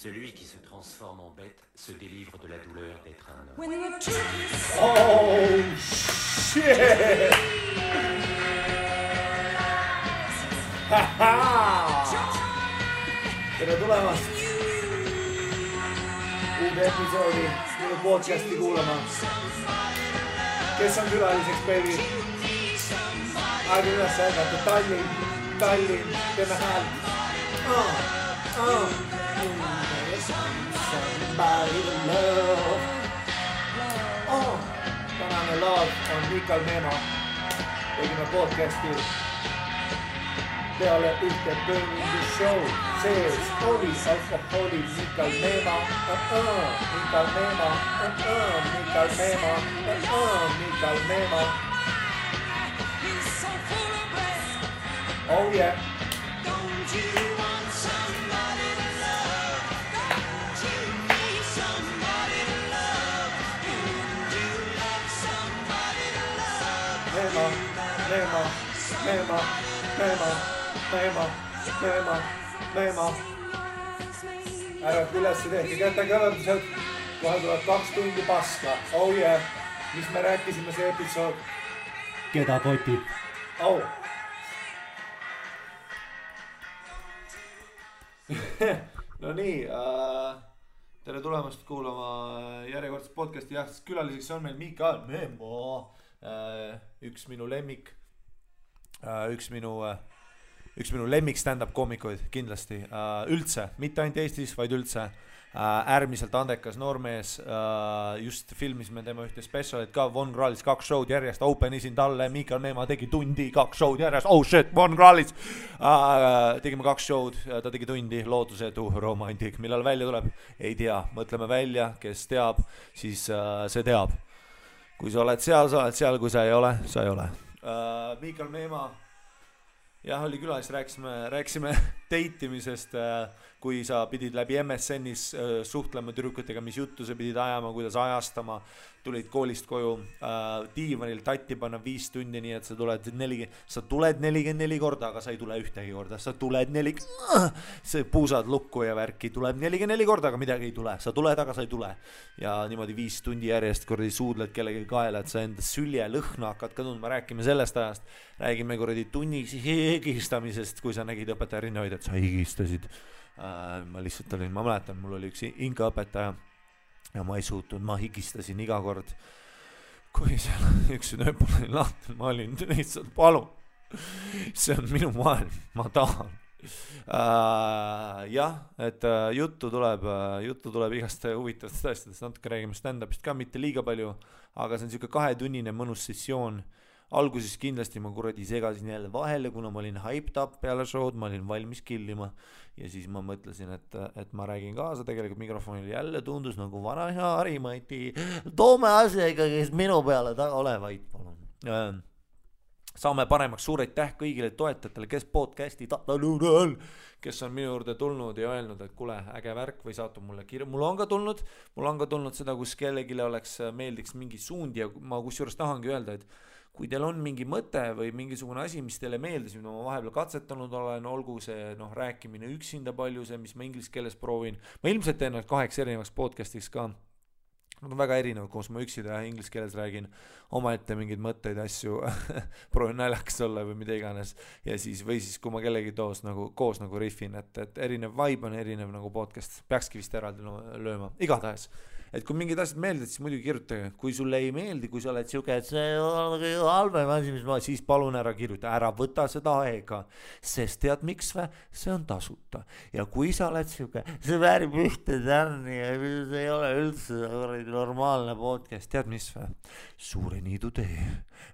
Celui qui se transforme en bête se délivre de la douleur d'être un homme. Oh shit! Tere tulemast uude episoodi minu podcasti kuulama. Kes on külaliseks, baby? Aega üles ärgata, Tallinn, teeme häält. Somebody to love. Tänane love on Mikal Meema. Tegime podcasti peale ühte Burning Show. Sees oli alkoholi Mikal Meema. Mikal Meema. Mikal Meema. Mikal Meema. Oh yeah. Meema. Ärvab üles, tehke kätte kõvendused. Kohe tuleb 2 tundi paska. Oh yeah. Mis me rääkisime see episood? Keda kotib? Oh. No nii, tere tulemast kuulama järjekordset podcasti. Jah, külaliseks on meil Mikal Meema. Üks minu lemmik stand-up koomikuid kindlasti üldse, mitte ainult Eestis, vaid üldse äärmiselt andekas noormees. Just filmisime tema ühte specialit ka, Von Krahlis 2 show'd järjest, open isin talle, Mikal Meema tegi tundi, 2 show'd järjest, oh shit, Von Krahlis. Tegime 2 show'd, ta tegi tundi, lootusetu romantik, millal välja tuleb, ei tea, mõtleme välja, kes teab, siis see teab. Kui sa oled seal, kui sa ei ole, sa ei ole. Mikal Meema, jah, oli külas, rääkisime teitimisest, kui sa pidid läbi MSN-is suhtlema tüdrukutega, mis juttu sa pidid ajama, kuidas ajastama, tulid koolist koju, diivanil tatti panna 5 tundi, nii et sa tuled 44 korda, aga sa ei tule ühtegi korda, sa tuled see puusad lukku ja värki, tuleb 44 korda, aga midagi ei tule, sa tuled, aga sa ei tule. Ja niimoodi 5 tundi järjest kordi suudled kellegi kaela, et sa enda sülje lõhna hakkad ka tundma, räägime sellest ajast, räägime kordi tunniks higistamisest, kui sa nägid õpetaja rinnahoid, et sa higistasid. Ma lihtsalt olin, ma mäletan, mul oli üks inkaõpetaja ja ma ei suutnud, ma higistasin iga kord, kui seal üks nööpul oli lahti, ma olin lihtsalt, palun, see on minu maailm, ma tahan. Jah, et juttu tuleb igast huvitavast asjadest, natuke räägime stand-upist ka, mitte liiga palju, aga see on siuke 2-tunnine mõnus sessioon. Alguses kindlasti ma kuradi segasin jälle vahele, kuna ma olin hyped up peale show'd, ma olin valmis killima ja siis ma mõtlesin, et ma räägin kaasa, tegelikult mikrofonil jälle tundus nagu vana hea Harimati, toome asja ikkagi minu peale taga olevaid, palun. Saame paremaks, suur aitäh kõigile toetajatele, kes podcasti kes on minu juurde tulnud ja öelnud, et kuule, äge värk või saatu mulle kirja. Mul on ka tulnud seda, kus kellegile meeldiks mingi suund ja ma kusjuures tahangi öelda, et kui teil on mingi mõte või mingisugune asi, mis teile meeldis, mida ma vahepeal katsetanud olen, olgu see rääkimine üksinda palju, see, mis ma inglise keeles proovin. Ma ilmselt teen 8 erinevaks podcastiks ka. Nad on väga erinevad, koos ma üksida ja inglise keeles räägin omaette mingeid mõtteid, asju, proovin naljakas olla või mida iganes. Ja siis, või siis, kui ma kellegi koos nagu riffin, et erinev vibe on erinev nagu podcast, peakski vist eraldi lööma, igatahes. Et kui mingid asjad meeldid, siis muidugi kirjutage, kui sulle ei meeldi, kui sa oled siuke, et see on halvem asi, mis ma, siis palun ära kirjuta, ära võta seda aega, sest tead miks või? See on tasuta. Ja kui sa oled siuke, see väärib ühte tärni ja see ei ole üldse normaalne podcast, tead mis või? Suure Niidu tee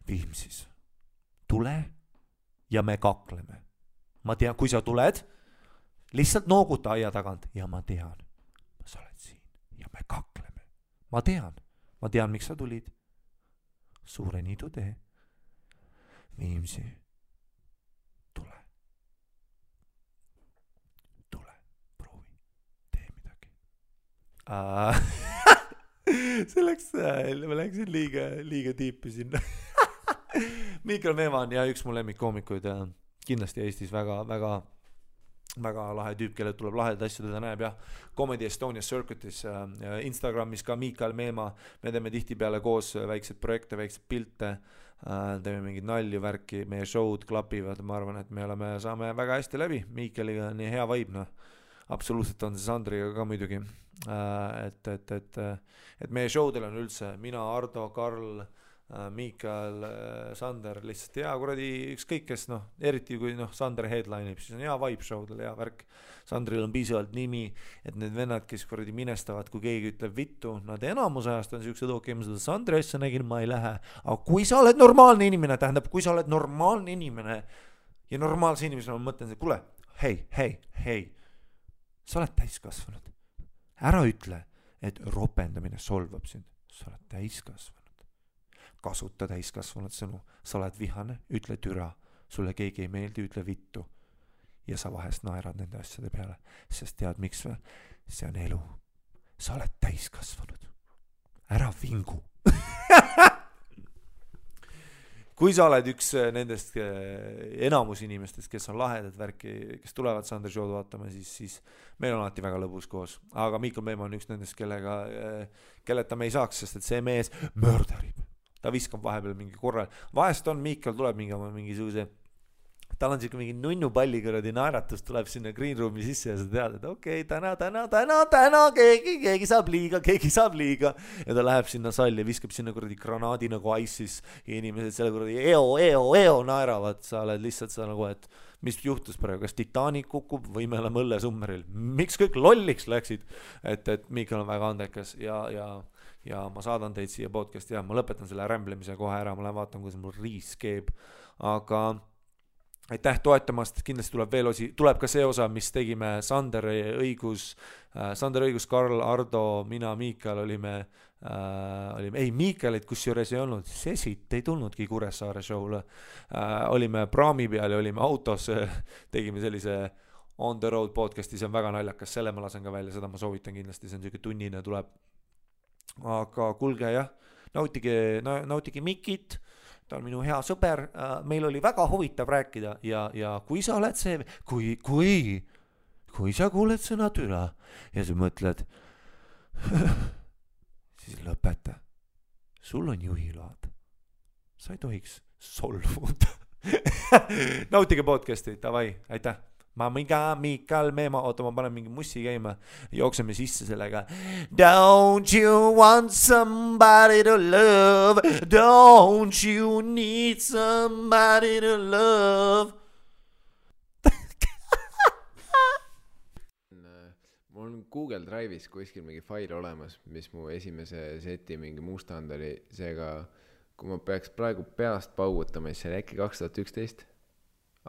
Viimsis. Tule ja me kakleme. Ma tean, kui sa tuled, lihtsalt nooguta aia tagant ja ma tean, sa oled siin ja me kakleme. Ma tean, miks sa tulid. Suure Niidu tee Viimsi. Tule, proovi, tee midagi. See ma läksin liiga tiipi sinna. Mikal Meema on ja üks mu lemmikkoomikuid kindlasti Eestis väga, väga väga lahe tüüp, kellel tuleb lahedaid asju, teda näeb jah, Comedy Estonia Circuitis, Instagramis ka Miikal Meemaa, me teeme tihtipeale koos väikseid projekte, väikseid pilte, teeme mingid nalju, värki, meie show'd klapivad, ma arvan, et me saame väga hästi läbi, Miikaliga on nii hea vibe, noh, absoluutselt on see Sandriga ka muidugi, et meie show'del on üldse mina, Ardo, Karl, Miikal, Sander lihtsalt hea kuradi ükskõik kes, noh, eriti kui noh, Sander headline'ib, siis on hea vibe show'del, hea värk. Sandril on piisavalt nimi, et need vennad, kes kuradi minestavad, kui keegi ütleb vittu, nad enamus ajast on siuksed okei, ma seda Sandri asja nägin, ma ei lähe. Aga kui sa oled normaalne inimene, tähendab, kui sa oled normaalne inimene ja normaalse inimesena ma mõtlen, kuule, hei, sa oled täiskasvanud. Ära ütle, et ropendamine solvab sind, sa oled täiskasvanud. Kasuta täiskasvanud sõnu, sa oled vihane, ütle türa, sulle keegi ei meeldi, ütle vittu ja sa vahest naerad nende asjade peale, sest tead miks või? See on elu, sa oled täiskasvanud, ära vingu. Kui sa oled üks nendest enamus inimestest, kes on lahedad värki, kes tulevad Sander show'd vaatama, siis meil on alati väga lõbus koos, aga Miikal Meemaa on üks nendest, kelleta me ei saaks, sest et see mees möördarib. Ta viskab vahepeal mingi korral. Vahest on Miikal tuleb mingisuguse, tal on siuke mingi nunnupalli kõradi naeratus, tuleb sinna green room'i sisse ja sa tead, et okei, täna keegi saab liiga ja ta läheb sinna salli ja viskab sinna kuradi granaadi nagu ISIS ja inimesed selle kuradi eo naeravad, sa oled lihtsalt sa nagu, et mis juhtus praegu, kas Titanic kukub või me oleme õllesummeril, miks kõik lolliks läksid, et Miikal on väga andekas ja ma saadan teid siia podcasti ja ma lõpetan selle rämblemise kohe ära, ma lähen vaatan, kuidas mul riis keeb, aga aitäh toetamast, kindlasti tuleb ka see osa, mis tegime Sander õigus, Karl, Ardo, mina, Miikal olime, Miikalit kusjuures ei olnud, Sesit ei tulnudki Kuressaare show'le, olime praami peal ja olime autos, tegime sellise on the road podcasti, see on väga naljakas, selle ma lasen ka välja, seda ma soovitan kindlasti, see on selline tunnine tuleb. Aga kuulge jah, nautige Mikit, ta on minu hea sõber, meil oli väga huvitav rääkida ja kui sa oled see, kui sa kuuled sõna türa ja sa mõtled, siis lõpeta, sul on juhiload, sa ei tohiks solvuda. Nautige podcasti, davai, aitäh. Miikal Meemaa, oota, ma panen mingi mussi käima, jookseme sisse sellega. Don't you want somebody to love? Don't you need somebody to love? Mul on Google Drive'is kuskil mingi fail olemas, mis mu esimese seti mingi mustand oli, seega kui ma peaks praegu peast paugutama, siis see oli äkki 2011.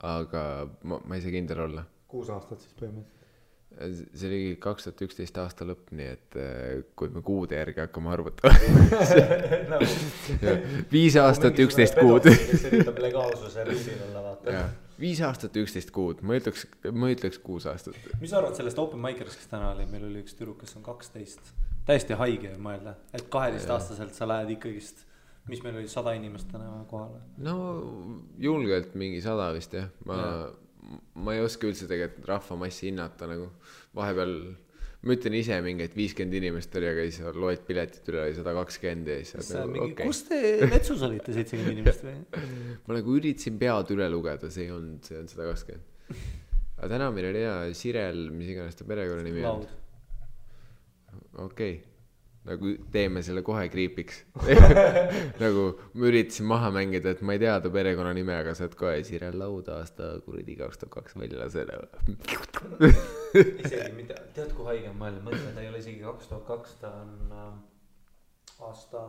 Aga ma ei saa kindel olla. 6 aastat siis põhimõtteliselt. See oli 2011 aasta lõpp, nii et kui me kuude järgi hakkame arvutama. 5 aastat 11 kuud. Kes üritab legaalsuse rüüsil olla, vaata. 5 aastat 11 kuud, ma ütleks 6 aastat. Mis sa arvad sellest open mic'erist, kes täna oli? Meil oli üks tüdruk, kes on 12. Täiesti haige mõelda, et 12-aastaselt sa lähed ikkagist. Mis meil oli 100 inimest täna kohale? No julgelt mingi 100 vist jah. Ma ei oska üldse tegelikult rahvamassi hinnata nagu. Vahepeal ma ütlen ise mingi, et 50 inimest oli, aga siis loed piletit üle 120 ja siis nagu, okay. Kus te metsus olite 70 inimest või? Ma nagu üritasin pead üle lugeda, see on 120. Aga täna meil oli hea Sirel, mis iganes ta perekonna nimi on. Okei. Nagu teeme selle kohe kriipiks. Nagu ma üritasin maha mängida, et ma ei tea ta perekonna nime, aga sa oled kohe Sirel Laud aasta kuradi 2002 välja lasele. Isegi mitte, tead kui haige on mõelda, ta ei ole isegi 2002, ta on aasta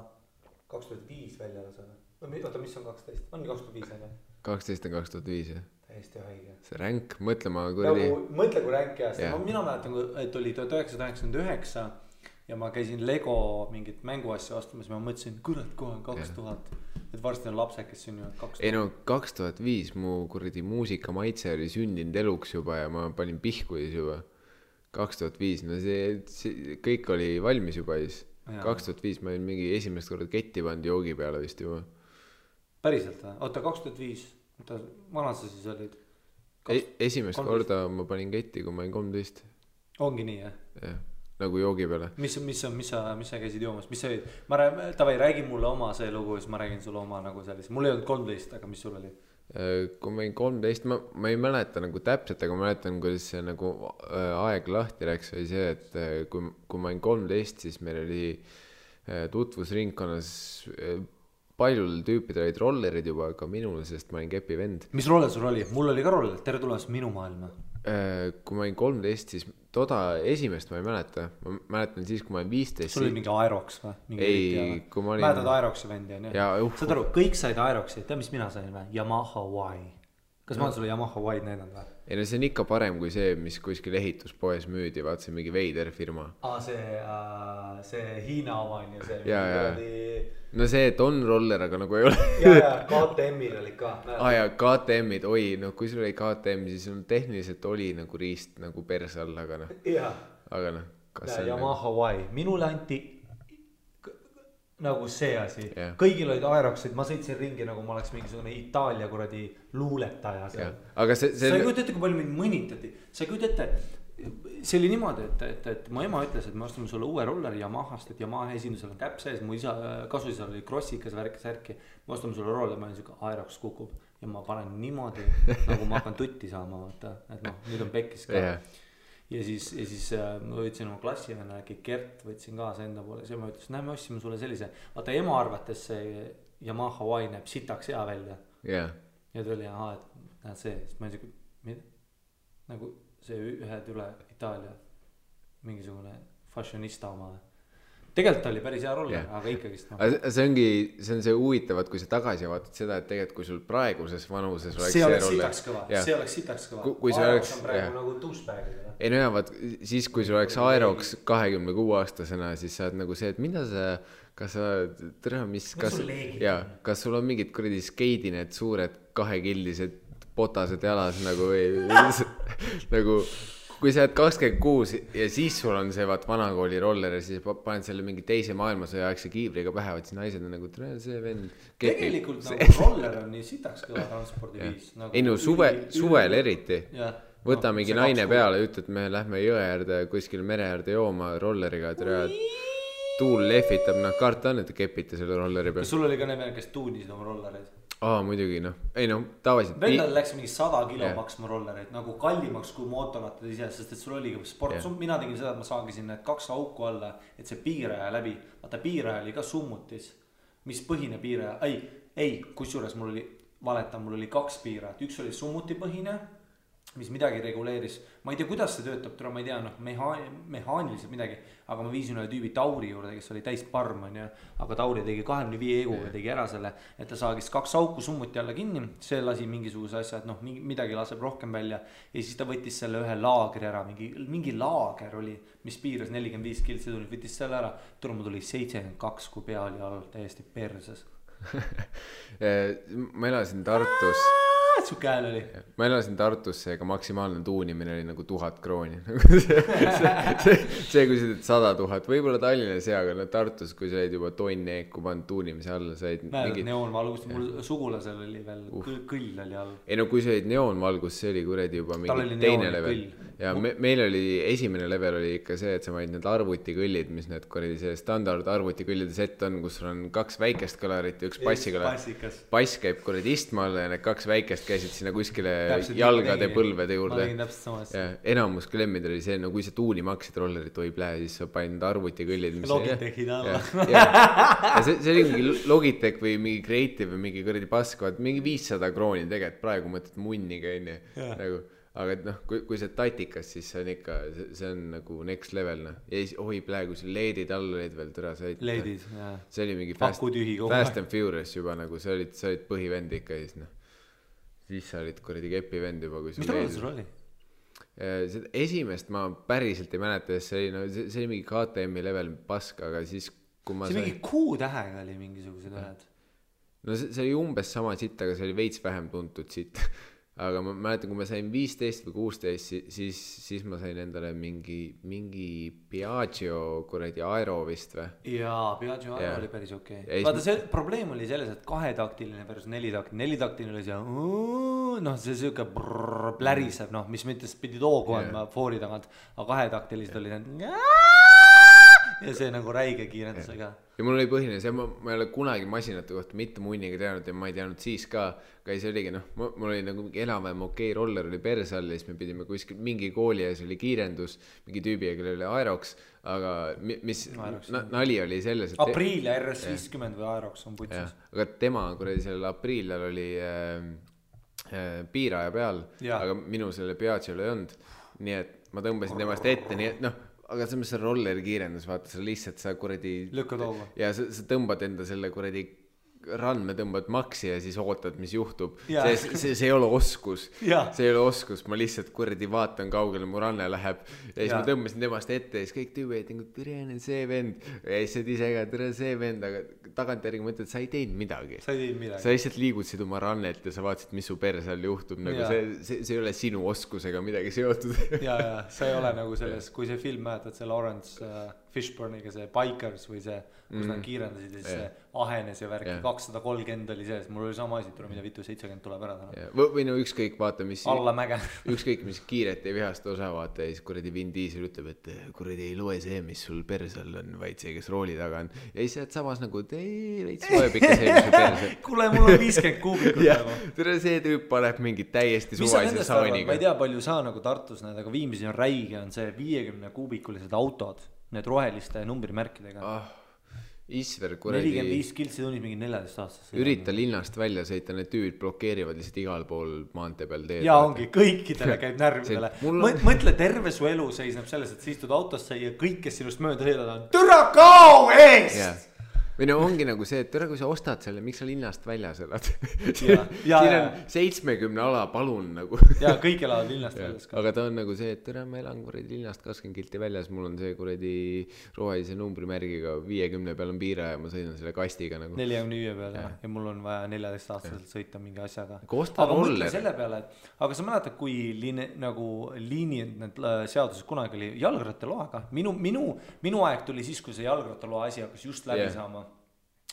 2005 välja lasele. Oota, mis on 12? On 2005 aga? 12 on 2005 jah. Täiesti haige. See ränk, mõtle ma kuradi. Mõtle kui ränk aasta. Mina mäletan, et oli 1999 ja ma käisin Lego mingit mänguasja ostamas ja ma mõtlesin, kurat, kohe on 2000, et varsti on lapsed, kes sünnivad 2000. Ei no 2005 mu kuradi muusika maitse oli sündinud eluks juba ja ma panin pihkuis juba 2005, no see kõik oli valmis juba siis. 2005 ma olin mingi esimest korda ketti pandi joogi peale vist juba. Päriselt või? Oota, 2005, vana sa siis olid? esimest korda ma panin ketti, kui ma olin 13. Ongi nii, jah? Jah, nagu joogi peale. Mis sa käisid joomas? Mis sa olid? Tavai, räägi mulle oma see lugu, siis ma räägin sulle oma nagu sellise. Mul ei olnud 13, aga mis sul oli? Kui ma olin 13, ma ei mäleta nagu täpselt, aga ma mäletan, kuidas see nagu aeg lahti läks, oli see, et kui ma olin 13, siis meil oli tutvusringkonnas paljul tüüpidel olid rollerid juba, aga minul, sest ma olin kepi vend. Mis roller sul oli? Mul oli ka roller, tere tulemast minu maailma. Kui ma olin 13, siis esimest ma ei mäleta. Ma mäletan siis, kui ma olin 15. Sul oli mingi Aerox või? Ei, kui ma olin... Mäletad Aeroxi vendi, on ju? Saad aru, kõik said Aeroxi, tead mis mina sain või? Yamaha Y. Kas ma olen sulle Yamaha Y näidanud või? Ei no see on ikka parem kui see, mis kuskil ehituspoes müüdi, vaat see mingi veider firma. See Hiina oma on ju see. Ja. No see, et on roller, aga nagu ei ole. Ja, KTM-il oli ka. Ja KTM-id, oi, no kui sul oli KTM, siis on tehniliselt oli nagu riist nagu perse all, aga noh. Aga noh. Yamaha Y, minule anti nagu see asi. Kõigil olid Aeroxid, ma sõitsin ringi nagu ma oleks mingisugune Itaalia kuradi luuletaja seal. Aga see... Sa ei kujuta ette, kui palju mind mõnitati. Sa ei kujuta ette, see oli niimoodi, et mu ema ütles, et me ostame sulle uue rolleri Yamahast, et Yamaha esindusel on käpp sees, mu isa kasuisal oli krossikas särki, me ostame sulle roller, ma olen siuke Aerox kukub ja ma panen niimoodi, nagu ma hakkan tutti saama, vaata, et noh, nüüd on pekkis ka. Ja siis ma võtsin oma klassivenna, äkki Gert võtsin kaasa enda poole, siis ma ütles, näe, me ostsime sulle sellise, vaata ema arvates see Yamaha Y näeb sitaks hea välja. Ja ta oli, et näed see, siis ma olin siuke, mida? Nagu see ühed üle Itaalia mingisugune fashionista oma. Tegelikult oli päris hea roller, aga ikkagist no. See on see huvitavat, kui sa tagasi vaatad seda, et tegelikult kui sul praeguses vanuses see oleks sitaks kõva, see oleks sitaks kõva. Aerox on praegu nagu douchebag'id. Ei no vaat, siis kui sul oleks Aerox 26 aastasena, siis sa oled nagu see, et mida sa, kas sa tere, kas sul on mingid kuradi skeidi need suured kahekildised potased jalas nagu nagu kui sa oled 26 ja siis sul on see vaat vanakooli roller ja siis paned selle mingi teise maailmasõja aegse kiivriga pähe, vaat siis naised on nagu see vend tegelikult nagu roller on nii sitaks kõva transpordiviis nagu ei no suvel eriti võta mingi naine peale, ütled me lähme jõe äärde kuskil mere äärde jooma rolleriga tuul lehvitab, karta on, et te kepite selle rolleri peal. Sul oli ka need, kes tuunisid oma rollereid? Muidugi ei tavaliselt vendal läks mingi 100 kilo maksma rollereid nagu kallimaks kui mootorrattad ise, sest et sul oligi sport, mina tegin seda, et ma saagisin need 2 auku alla, et see piiraja läbi, vaata piiraja oli ka summutis, mis põhine piiraja, ei, kusjuures mul oli valeta, mul oli 2 piirajat, üks oli summuti põhine, mis midagi reguleeris, ma ei tea, kuidas see töötab, ma ei tea, mehaaniliselt midagi, aga ma viisin ühe tüübi Tauri juurde, kes oli täis parm, aga Tauri tegi 25 eguga, tegi ära selle, et ta saagis 2 auku summuti alla kinni, see lasi mingisuguse asja, et midagi laseb rohkem välja ja siis ta võttis selle ühe laagri ära, mingi laager oli, mis piiras 45 kiltsi tuli, võttis selle ära, mul tuli 72, kui pea oli all täiesti perses. Ma elasin Tartus Suke hääl oli. Ma elasin Tartusse, aga maksimaalne tuunimine oli nagu 1000 krooni. see kui sa teed 100 000, võib-olla Tallinnas hea, aga Tartus, kui sa olid juba tonni eeku pannud tuunimise alla, sa olid mingid... neoonvalgust, mul sugulasel oli veel kõll oli all. Ei no kui sa olid neoonvalgust, see oli kuredi juba mingi teine level. Ja meil oli, esimene level oli ikka see, et sa vaid need arvutikõllid, mis need kuredi see standard arvutikõllide set on, kus sul on 2 väikest kõlarit ja 1 bassikõlar. Bass käib kuredi istma alla ja need 2 väikest käisid sinna kuskile jalgade põlvede juurde. Ja enamus klemmid oli see, no kui sa tuuni maksid rollerit võib lähe, siis sa panin arvutikõllid. Logitechid alla. Ja see oli mingi Logitech või mingi Creative või mingi kuredi paskavad, mingi 500 krooni tegelikult, praegu mõtled munniga enne. Aga et kui see tatikas, siis see on ikka, see on nagu next level. Ja siis praegu see leedid all olid veel tõra. Leedid, jah. See oli mingi Fast and Furious juba, nagu sa olid põhivend ikka siis sa olid kuradi kepivend juba. Mis ta sul oli? Esimest ma päriselt ei mäleta, see oli mingi KTM-i level pask, aga siis kui ma see mingi Q-tähega oli mingisugused ühed. No see oli umbes sama sitt, aga see oli veits vähem tuntud sitt. aga ma mäletan, kui ma sain 15 või 16, siis ma sain endale mingi Piaggio kuradi Aero vist või? Jaa, Piaggio Aero oli päris okei. Vaata, see probleem oli selles, et 2-taktiline versus 4-taktiline. 4-taktiline oli see, noh, see siuke pläriseb, noh, mis mõttes pidi toogu andma foori tagant, aga 2-taktilised oli need ja see nagu räige kiirendusega. Ja mul oli põhine see, ma ei ole kunagi masinate kohta mitte munniga teadnud ja ma ei teadnud siis ka, aga see oligi, noh, mul oli nagu enam-vähem okei roller oli perse all ja siis me pidime kuskil mingi kooli ja see oli kiirendus, mingi tüübi, kellel oli Aerox, aga mis nali oli selles, et Apriil ja RS50 või Aerox on putsis. Aga tema kuradi sellel Apriilal oli piiraja peal, aga minu selle Piaggio'l ei olnud, nii et ma tõmbasin temast ette, nii et noh, aga see on rolleri kiirendus, vaata, sa lihtsalt sa kuradi lükkad hoogu ja sa tõmbad enda selle kuradi randme tõmbad maksi ja siis ootad, mis juhtub. See ei ole oskus. See ei ole oskus, ma lihtsalt kuradi vaatan kaugele, mu ranne läheb ja siis ma tõmbasin temast ette ja siis kõik tüübid, tere, see vend ja siis ise ka, tere, see vend, aga tagantjärgi mõtled, sa ei teinud midagi. Sa lihtsalt liigutasid oma rannet ja sa vaatasid, mis su perse all juhtub, nagu see ei ole sinu oskusega midagi seotud. sa ei ole nagu selles, kui see film mäletad, see Lawrence Fishburniga, see Bikers või see, kus nad kiirendasid ja siis see ahenes ja värki 230 oli sees, mul oli sama asi, tule mida vitu 70 tuleb ära täna. Või no ükskõik, vaata, mis alla mäge. Ükskõik, mis kiiret ei vihasta osa, vaata, ja siis kuradi Vin Diesel ütleb, et kuradi ei loe see, mis sul persal on, vaid see, kes rooli taga on. Ja siis saad samas nagu, veits loeb ikka see, mis sul persal. Kuule, mul on 50 kuubikut nagu. Tere, see tüüp paneb mingi täiesti suvalise saaniga. Ma ei tea, palju saa nagu Tartus need, aga Viimsi on räige, on see 50 kuubikulised autod, need roheliste numbrimärkidega. Isver kuradi 45 kiltsi tunnis mingi 14 aastas. Ürita linnast välja sõita, need tüübid blokeerivad lihtsalt igal pool maantee peal teed. Ja ongi, kõikidele käib närvidele. Mõtle, terve su elu seisneb selles, et sa istud autosse ja kõik, kes sinust mööda sõidad on türa kao eest! Või no ongi nagu see, et kui sa ostad selle, miks sa linnast väljas elad? Siin on 70 ala, palun nagu. Ja kõik elavad linnast väljas ka. Aga ta on nagu see, et ma elan kuradi linnast 20 kilti väljas, mul on see kuradi rohelise numbrimärgiga 50 peal on piira ja ma sõidan selle kastiga nagu. 45 peal ja mul on vaja 14 aastaselt sõita mingi asjaga. Aga mõtle selle peale, aga sa mäletad, kui liini need seaduses kunagi oli jalgrattaloaga. Minu aeg tuli siis, kui see jalgrattaloa asi hakkas just läbi saama.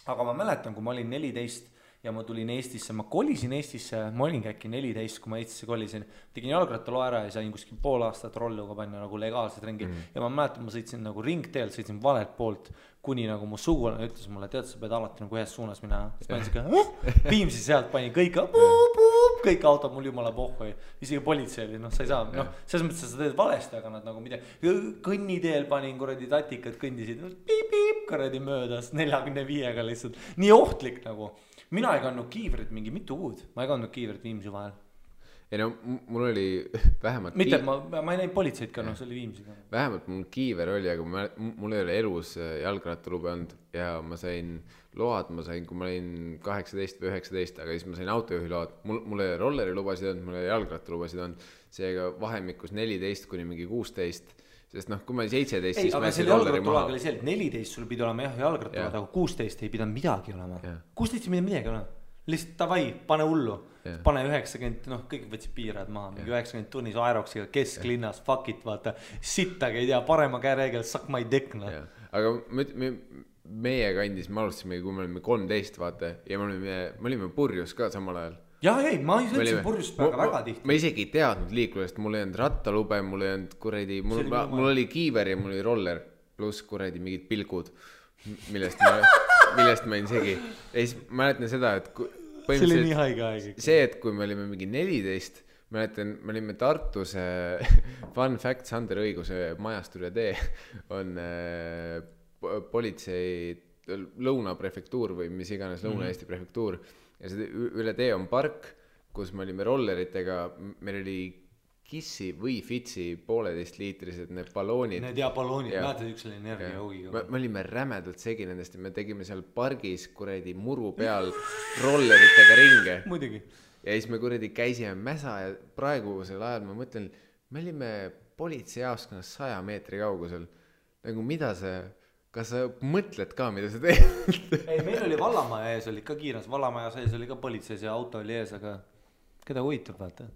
Aga ma mäletan, kui ma olin 14 ja ma tulin Eestisse, ma kolisin Eestisse, ma olingi äkki 14, kui ma Eestisse kolisin, tegin jalgrattalo ära ja sain kuskil pool aastat rolluga panna nagu legaalselt ringi. Ja ma mäletan, ma sõitsin nagu ringteelt, sõitsin valelt poolt, kuni nagu mu sugulane ütles mulle, tead, sa pead alati nagu ühes suunas minna. Siis panin siuke, Viimsi sealt pani kõik autod mul jumala pohhu, isegi politsei oli, sa ei saa, selles mõttes sa teed valesti, aga nad nagu midagi, kõnniteel panin kuradi tatikad, kõndisid piip, kuradi möödas 45-ga lihtsalt, nii ohtlik nagu. Mina ei kandnud kiivrit mingi mitu kuud, ma ei kandnud kiivrit Viimsi vahel. Ei no, mul oli vähemalt mitte, ma ei näinud politseid ka, see oli Viimsiga. Vähemalt mul kiiver oli, aga mul ei ole elus jalgrattalube olnud ja ma sain load, kui ma olin 18 või 19, aga siis ma sain autojuhi load. Mul ei rolleri lubasid olnud, mul ei jalgrattalubasid olnud, seega vahemikus 14 kuni mingi 16, sest kui ma olin 17, siis ma jätsin rolleri maha. Oli see, et 14 sul pidi olema jalgrattalad, aga 16 ei pidanud midagi olema. 16 ei pidanud midagi olema. Lihtsalt tavai, pane hullu. Pane 90, kõik võtsid piirad maha, mingi 90 tunnis Aeroxiga kesklinnas, fuck it, vaata, sittagi ei tea, parema käereegel, suck my dick, Aga meie kandis, me alustasime, kui me olime 13, vaata, ja me olime purjus ka samal ajal. Ma ei sõitsin purjust väga tihti. Ma isegi ei teadnud liiklusest, mul ei olnud rattalube, mul ei olnud kuradi, mul oli kiiver ja mul oli roller, pluss kuradi mingid pilkud, millest ma olin segi. Ja siis mäletan seda, et see oli nii haige aeg. See, et kui me olime mingi 14, mäletan, me olime Tartus, fun fact, Sander Õiguse majast üle tee on politsei lõunaprefektuur või mis iganes Lõuna-Eesti prefektuur ja see üle tee on park, kus me olime rolleritega, meil oli Kissi või Fitsi 1,5 liitrised need balloonid. Need balloonid, näetad üks oli energiahoogiga. Me olime rämedalt segi nendest ja me tegime seal pargis kuradi muru peal rolleritega ringe. Muidugi. Ja siis me kuradi käisime mäsa ja praegusel ajal ma mõtlen, me olime politseijaoskonnas 100 meetri kaugusel. Nagu mida see, kas sa mõtled ka, mida sa teed? Ei, meil oli Vallamaja ees, oli ka kiiras, Vallamaja sees oli ka politseis ja auto oli ees, aga keda huvitab, vaata.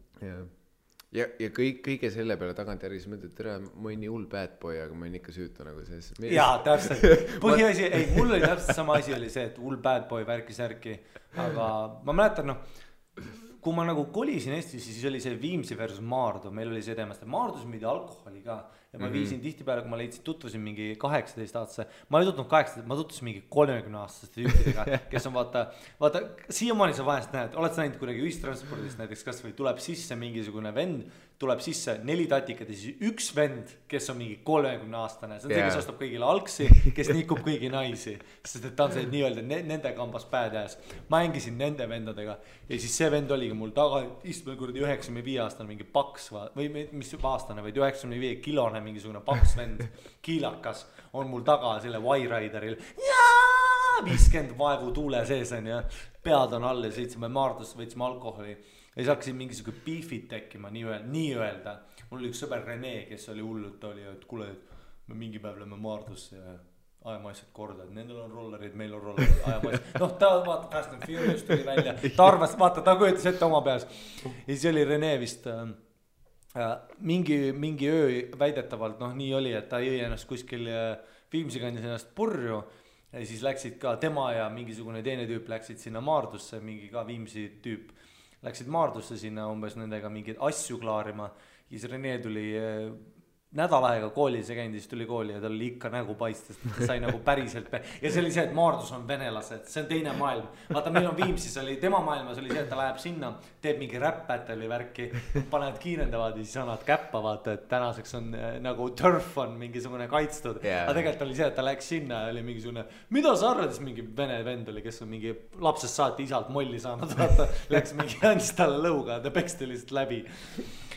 ja kõige selle peale tagantjärgi siis mõtled, tere, ma olin nii hull bad boy, aga ma olin ikka süütu nagu selles. Jaa, täpselt. Põhiasi, ei, mul oli täpselt sama asi oli see, et hull bad boy värki-särki, aga ma mäletan, kui ma nagu kolisin Eestis, siis oli see Viimsi versus Maardu, meil oli see teemast, et Maardus müüdi alkoholi ka ja ma viisin tihtipeale, kui ma tutvusin mingi 18-aastase, ma ei tutvunud 18, ma tutvusin mingi 30-aastaste tüüpidega, kes on vaata, siiamaani sa vahest näed, oled sa näinud kuidagi ühistranspordist näiteks, kas või tuleb sisse mingisugune vend, tuleb sisse 4 tatikat ja siis üks vend, kes on mingi 30-aastane, see on see, kes ostab kõigile algsi, kes nikub kõigi naisi, sest et ta on see nii-öelda nende kambas badass. Ma hängisin nende vendadega ja siis see vend oligi mul taga, istme kuradi 95-aastane mingi paks või mis aastane, vaid 95 kilone mingisugune paks vend, kiilakas on mul taga selle Y-Rideril 50 vaevu tuule sees on ja pead on all ja sõitsime Maardusse, võitsime alkoholi ja siis hakkasin mingisugune beefid tekkima nii-öelda. Mul oli üks sõber Rene, kes oli hullult, ta oli, et kuule, me mingi päev lähme Maardusse ja ajame asjad korda, et nendel on rollerid, meil on rollerid, ajame asjad. Noh, ta vaata, Fast and Furious tuli välja, ta arvas, vaata, ta kujutas ette oma peas. Ja siis oli Rene vist mingi öö väidetavalt, noh nii oli, et ta jõi ennast kuskil Viimsi kandis ennast purju ja siis läksid ka tema ja mingisugune teine tüüp läksid sinna Maardusse, mingi ka Viimsi tüüp läksid Maardusse sinna umbes nendega mingeid asju klaarima ja siis Rene tuli nädal aega koolis ja käinud, siis tuli kooli ja tal oli ikka nägu paistes, ta sai nagu päriselt ja see oli see, et Maardus on venelased, see on teine maailm, vaata meil on Viimsis oli, tema maailmas oli see, et ta läheb sinna, teeb mingi rap-battle'i värki, panevad kiirendavad ja siis annavad käppa, vaata, et tänaseks on nagu turf on mingisugune kaitstud, aga tegelikult oli see, et ta läks sinna ja oli mingisugune, mida sa arvad, siis mingi vene vend oli, kes on mingi lapsest saati isalt molli saanud, vaata, läks mingi andis talle lõuga, ta peksti lihtsalt läbi.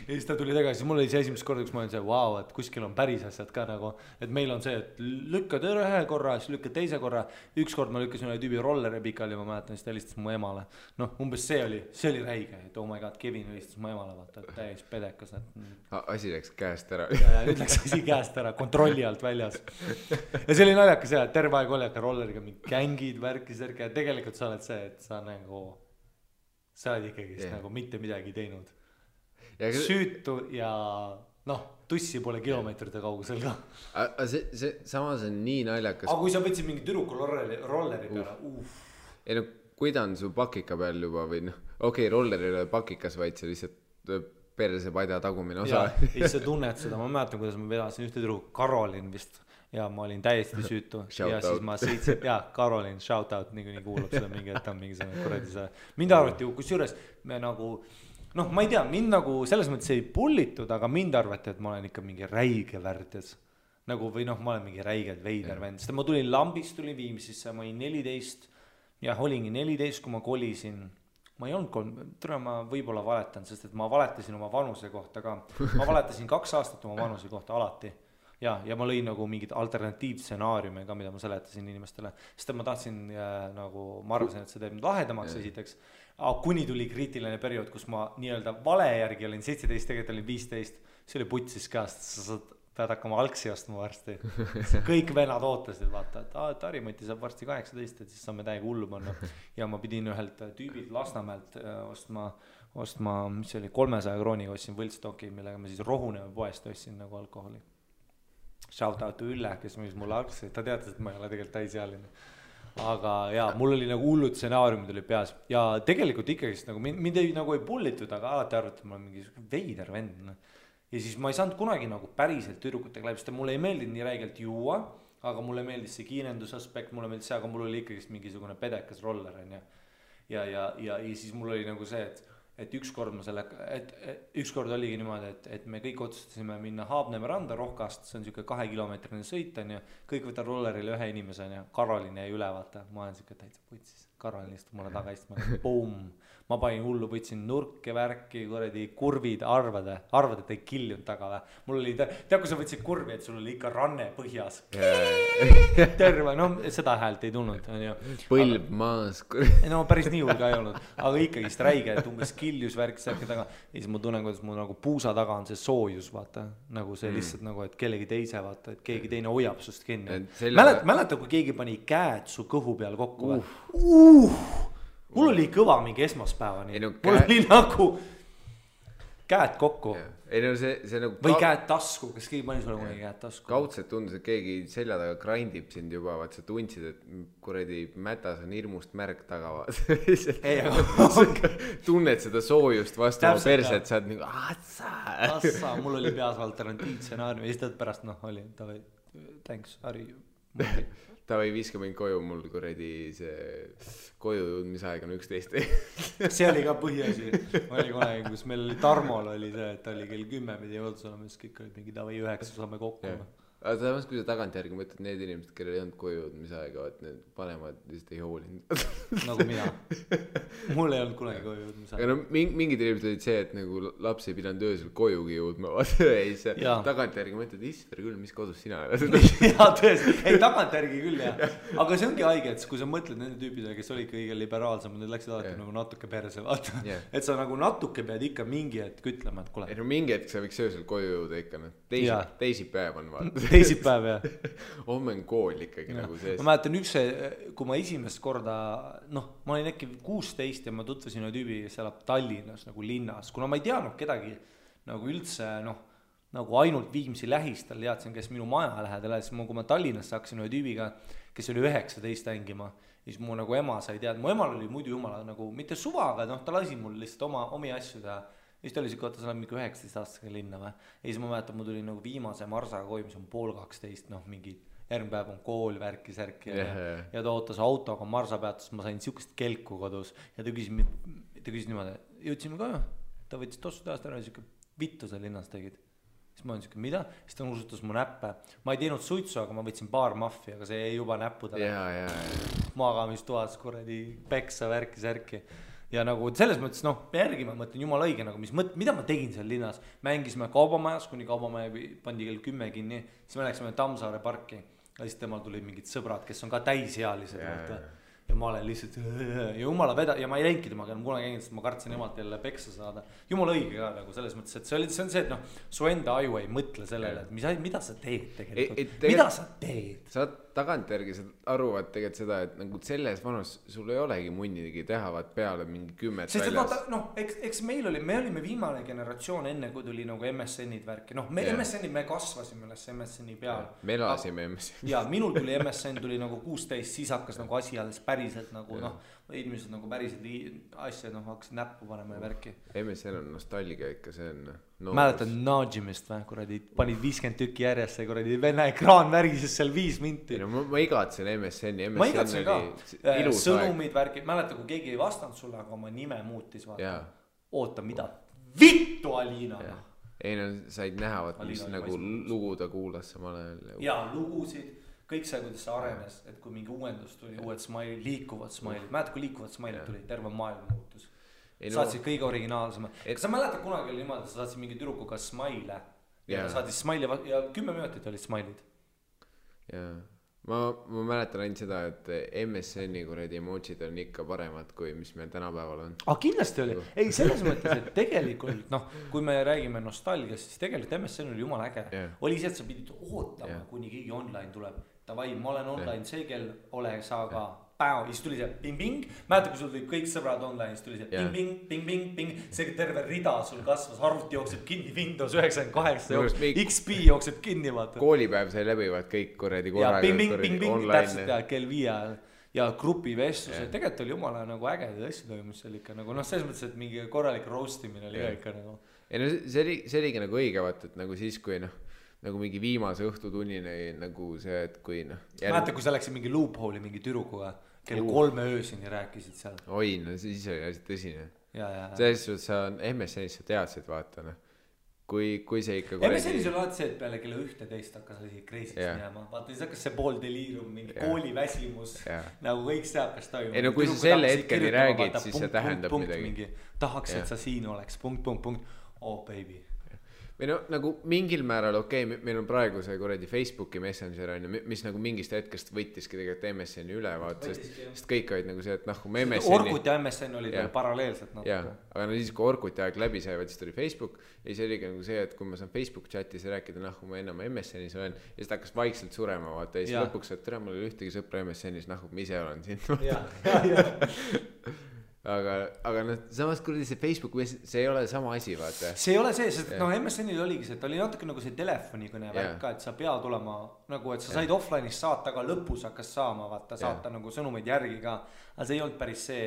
Ja siis ta tuli tagasi, mul oli see esimest korda, kus ma olin see, wow, et kuskil on päris asjad ka nagu, et meil on see, et lükkad ühe korra, siis lükkad teise korra, ükskord ma lükkasin ühe tüübi rolleri pikali, ma mäletan, siis ta helistas mu emale. Noh, umbes see oli räige, et oh my god, Kevin helistas mu emale, vaata, et täis pedekas. Asi läks käest ära. Ja nüüd läks asi käest ära, kontrolli alt väljas. Ja see oli naljakas see, et terve aeg oli, et rolleriga mingi gängid, värki, ja tegelikult sa oled see, et sa nagu, sa oled ikkagi nagu mitte midagi teinud. Süütu ja noh, tussi pole kilomeetrite kaugusel ka. Aga see samas on nii naljakas. Aga kui sa võtsid mingi tüdruku rolleri peale, Ei no, kui ta on su pakika peal juba või noh, okei, rolleri ei ole pakikas, vaid see lihtsalt perse padja tagumine osa. Ja siis sa tunned seda, ma mäletan, kuidas ma vedasin ühte tüdruku, Karolin vist, ja ma olin täiesti süütu. Ja siis ma sõitsin, Karolin, shout out, nii kuulab seda mingi, et ta on mingi selle kuradi see. Mind arvati, kus juures me nagu noh, ma ei tea, mind nagu selles mõttes ei pullitud, aga mind arvati, et ma olen ikka mingi räige värdjas. Nagu või noh, ma olen mingi räiged veider vend. Sest ma tulin Lambist, tulin Viimsisse, ma olin 14 ja olingi 14, kui ma kolisin. Ma ei olnud ma võib-olla valetan, sest et ma valetasin oma vanuse kohta ka. Ma valetasin 2 aastat oma vanuse kohta alati. Ja ma lõin nagu mingid alternatiivstsenaariume ka, mida ma seletasin inimestele. Sest ma tahtsin nagu, ma arvasin, et see teeb lahedamaks esiteks. Kuni tuli kriitiline periood, kus ma nii-öelda vale järgi olin 17, tegelikult olin 15. See oli putsis käest, sa pead hakkama algsi ostma varsti. Kõik venad ootasid, vaata, et Harimati saab varsti 18, et siis saame täiega hullu panna. Ja ma pidin ühelt tüübilt Lasnamäelt ostma, mis oli 300 krooniga, ostsin võltstoki, millega ma siis Rohuneva poest ostsin nagu alkoholi. Shout out Ülle, kes müüs mulle algsi, ta teatas, et ma ei ole tegelikult täisealine. Aga mul oli nagu hullud stsenaariumid oli peas ja tegelikult ikkagi nagu mind ei pullitud, aga alati arvati, et ma olen mingi veider vend. Ja siis ma ei saanud kunagi nagu päriselt tüdrukutega läbi, sest mulle ei meeldinud nii räigelt juua, aga mulle meeldis see kiirendusaspekt, mulle meeldis see, aga mul oli ikkagi mingisugune pedekas roller ja siis mul oli nagu see, et ükskord oligi niimoodi, et me kõik otsustasime minna Haabneme randa Rohkast, see on siuke 2-kilomeetrine sõit on ja kõik võtta rollerile ühe inimese on ja Karolin jäi üle, vaata, ma olen siuke täitsa putsis, Karolin istub mulle taga istuma, boom, ma panin hullu, võtsin nurke, värki, kuradi kurvid, arvad, et ei killinud taga või. Mul oli, kui sa võtsid kurvi, et sul oli ikka ranne põhjas. Terve, no seda häält ei tulnud. Põlb maas. No päris nii hull ka ei olnud, aga ikkagi räige, et umbes killjus värk särki taga. Ja siis ma tunnen, kuidas mul nagu puusa taga on see soojus, vaata. Nagu see lihtsalt nagu, et kellegi teise, vaata, et keegi teine hoiab sust kinni. Mäleta, kui keegi pani käed su kõhu peal kokku. mul oli kõva mingi esmaspäevani. Ei, no, mul oli nagu käed kokku. Ei no see nagu või käed tasku, kas keegi pani sulle kunagi käed tasku? Kaudselt tundus, et keegi selja taga grindib sind juba, vaat sa tundsid, et kuradi mätas on hirmust märg taga. Tunned seda soojust vastu oma perset, sa oled nagu Assa, mul oli peas alternatiivstsenaarium ja siis tõed pärast oli tavai, thanks, Harri. Tavai viiska mind koju, mul kuradi see koju jõudmisaeg on 11. See oli ka põhiasi. Oli kunagi, kus meil oli Tarmol oli see, et oli kell 10 pidi jõudus olema, siis kõik olid mingi tavai 9 saame kokku. Aga samas, kui sa tagantjärgi mõtled, need inimesed, kellel ei olnud koju jõudmisaega, et need vanemad lihtsalt ei hoolinud. Nagu mina. Mul ei olnud kunagi koju jõudmisaega. Aga no mingid inimesed olid see, et nagu laps ei pidanud öösel kojugi jõudma. Ei, see tagantjärgi mõtled, Isver küll, mis kodus sina oled? Jaa, tõesti. Ei, tagantjärgi küll, jah. Aga see ongi haige, et kui sa mõtled nende tüüpidele, kes olid kõige liberaalsem, need läksid alati nagu natuke perse, vaata. Et sa nagu natuke pead ikka mingi hetk ütlema, et kule. Ei, no mingi hetk sa võiks öösel koju jõuda ikka. Teisipäev on vaata. Teisipäev, jah. Homme on kool ikkagi nagu sees. Ma mäletan kui ma esimest korda, ma olin äkki 16 ja ma tutvusin ühe tüübi, kes elab Tallinnas nagu linnas, kuna ma ei teadnud kedagi nagu üldse, nagu ainult Viimsi lähistel teadsin, kes minu maja lähedal, siis kui ma Tallinnasse hakkasin ühe tüübiga, kes oli 19 hängima, siis mu nagu ema sai teada, mu emal oli muidu jumala nagu mitte suva, aga ta lasi mul lihtsalt omi asju teha. Ja siis ta oli siuke, sa oled mingi 19 aastaga linna või. Ja siis ma mäletan, mul tuli nagu viimase marsaga koju, mis on 11:30, mingi järgmine päev on kool, värki, särki ja ta ootas autoga marsa peatus, ma sain siukest kelku kodus ja ta küsis niimoodi, jõudsime ka, ta võttis tossu tehast ära ja siuke vittu sa linnas tegid. Siis ma olin siuke, mida? Siis ta nuusutas mu näppe. Ma ei teinud suitsu, aga ma võtsin paar maffi, aga see jäi juba näppudele. Magamistuas kuradi peksa, värki, särki. Ja nagu selles mõttes, järgi ma mõtlen jumala õige, nagu mida ma tegin seal linnas. Mängisime kaubamajas, kuni kaubamaja pandi kell 10 kinni, siis me läksime Tammsaare parki ja siis temal tulid mingid sõbrad, kes on ka täisealised. Ja ma olen lihtsalt ja jumala ja ma ei läingi temaga enam kunagi sest ma kartsin emalt jälle peksa saada. Jumala õige ka nagu selles mõttes, et see on see, et su enda aju ei mõtle sellele, et mida sa teed tegelikult. Mida sa teed? Sa tagantjärgi arvad tegelikult seda, et nagu selles vanus sul ei olegi munnidegi tehavat peale mingi 10 sest väljas. Sest eks me olime viimane generatsioon enne, kui tuli nagu MSN-id värki. MSN-id me kasvasime üles MSN-i peal. Me elasime MSN-i. Ja minul tuli MSN tuli nagu 16, siis hakkas nagu asi alles päriselt nagu inimesed nagu päriselt asja hakkasid näppu panema ja värki. MSN on nostalgia ikka, see on mäletad Najimist või, kuradi panid 50 tükki järjest ja kuradi venna ekraan värises seal 5 minti. Ma igatsen MSN-i. Ma igatsen ka. Sõnumid värki, mäleta kui keegi ei vastanud sulle, aga oma nime muutis vaata. Oota, mida? Vittu Alina! Ei said näha, mis nagu lugu ta kuulas samal ajal. Ja lugusid, kõik see, kuidas see arenes, et kui mingi uuendus tuli, uued smailid, liikuvad smailid. Mäleta, kui liikuvad smailid tuli, terve maailm muutus. Saatsid kõige originaalsema. Kas sa mäletad kunagi oli niimoodi, sa saatsid mingi türukuga smaile ja saatis smaili ja 10 minutit olid smailid. Jaa. Ma mäletan ainult seda, et MSN-i kuradi emotsid on ikka paremad, kui mis meil tänapäeval on. Kindlasti oli. Ei, selles mõttes, et tegelikult, kui me räägime nostalgiast, siis tegelikult MSN oli jumala äge. Oli see, et sa pidid ootama, kuni keegi online tuleb. Tavai, ma olen online see kell, ole sa ka. Ja siis tuli see ping-ping, mäeta kui sul tulid kõik sõbrad online, siis tuli see ping-ping, see terve rida sul kasvas, arvuti jookseb kinni, Windows 98 XP jookseb kinni, vaata. Koolipäev sai läbivad kõik kuradi korraga. Ja ping-ping, täpselt kell 5 ja grupivestluse, tegelikult oli jumala nagu ägedad asju toimus seal ikka, nagu selles mõttes, et mingi korralik roastimine oli ikka nagu. See oligi nagu õige, vaata, et nagu siis, kui nagu mingi viimase õhtutunnini nagu see, et kui mäeta, kui sa läksid mingi loophole'i mingi türukuga, kell 3 öösini rääkisid seal. Oi, siis oli asi tõsine. Selles suhtes sa MSN-is sa teadsid, vaata, kui see ikka MSN-is oli alati see, et peale kella 11 hakkas asi kreisist minema. Vaata, siis hakkas see pool deliirium, mingi kooliväsimus, nagu kõik see hakkas toimuma. Ei, kui sa selle hetkeni räägid, siis see tähendab midagi. Tahaks, et sa siin oleks, punkt. Oh, baby. Või nagu mingil määral meil on praegu see kuradi Facebooki Messenger on, mis nagu mingist hetkest võttiski tegelikult MSN-i üle, vaata, sest kõik olid nagu see, et kui me MSN-i Orkut ja MSN olid paralleelselt aga siis kui Orkuti aeg läbi sai, siis tuli Facebook ja siis oligi nagu see, et kui ma saan Facebook chatis rääkida, kui ma enam MSN-is olen ja siis ta hakkas vaikselt surema, vaata, ja siis lõpuks, et tere, mul oli ühtegi sõpra MSN-is, ma ise olen siin aga noh, samas kuradi see Facebook, see ei ole sama asi, vaata. See ei ole see, sest noh, MSN-il oligi see, et oli natuke nagu see telefonikõne värk ka, et sa pead olema nagu, et sa said offline'is saata, aga lõpus hakkas saama, vaata, saata nagu sõnumeid järgi ka. Aga see ei olnud päris see,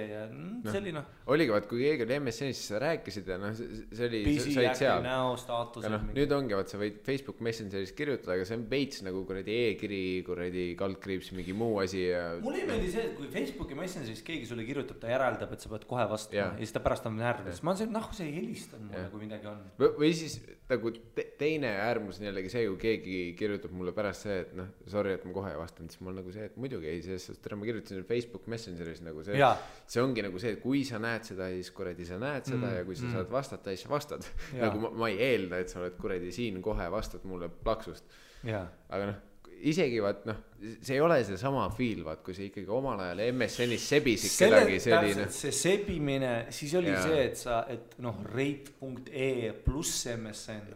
see oli noh. Oligi, vaat kui keegi oli MSN-is, siis sa rääkisid ja noh, see oli, sa olid seal. Näo, staatused. No, nüüd ongi, vaat sa võid Facebook Messengeris kirjutada, aga see on veits nagu kuradi e-kiri, kuradi kaldkriips, mingi muu asi ja... Mulle ei meeldi see, et kui Facebooki Messengeris keegi sulle kirjutab, ta järeldab, et sa pead kohe vastama ja siis ta pärast on närvis. Ma olen see, noh, see helistab mulle, kui midagi on. Või siis nagu teine äärmus on jällegi see, kui keegi kirjutab mulle pärast see, et noh, sorry, et ma kohe ei vastanud, siis mul nagu see, et muidugi ei, sest tere, ma kirjutasin Facebook Messengeris nagu see ongi nagu see, et kui sa näed seda, siis kuradi sa näed seda ja kui sa saad vastata, siis sa vastad. Nagu ma ei eelda, et sa oled kuradi siin kohe vastad mulle plaksust. Aga noh, isegi vaat noh, see ei ole see sama feel, vaat kui see ikkagi omal ajal MSN-is sebisid kedagi selline. See sebimine, siis oli see, et sa, et noh, rate.ee pluss MSN,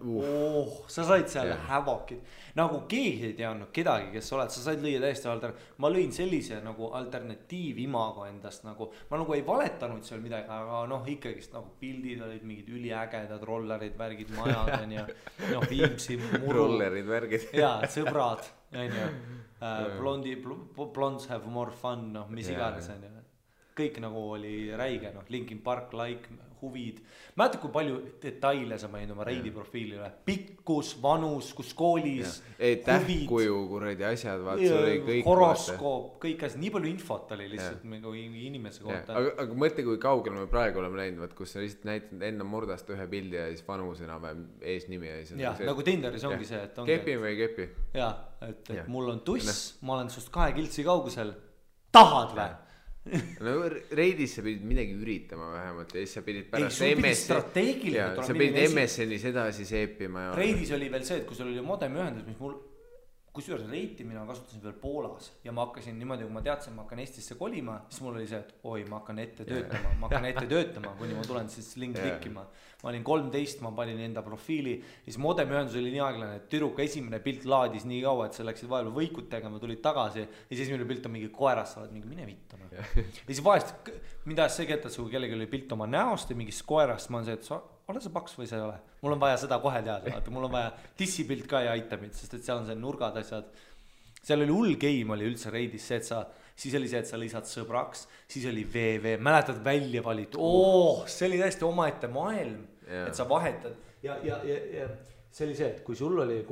sa said seal hävokid, nagu keegi ei teadnud kedagi, kes oled, sa said lüüa täiesti ma lõin sellise nagu alternatiiv imago endast nagu, ma nagu ei valetanud seal midagi, aga noh, ikkagist nagu pildid olid mingid üliägedad rollerid, värgid, majad ja noh, Viimsi muru. Rollerid, värgid. Jaa, sõbrad. Blondes have more fun, noh, mis iganes on ju. Kõik nagu oli räige, noh, Linkin Park, like, huvid. Mäletad, kui palju detaile sa maininud oma reidi profiilile. Pikkus, vanus, kus koolis, huvid. Tähkuju, kuradi asjad, vaat see oli kõik. Horoskoop, kõik asjad, nii palju infot oli lihtsalt nagu inimese kohta. Aga mõtle, kui kaugel me praegu oleme läinud, vaat kus sa lihtsalt näitad enda murdast ühe pildi ja siis vanus enam eesnimi ja siis. Jah, nagu Tinderis ongi see, et ongi. Kepi või ei kepi? Jaa, et mul on tuss, ma olen sust 2 kiltsi kaugusel. Tahad või? No reidis sa pidid midagi üritama vähemalt ja siis sa pidid pärast sa pidid MSN-is edasi seepima ja... Reidis oli veel see, et kui sul oli modemi ühendus, mis mul kusjuures reiti mina kasutasin veel Poolas ja ma hakkasin niimoodi, kui ma teadsin, ma hakkan Eestisse kolima, siis mul oli see, et oi, ma hakkan ette töötama, kuni ma tulen siis link klikkima. Ma olin 13, ma panin enda profiili, siis modemi ühendus oli nii aeglane, et tüdruka esimene pilt laadis nii kaua, et sa läksid vahepeal võikut tegema, tulid tagasi ja siis esimene pilt on mingi koerast, sa oled mingi mine vittama. Ja siis vahest, mida see kettad, kui kellegi oli pilt oma näost ja mingist koerast, ma on see, et sa ole sa paks või sa ei ole. Mul on vaja seda kohe teada, mul on vaja dissipilt ka ja itemid, sest et seal on see nurgad asjad. Seal oli hull game oli üldse reidis see, et siis oli see, et sa lisad sõbraks, siis oli VV, mäletad välja valit, see oli täiesti omaette maailm, et sa vahetad ja see oli see, et kui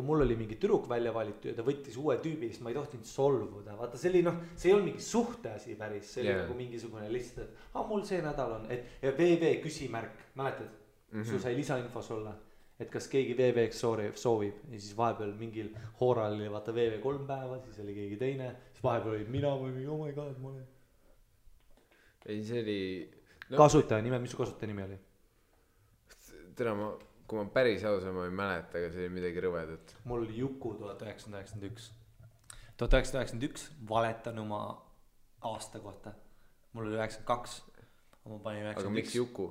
mul oli mingi tüdruk välja valitud ja ta võttis uue tüübi, siis ma ei tohtinud solvuda, vaata see oli see ei olnud mingi suhteasi päris, see oli nagu mingisugune lihtsalt, et mul see nädal on, ja VV küsimärk, mäletad? Sul sai lisainfos olla, et kas keegi VV-ks soovib ja siis vahepeal mingil hooral oli vaata VV 3 päeva, siis oli keegi teine, siis vahepeal oli mina või mingi, oh my god, ma olen. Ei, see oli... Kasutaja nime, mis su kasutaja nimi oli? Tere, kui ma päris ausalt, ma ei mäleta, aga see oli midagi rõvedat. Mul oli Juku 1991. 1991 valetan oma aasta kohta. Mul oli 92. Aga miks Juku?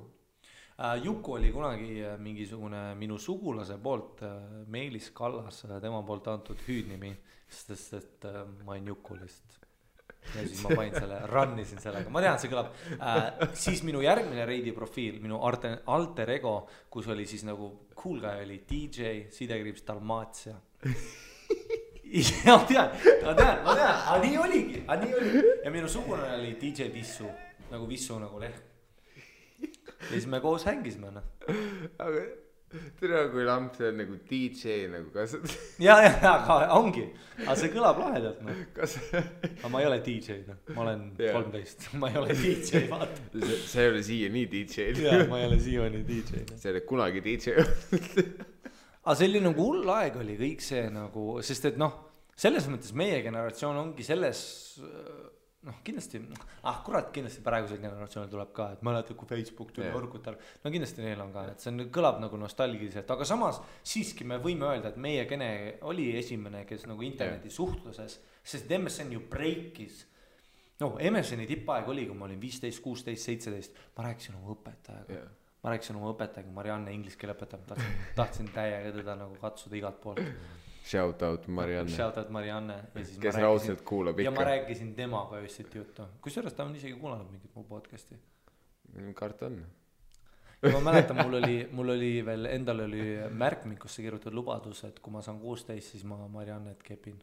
Juku oli kunagi mingisugune minu sugulase poolt, Meelis Kallas, tema poolt antud hüüdnimi, sest et ma olin Juku lihtsalt. Ja siis ma panin selle, rannisin sellega, ma tean, see kõlab. Siis minu järgmine reidi profiil, minu alter ego, kus oli siis nagu cool guy oli DJ, sidekriips Dalmatia. Ja ma tean, aga nii oligi. Ja minu sugulane oli DJ Vissu, nagu leht. Ja siis me koos hängisime, noh. Aga tere, kui lamp see on nagu DJ nagu kasvab. Ja, aga ongi. Aga see kõlab lahedalt, noh. Aga ma ei ole DJ, noh. Ma olen 13. Ma ei ole DJ, vaata. See ei ole siia nii DJ. Ja, ma ei ole siia nii DJ. See ei ole kunagi DJ. Aga see oli nagu hull aeg oli kõik see nagu, sest et noh, selles mõttes meie generatsioon ongi selles... noh, kindlasti, kurat, kindlasti praegusel generatsioonil tuleb ka, et mäletad, kui Facebook tuli Orkutal, no kindlasti neil on ka, et see kõlab nagu nostalgiliselt, aga samas siiski me võime öelda, et meie gene oli esimene, kes nagu interneti suhtluses, sest MSN ju breakis, no MSN-i tippaeg oli, kui ma olin 15, 16, 17, ma rääkisin oma õpetajaga, Marianne inglise keele õpetab, tahtsin täiega teda nagu katsuda igalt poolt. Shout out Marianne. Kes raudselt kuulab ikka. Ja ma rääkisin temaga öösiti juttu. Kusjuures ta on isegi kuulanud mingit mu podcasti. karton. Ja ma mäletan, mul oli veel, endal oli märkmikusse kirjutatud lubadus, et kui ma saan 16, siis ma Mariannet kepin.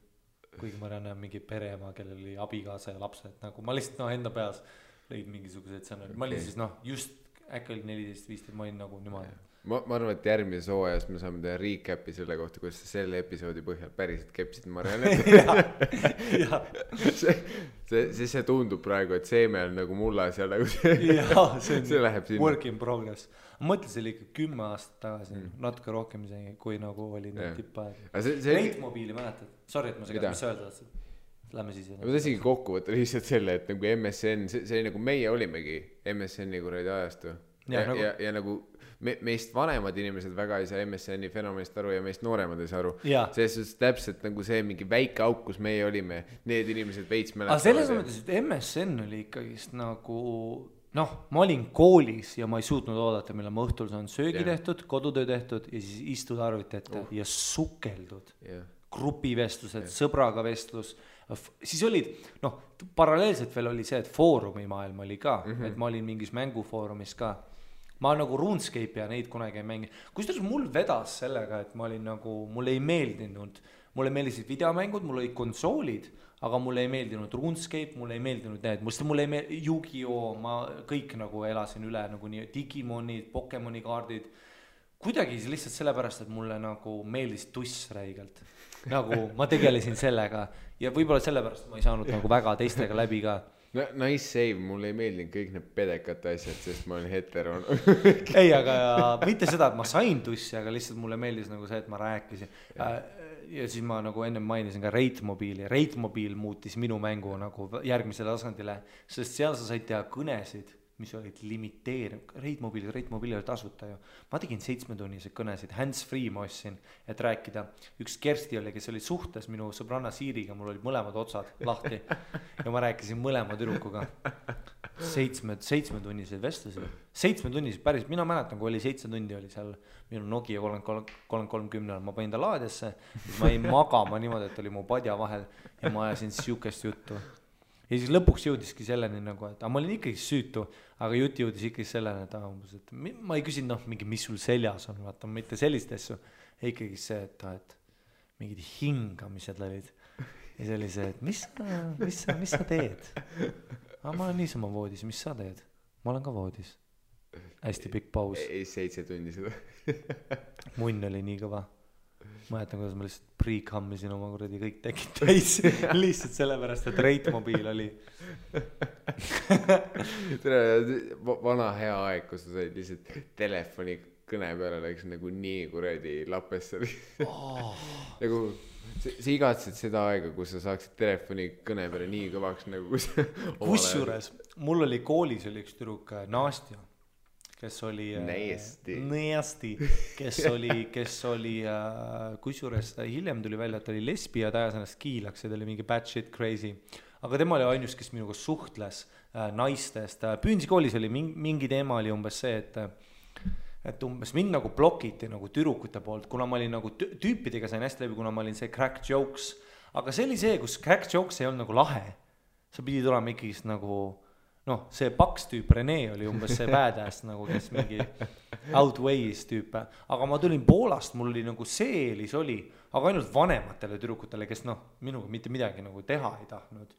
Kuigi Marianne on mingi pereema, kellel oli abikaasa ja lapsed, nagu ma lihtsalt enda peas lõid mingisugused sõnad. Ma olin siis just äkki oli 14-15, ma olin nagu niimoodi. Ma arvan, et järgmises hooajas me saame teha recap'i selle kohta, kuidas sa selle episoodi põhjal päriselt kepsid Mariannet. see tundub praegu, et seeme on nagu mullas ja nagu see läheb sinna. Work in progress. Ma mõtlesin, see oli ikka 10 aastat tagasi, natuke rohkem isegi, kui nagu oli tippaeg. Reitmobiili mäletad? Sorry, et ma segad, mis sa öelda tahtsid? Lähme siis. Ma tahtsingi kokku võtta lihtsalt selle, et nagu MSN, see oli nagu meie olimegi MSN-i kuradi ajastu. Ja nagu meist vanemad inimesed väga ei saa MSN-i fenomenist aru ja meist nooremad ei saa aru. Selles täpselt nagu see mingi väike auk, kus meie olime, need inimesed veits mäletavad. Aga selles mõttes, et MSN oli ikkagist nagu, ma olin koolis ja ma ei suutnud oodata, mille ma õhtul saan söögi tehtud, kodutöö tehtud ja siis istud arvuti ette ja sukeldud. Grupivestlused, sõbraga vestlus. Siis olid, paralleelselt veel oli see, et foorumi maailm oli ka, et ma olin mingis mängufoorumis ka. Ma nagu RuneScape ja neid kunagi ei mängi. Kusjuures mul vedas sellega, et ma olin nagu, mulle ei meeldinud, mulle meeldisid videomängud, mul olid konsoolid, aga mulle ei meeldinud RuneScape, mulle ei meeldinud need, mulle ei meeldinud Yu-Gi-Oh, ma kõik nagu elasin üle, nagu nii Digimonid, Pokemoni kaardid, kuidagi lihtsalt sellepärast, et mulle nagu meeldis tuss räigelt, nagu ma tegelesin sellega ja võib-olla sellepärast ma ei saanud nagu väga teistega läbi ka. Nice save, mulle ei meeldinud kõik need pedekate asjad, sest ma olen hetero. Ei, aga mitte seda, et ma sain tussi, aga lihtsalt mulle meeldis nagu see, et ma rääkisin. Ja siis ma nagu enne mainisin ka Reitmobiili. Reitmobiil muutis minu mängu nagu järgmisele tasandile, sest seal sa said teha kõnesid, mis olid limiteerinud. Reitmobiil oli tasuta ju. Ma tegin 7-tunnised kõnesid, hands-free ma ostsin, et rääkida. Üks Kersti oli, kes oli suhtes minu sõbranna Siiriga, mul olid mõlemad otsad lahti ja ma rääkisin mõlema tüdrukuga. 7-tunnised vestlused. 7-tunnised päris, mina mäletan, kui oli 7 tundi oli seal minu Nokia 3310, ma panin ta laadesse, siis ma ei magama niimoodi, et oli mu padja vahel ja ma ajasin siukest juttu. Ja siis lõpuks jõudiski selleni nagu, et ma olin ikkagi süütu, aga jutt jõudis ikkagi selleni, et ma ei küsin, mingi, mis sul seljas on, vaata, mitte sellist asju, ikkagi see, et mingid hingamised olid. Ja see oli see, et mis sa teed? Ma olen niisama voodis, mis sa teed? Ma olen ka voodis. Hästi pikk paus. 7 tundi seda. Munn oli nii kõva. Ma jätan, kuidas ma lihtsalt pre-cammisin oma kuradi kõik tekid täis lihtsalt sellepärast, et Reitmobiil oli vana hea aeg, kus sa said lihtsalt telefoni kõne peale läks nagu nii kuradi lapesse nagu sa igatsid seda aega, kus sa saaksid telefoni kõne peale nii kõvaks nagu kusjuures mul oli koolis oli üks tüdruk Nastja, kes oli Näesti, kes oli kusjuures hiljem tuli välja, et ta oli lesbi ja ta ajas ennast kiilaks ja ta oli mingi bad shit crazy, aga tema oli ainus, kes minuga suhtles naistest. Püünsi koolis oli mingi teema oli umbes see, et umbes mind nagu blokiti nagu tüdrukute poolt, kuna ma olin nagu tüüpidega sain hästi läbi, kuna ma olin see crack jokes, aga see oli see, kus crack jokes ei olnud nagu lahe, sa pidid olema ikkagi nagu see paks tüüp Rene oli umbes see badass nagu, kes mingi outweighs tüüpe, aga ma tulin Poolast, mul oli nagu see eelis oli, aga ainult vanematele tüdrukutele, kes minuga mitte midagi nagu teha ei tahtnud,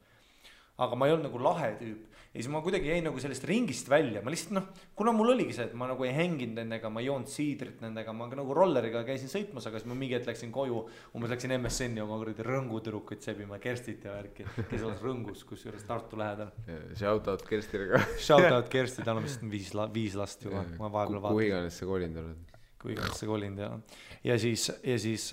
aga ma ei olnud nagu lahe tüüp ja siis ma kuidagi jäin nagu sellest ringist välja, ma lihtsalt kuna mul oligi see, et ma nagu ei hänginud nendega, ma ei joonud siidrit nendega, ma nagu rolleriga käisin sõitmas, aga siis ma mingi hetk läksin koju, umbes läksin MSN-i oma kuradi rõngutürukuid sebima, Kerstit ja värki, kes oleks rõngus, kusjuures Tartu lähedal. Shoutout Kerstile ka. Shoutout Kersti, tal on vist 5 last juba, ma vahepeal vaatan. Kui iganes sa kolinud oled. Kui iganes sa kolinud, ja siis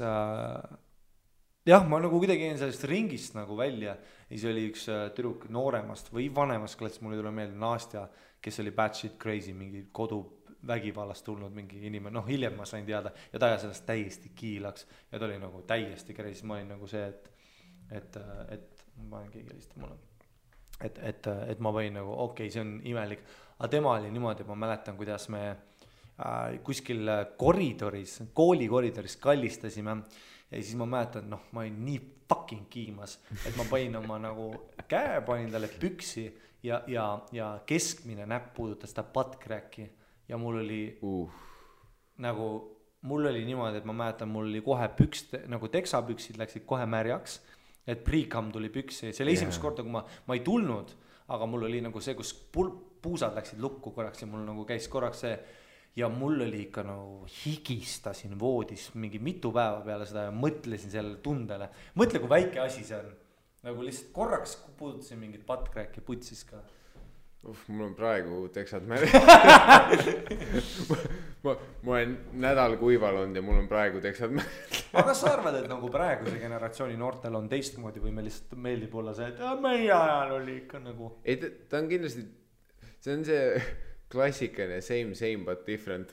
jah, ma nagu kuidagi jäin sellest ringist nagu välja ja siis oli üks tüdruk nooremast või vanemast klassist, mul ei tule meelde Nastja, kes oli bad shit crazy, mingi koduvägivallast tulnud mingi inimene, hiljem ma sain teada ja ta ajas sellest täiesti kiilaks ja ta oli nagu täiesti crazy, ma olin nagu see, et ma olen keegi helistab mulle, et ma võin nagu okei, see on imelik, aga tema oli niimoodi, ma mäletan, kuidas me kuskil koridoris, kooli koridoris kallistasime ja siis ma mäletan, noh, ma olin nii fucking kiimas, et ma panin oma nagu käe, panin talle püksi ja keskmine näpp puudutas ta buttcracki ja mul oli nagu, mul oli niimoodi, et ma mäletan, mul oli kohe nagu teksapüksid läksid kohe märjaks, et pre-cum tuli püksi, see oli esimest korda, kui ma ei tulnud, aga mul oli nagu see, kus puusad läksid lukku korraks ja mul nagu käis korraks see ja mul oli ikka nagu higistasin voodis mingi mitu päeva peale seda ja mõtlesin sellele tundele. Mõtle, kui väike asi see on. Nagu lihtsalt korraks puudutasin mingit buttcracki putsis ka. Mul on praegu teksad märg. ma olen nädal kuival olnud ja mul on praegu teksad märg. Aga kas sa arvad, et nagu praeguse generatsiooni noortel on teistmoodi või me lihtsalt meeldib olla see, et meie ajal oli ikka nagu... Ei, ta on kindlasti, see on see... klassikaline same but different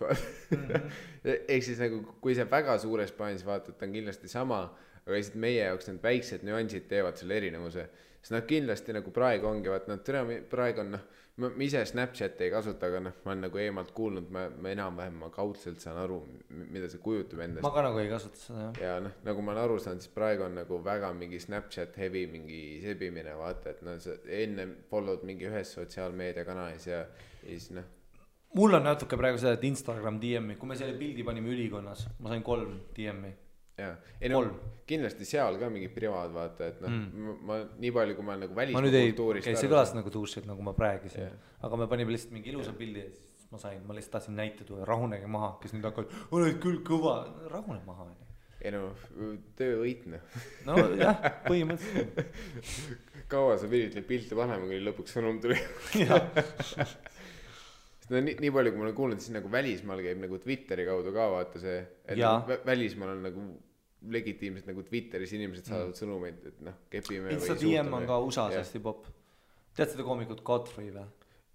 ehk siis nagu kui see väga suures plaanis vaatad, ta on kindlasti sama, aga lihtsalt meie jaoks need väiksed nüansid teevad selle erinevuse, sest nad kindlasti nagu praegu ongi, vaat nad praegu on ma ise Snapchat ei kasuta, aga ma olen nagu eemalt kuulnud, ma enam-vähem ma kaudselt saan aru, mida see kujutab endast. Ma ka nagu ei kasuta seda, jah. Ja nagu ma olen aru saanud, siis praegu on nagu väga mingi Snapchat heavy mingi sebimine, vaata, et sa enne follow'd mingi ühes sotsiaalmeediakanalis ja siis Mul on natuke praegu seda, et Instagram DM-i, kui me selle pildi panime ülikonnas, ma sain 3 DM-i. Jaa, kindlasti seal ka mingi privaad, vaata, et ma nii palju, kui ma olen nagu väliskultuurist see kõlas nagu tuusid, nagu ma praegisin, aga me panime lihtsalt mingi ilusa pildi ja siis ma lihtsalt tahtsin näite tuua, rahunege maha, kes nüüd hakkavad, oled küll kõva, rahune maha. Ei töövõitne. No jah, põhimõtteliselt. Kaua sa pidid neid pilte panema, kui lõpuks sõnum tuli? Nii palju, kui ma olen kuulnud, siis nagu välismaal käib nagu Twitteri kaudu ka vaata see, et välismaal on nagu legitiimselt nagu Twitteris inimesed saadavad sõnumeid, et kepime Insta DM on ka USA-s hästi pop. Tead seda koomikut Godfrey või?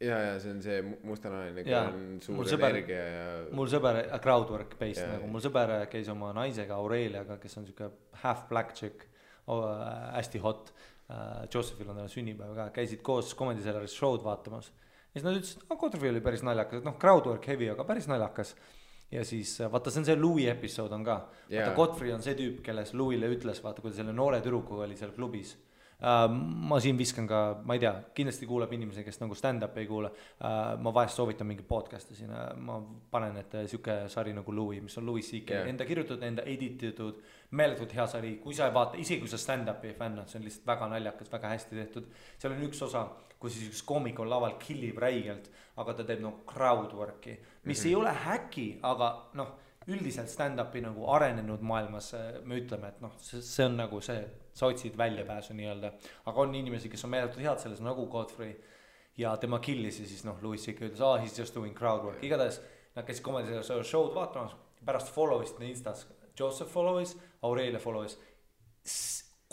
Ja see on see mustanaline, kui on suur energia ja... Mul sõber, crowdwork based, nagu mul sõber käis oma naisega Aureliaga, kes on siuke half black chick, hästi hot, Josephil on talle sünnipäev ka, käisid koos Comedy Cellaris show'd vaatamas. Ja siis nad ütlesid, Godfrey oli päris naljakas, crowdwork heavy, aga päris naljakas. Ja siis, vaata, see on see Louis episood on ka. Vaata, Godfrey on see tüüp, kelles Louis'le ütles, vaata, kui ta selle noore tüdrukuga oli seal klubis. Ma siin viskan ka, ma ei tea, kindlasti kuulab inimesi, kes nagu stand-up ei kuula. Ma vahest soovitan mingi podcast'i siin, ma panen, et siuke sari nagu Louis, mis on Louis C.K. Enda kirjutatud, enda edititud, meeletult hea sari, kui sa ei vaata, isegi kui sa stand-up ei fännad, see on lihtsalt väga naljakas, väga hästi tehtud. Seal on üks osa, kui siis üks koomik on laval killib räigelt, aga ta teeb crowdwork'i, mis ei ole häki, aga üldiselt stand-upi nagu arenenud maailmas me ütleme, et see on nagu see, sa otsid väljapääsu nii-öelda, aga on inimesi, kes on meeletult head selles nagu Godfrey ja tema killis ja siis Louis C.K. ütles, he's just doing crowdwork, igatahes nad käisid Comedy show'd vaatamas, pärast follow'ist Instas, Joseph follow'is, Aurelia follow'is,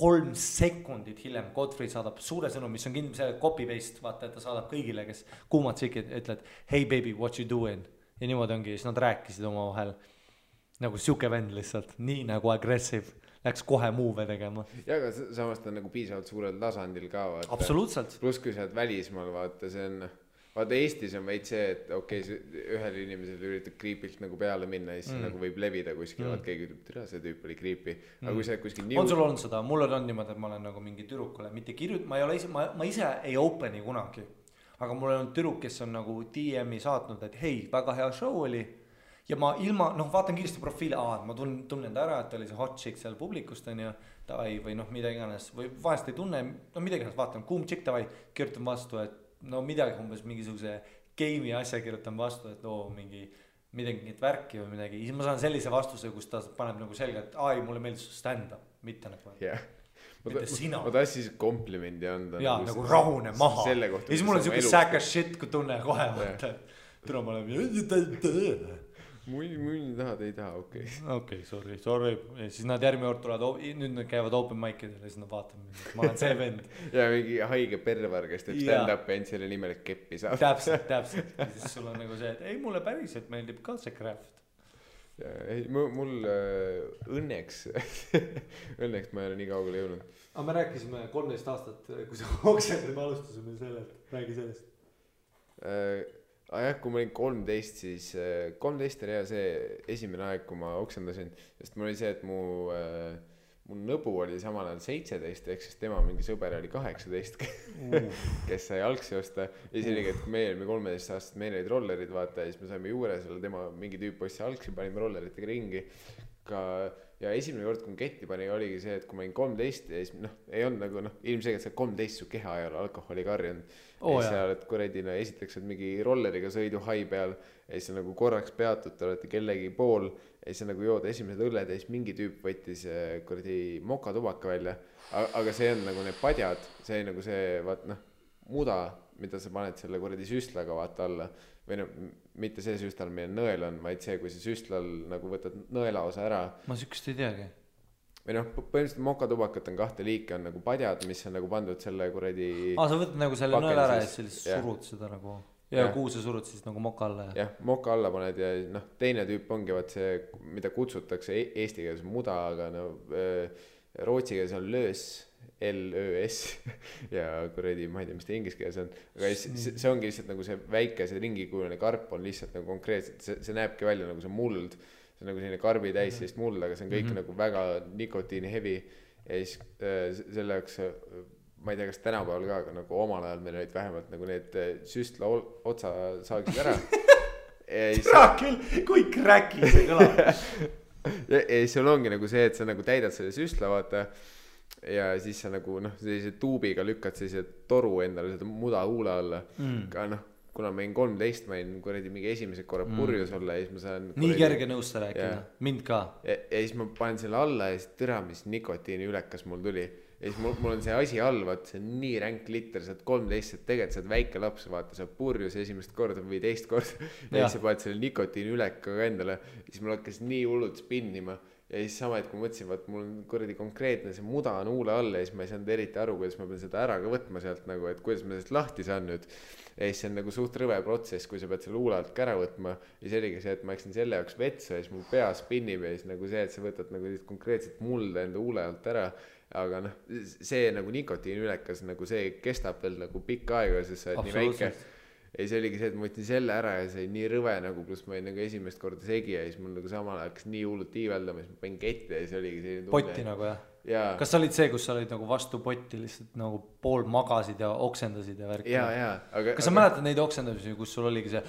3 sekundit hiljem Godfrey saadab suure sõnum, mis on kindlasti copy-paste, vaata, et ta saadab kõigile, kes kuumad tšikid, ütled, hey baby, what you doing? Ja niimoodi ongi, siis nad rääkisid oma vahel nagu siuke vend lihtsalt, nii nagu aggressive, läks kohe muuve tegema. Ja, aga samas ta on nagu piisavalt suurel tasandil ka, vaata. Absoluutselt. Plus kui sa oled välismaal, vaata, see on... Vaata Eestis on veid see, et okei, ühel inimesel üritab kriipilt nagu peale minna ja siis nagu võib levida kuskil, vaat keegi ütleb, tere, see tüüp oli kriipi. Aga kui sa kuskil on sul olnud seda, mul on niimoodi, et ma olen nagu mingi tüdrukule, mitte ma ise ei openi kunagi, aga mul on tüdruk, kes on nagu DM-i saatnud, et hei, väga hea show oli ja ma ilma, vaatan kiiresti profiili, ma tunnen ta ära, et oli see hot chick seal publikust on ja tavai või mida iganes või vahest ei tunne, midagi iganes vaatan, kuum chick tavai, kirjutan vastu, et midagi umbes mingisuguse game'i asja kirjutan vastu, et midagi värki või midagi. Siis ma saan sellise vastuse, kus ta paneb nagu selga, et mulle meeldis stand-up, mitte nagu. Mitte sina. Ma tahtsin siis komplimendi anda. Jaa, nagu rahune maha. Ja siis mul on siuke sack as shit, kui tunne kohe vaata. Tule ma olen... Muin tahad, ei taha, okei. Okei, sorry. Ja siis nad järgmine kord tulevad, nüüd nad käivad open mic'idel ja siis nad vaatavad, ma olen see vend. Ja mingi haige pervar, kes teeb stand-up end selle nimel, et keppi saab. Täpselt. Ja siis sul on nagu see, et ei, mulle päriselt meeldib ka see craft. Mul õnneks ma ei ole nii kaugele jõudnud. Aga me rääkisime 13 aastat, kui sa oksendid, me alustasime sellelt, räägi sellest. jah, kui ma olin 13, siis 13 oli see esimene aeg, kui ma oksendasin, sest mul oli see, et mu nõbu oli samal ajal 17, ehk siis tema mingi sõber oli 18, kes sai algsi osta. Ja siis oligi, et kui meil olime 13 aastat, meil olid rollerid, vaata, ja siis me saime juures olla tema mingi tüüp ossi algsi, panime rolleritega ringi. Ja esimene kord, kui ketti pani, oligi see, et kui ma olin 13 ja siis ei olnud nagu ilmselgelt see 13 su keha ei ole alkoholi karjunud. Ja siis sa oled kuradi, esiteks oled mingi rolleriga sõidu hai peal ja siis nagu korraks peatud, te olete kellegi pool ja siis nagu jood esimesed õlled ja siis mingi tüüp võttis kuradi mokatubaka välja. Aga see on nagu need padjad, see nagu see muda, mida sa paned selle kuradi süstlaga vaata alla. Või mitte see süstlal, meil nõel on, vaid see, kui see süstlal nagu võtad nõela osa ära. Ma sükest ei teagi. Või põhimõtteliselt mokatubakat on 2 liiki, on nagu padjad, mis on nagu pandud selle kuradi sa võtad nagu selle nõel ära ja siis surud seda nagu ja kuhu sa surud siis nagu moka alla jah, moka alla paned ja teine tüüp ongi vaat see, mida kutsutakse eesti keeles muda, aga rootsi keeles on löös L-Ö-S ja kuradi, ma ei tea, mis ta inglise keeles on, aga see ongi lihtsalt nagu see väike, see ringikujuline karp on lihtsalt nagu konkreetselt, see näebki välja nagu see muld, see on nagu selline karbi täis sellist muld, aga see on kõik nagu väga nikotiini heavy ja siis selle jaoks, ma ei tea, kas tänapäeval ka, aga nagu omal ajal meil olid vähemalt nagu need süstla otsa saagsid ära. Tea küll, kui kräki see kõlab. Ja sul ongi nagu see, et sa nagu täidad selle süstla, vaata, ja siis sa nagu sellise tuubiga lükkad sellise toru endale seda muda huule alla. Ka kuna ma olin 13, ma olin kuradi mingi esimesed korra purjus olla ja siis ma saan nii kerge nõusta rääkida, mind ka. Ja siis ma panen selle alla ja siis tõra, mis nikotiini ülekas mul tuli. Ja siis mul on see asi all, vaata, see on nii ränk liter, sa oled 13, et tegelikult sa oled väike laps, vaata, sa oled purjus esimest korda või teist korda ja siis sa paned selle nikotiini ülekaga endale ja siis mul hakkas nii hullult spinnima ja siis sama, et kui mõtlesin, vaat mul on kuradi konkreetne see muda on huule all ja siis ma ei saanud eriti aru, kuidas ma pean seda ära ka võtma sealt nagu, et kuidas ma sellest lahti saan nüüd ja siis see on nagu suht rõve protsess, kui sa pead selle huule alt ka ära võtma ja see oligi see, et ma läksin selle jaoks vetsu ja siis mu pea spinnib ja siis nagu see, et sa võtad nagu konkreetselt mulda enda huule alt ära. Aga see nagu nikotiini ülekas nagu see kestab veel nagu pikka aega, sest sa oled nii väike ja see oligi see, et ma võtsin selle ära ja see oli nii rõve nagu, pluss ma olin nagu esimest korda segi ja siis mul nagu samal hakkas nii hullult tiiveldama ja siis ma panin ketti ja siis oligi selline tunne. Potti nagu jah? Kas sa olid see, kus sa olid nagu vastu potti lihtsalt nagu pool magasid ja oksendasid ja värk? Kas sa mäletad neid oksendamisi, kus sul oligi see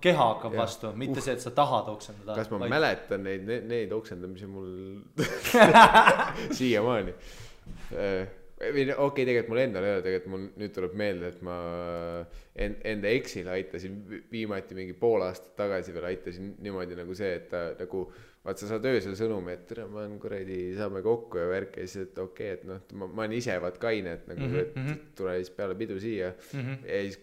keha hakkab vastu, mitte see, et sa tahad oksendada? Kas ma mäletan neid oksendamisi mul siiamaani? Okei, tegelikult mul endal ei ole, tegelikult mul nüüd tuleb meelde, et ma enda eksile aitasin viimati mingi pool aastat tagasi veel aitasin niimoodi nagu see, et ta nagu vaat sa saad öösel sõnumi, et tere, ma olen kuradi, saame kokku ja värk ja siis, et okei, et ma olen ise vaat kaine, et nagu et tule siis peale pidu siia ja siis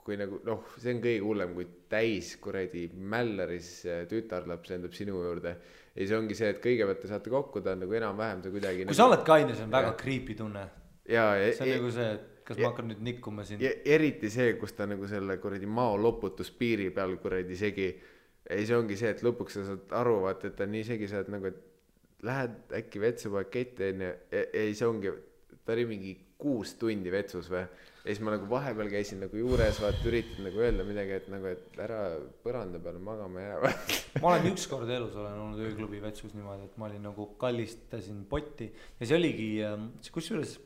kui nagu see on kõige hullem, kui täis kuradi Mälleris tütarlaps endab sinu juurde ja siis ongi see, et kõigepealt te saate kokku, ta on nagu enam-vähem see kuidagi kui sa oled kaine, see on väga creepy tunne see on nagu see, et kas ma hakkan nüüd nikkuma siin eriti see, kus ta nagu selle kuradi mao loputuspiiri peal kuradi segi ja siis ongi see, et lõpuks sa saad aru, vaata, et ta nii segi, sa oled nagu, et lähed äkki vetsu pakette ja siis ongi, ta oli mingi 6 tundi vetsus või ja siis ma nagu vahepeal käisin nagu juures, vaata, üritad nagu öelda midagi, et nagu, et ära põranda peale magama jää. Ma olen ükskord elus olen olnud ööklubi vetsus niimoodi, et ma olin nagu kallistasin potti ja see oligi, kusjuures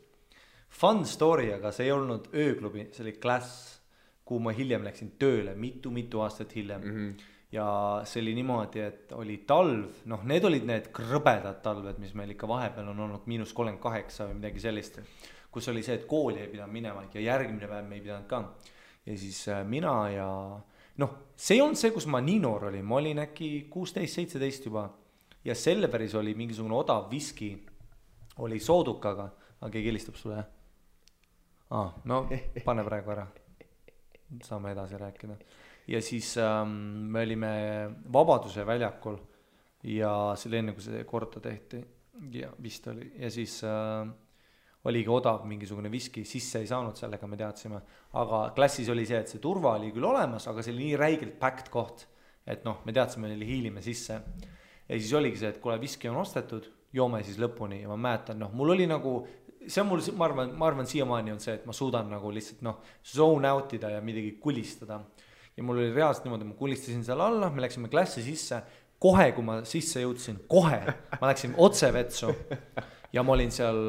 fun story, aga see ei olnud ööklubi, see oli klass, kuhu ma hiljem läksin tööle, mitu aastat hiljem ja see oli niimoodi, et oli talv, need olid need krõbedad talved, mis meil ikka vahepeal on olnud -38 või midagi sellist, kus oli see, et kooli ei pidanud minema ja järgmine päev me ei pidanud ka ja siis mina ja see ei olnud see, kus ma nii noor olin, ma olin äkki 16-17 juba ja Selveris oli mingisugune odav viski oli soodukaga, aga keegi helistab sulle pane praegu ära, saame edasi rääkida ja siis me olime Vabaduse väljakul ja selle enne, kui see korda tehti ja vist oli ja siis oligi odav mingisugune viski, sisse ei saanud sellega, me teadsime, aga klassis oli see, et see turva oli küll olemas, aga see oli nii räigelt packed koht, et me teadsime, neile hiilime sisse ja siis oligi see, et kuule, viski on ostetud, joome siis lõpuni ja ma mäletan, mul oli nagu see on mul, ma arvan siiamaani on see, et ma suudan nagu lihtsalt zone out ida ja midagi kulistada. Ja mul oli reaalselt niimoodi, ma kulistasin seal alla, me läksime klassi sisse, kohe kui ma sisse jõudsin, ma läksin otse vetsu ja ma olin seal,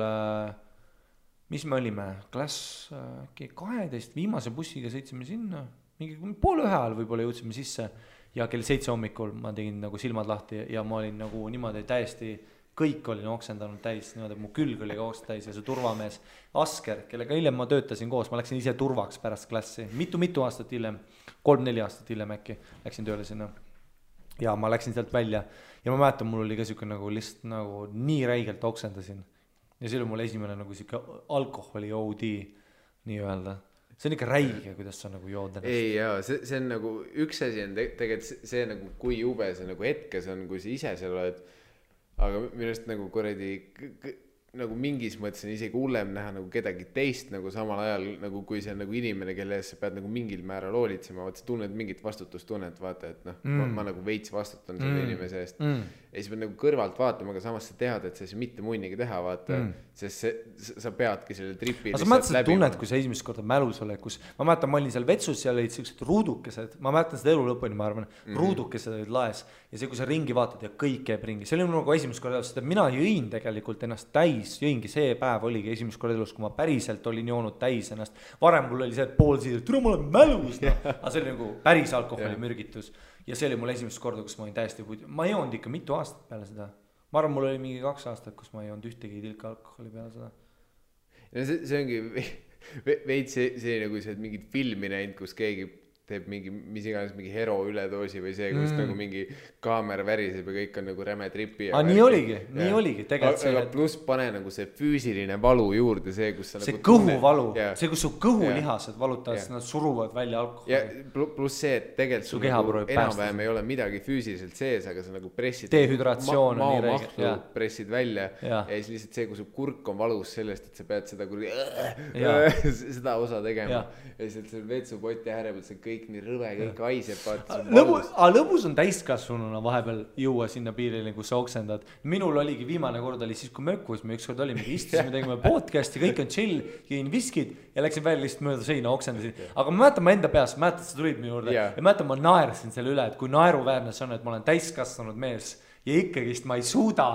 mis me olime, klass 12, viimase bussiga sõitsime sinna, mingi 12:30 ajal võib-olla jõudsime sisse ja kell 7 hommikul ma tegin nagu silmad lahti ja ma olin nagu niimoodi täiesti, kõik olin oksendanud täis, niimoodi, mu külg oli oksend täis ja see turvamees Asker, kellega hiljem ma töötasin koos, ma läksin ise turvaks pärast klassi, mitu aastat hiljem, 3-4 aastat hiljem äkki läksin tööle sinna ja ma läksin sealt välja ja ma mäletan, mul oli ka siuke nagu lihtsalt nagu nii räigelt oksendasin ja see oli mul esimene nagu siuke alkoholi OD nii öelda. See on ikka räige, kuidas sa nagu jood ennast. Ei jaa, see on nagu üks asi on tegelikult see nagu kui jube see nagu hetkes on, kui sa ise seal oled, aga minust nagu kuradi nagu mingis mõttes on isegi hullem näha nagu kedagi teist nagu samal ajal nagu kui see on nagu inimene, kelle ees sa pead nagu mingil määral hoolitsema, vaata sa tunned mingit vastutustunnet, vaata, et ma nagu veits vastutan selle inimese eest ja siis pead nagu kõrvalt vaatama, aga samas sa tead, et see mitte munnigi teha, vaata sest sa peadki selle tripi aga sa mäletad tunnet, kui sa esimest korda mälus oled, kus ma mäletan, ma olin seal vetsus, seal olid sellised ruudukesed, ma mäletan seda elu lõpuni, ma arvan, ruudukesed olid laes ja see, kui sa ringi vaatad ja kõik käib ringi, see oli nagu esimest korda, sest mina jõin tegelikult ennast täis, jõingi see päev oligi esimest korda elus, kui ma päriselt olin joonud täis ennast, varem mul oli see pool siid, et ma olen mälus, aga see oli nagu päris alkoholi mürgitus ja see oli mul esimest korda, kus ma olin täiesti ma ei joonud ikka mitu aastat peale seda, ma arvan, mul oli mingi 2 aastat, kus ma ei joonud ühtegi tilka alkoholi peale seda. Ja see ongi veits see nagu see mingid filmi näinud, kus keegi teeb mingi, mis iganes mingi hero üledoosi või see, kus nagu mingi kaamera väriseb ja kõik on nagu räme tripi. Nii oligi tegelikult see. Aga pluss pane nagu see füüsiline valu juurde, see, kus sa see nagu kõhuvalu, see, kus su kõhulihased valutavad, nad suruvad välja alkoholi. Ja pluss see, et tegelikult sul nagu enam-vähem ei ole midagi füüsiliselt sees, aga sa nagu pressid dehüdratsioon on nii räige. Pressid välja ja siis lihtsalt see, kui su kurk on valus sellest, et sa pead seda seda osa tegema ja siis seal vetsupoti äärepealt see kõik nii rõve, kõik haiseb. Lõbus on täiskasvanuna vahepeal jõua sinna piirile, kus sa oksendad. Minul oligi viimane kord oli siis, kui mökkus me ükskord olime, istusime, tegime podcasti, kõik on chill, jõin viskid ja läksin välja lihtsalt mööda seina, oksendasin. Aga ma mäletan ma enda peas, mäletad, sa tulid minu juurde ja mäletan, ma naersin selle üle, et kui naeruväärne see on, et ma olen täiskasvanud mees ja ikkagist ma ei suuda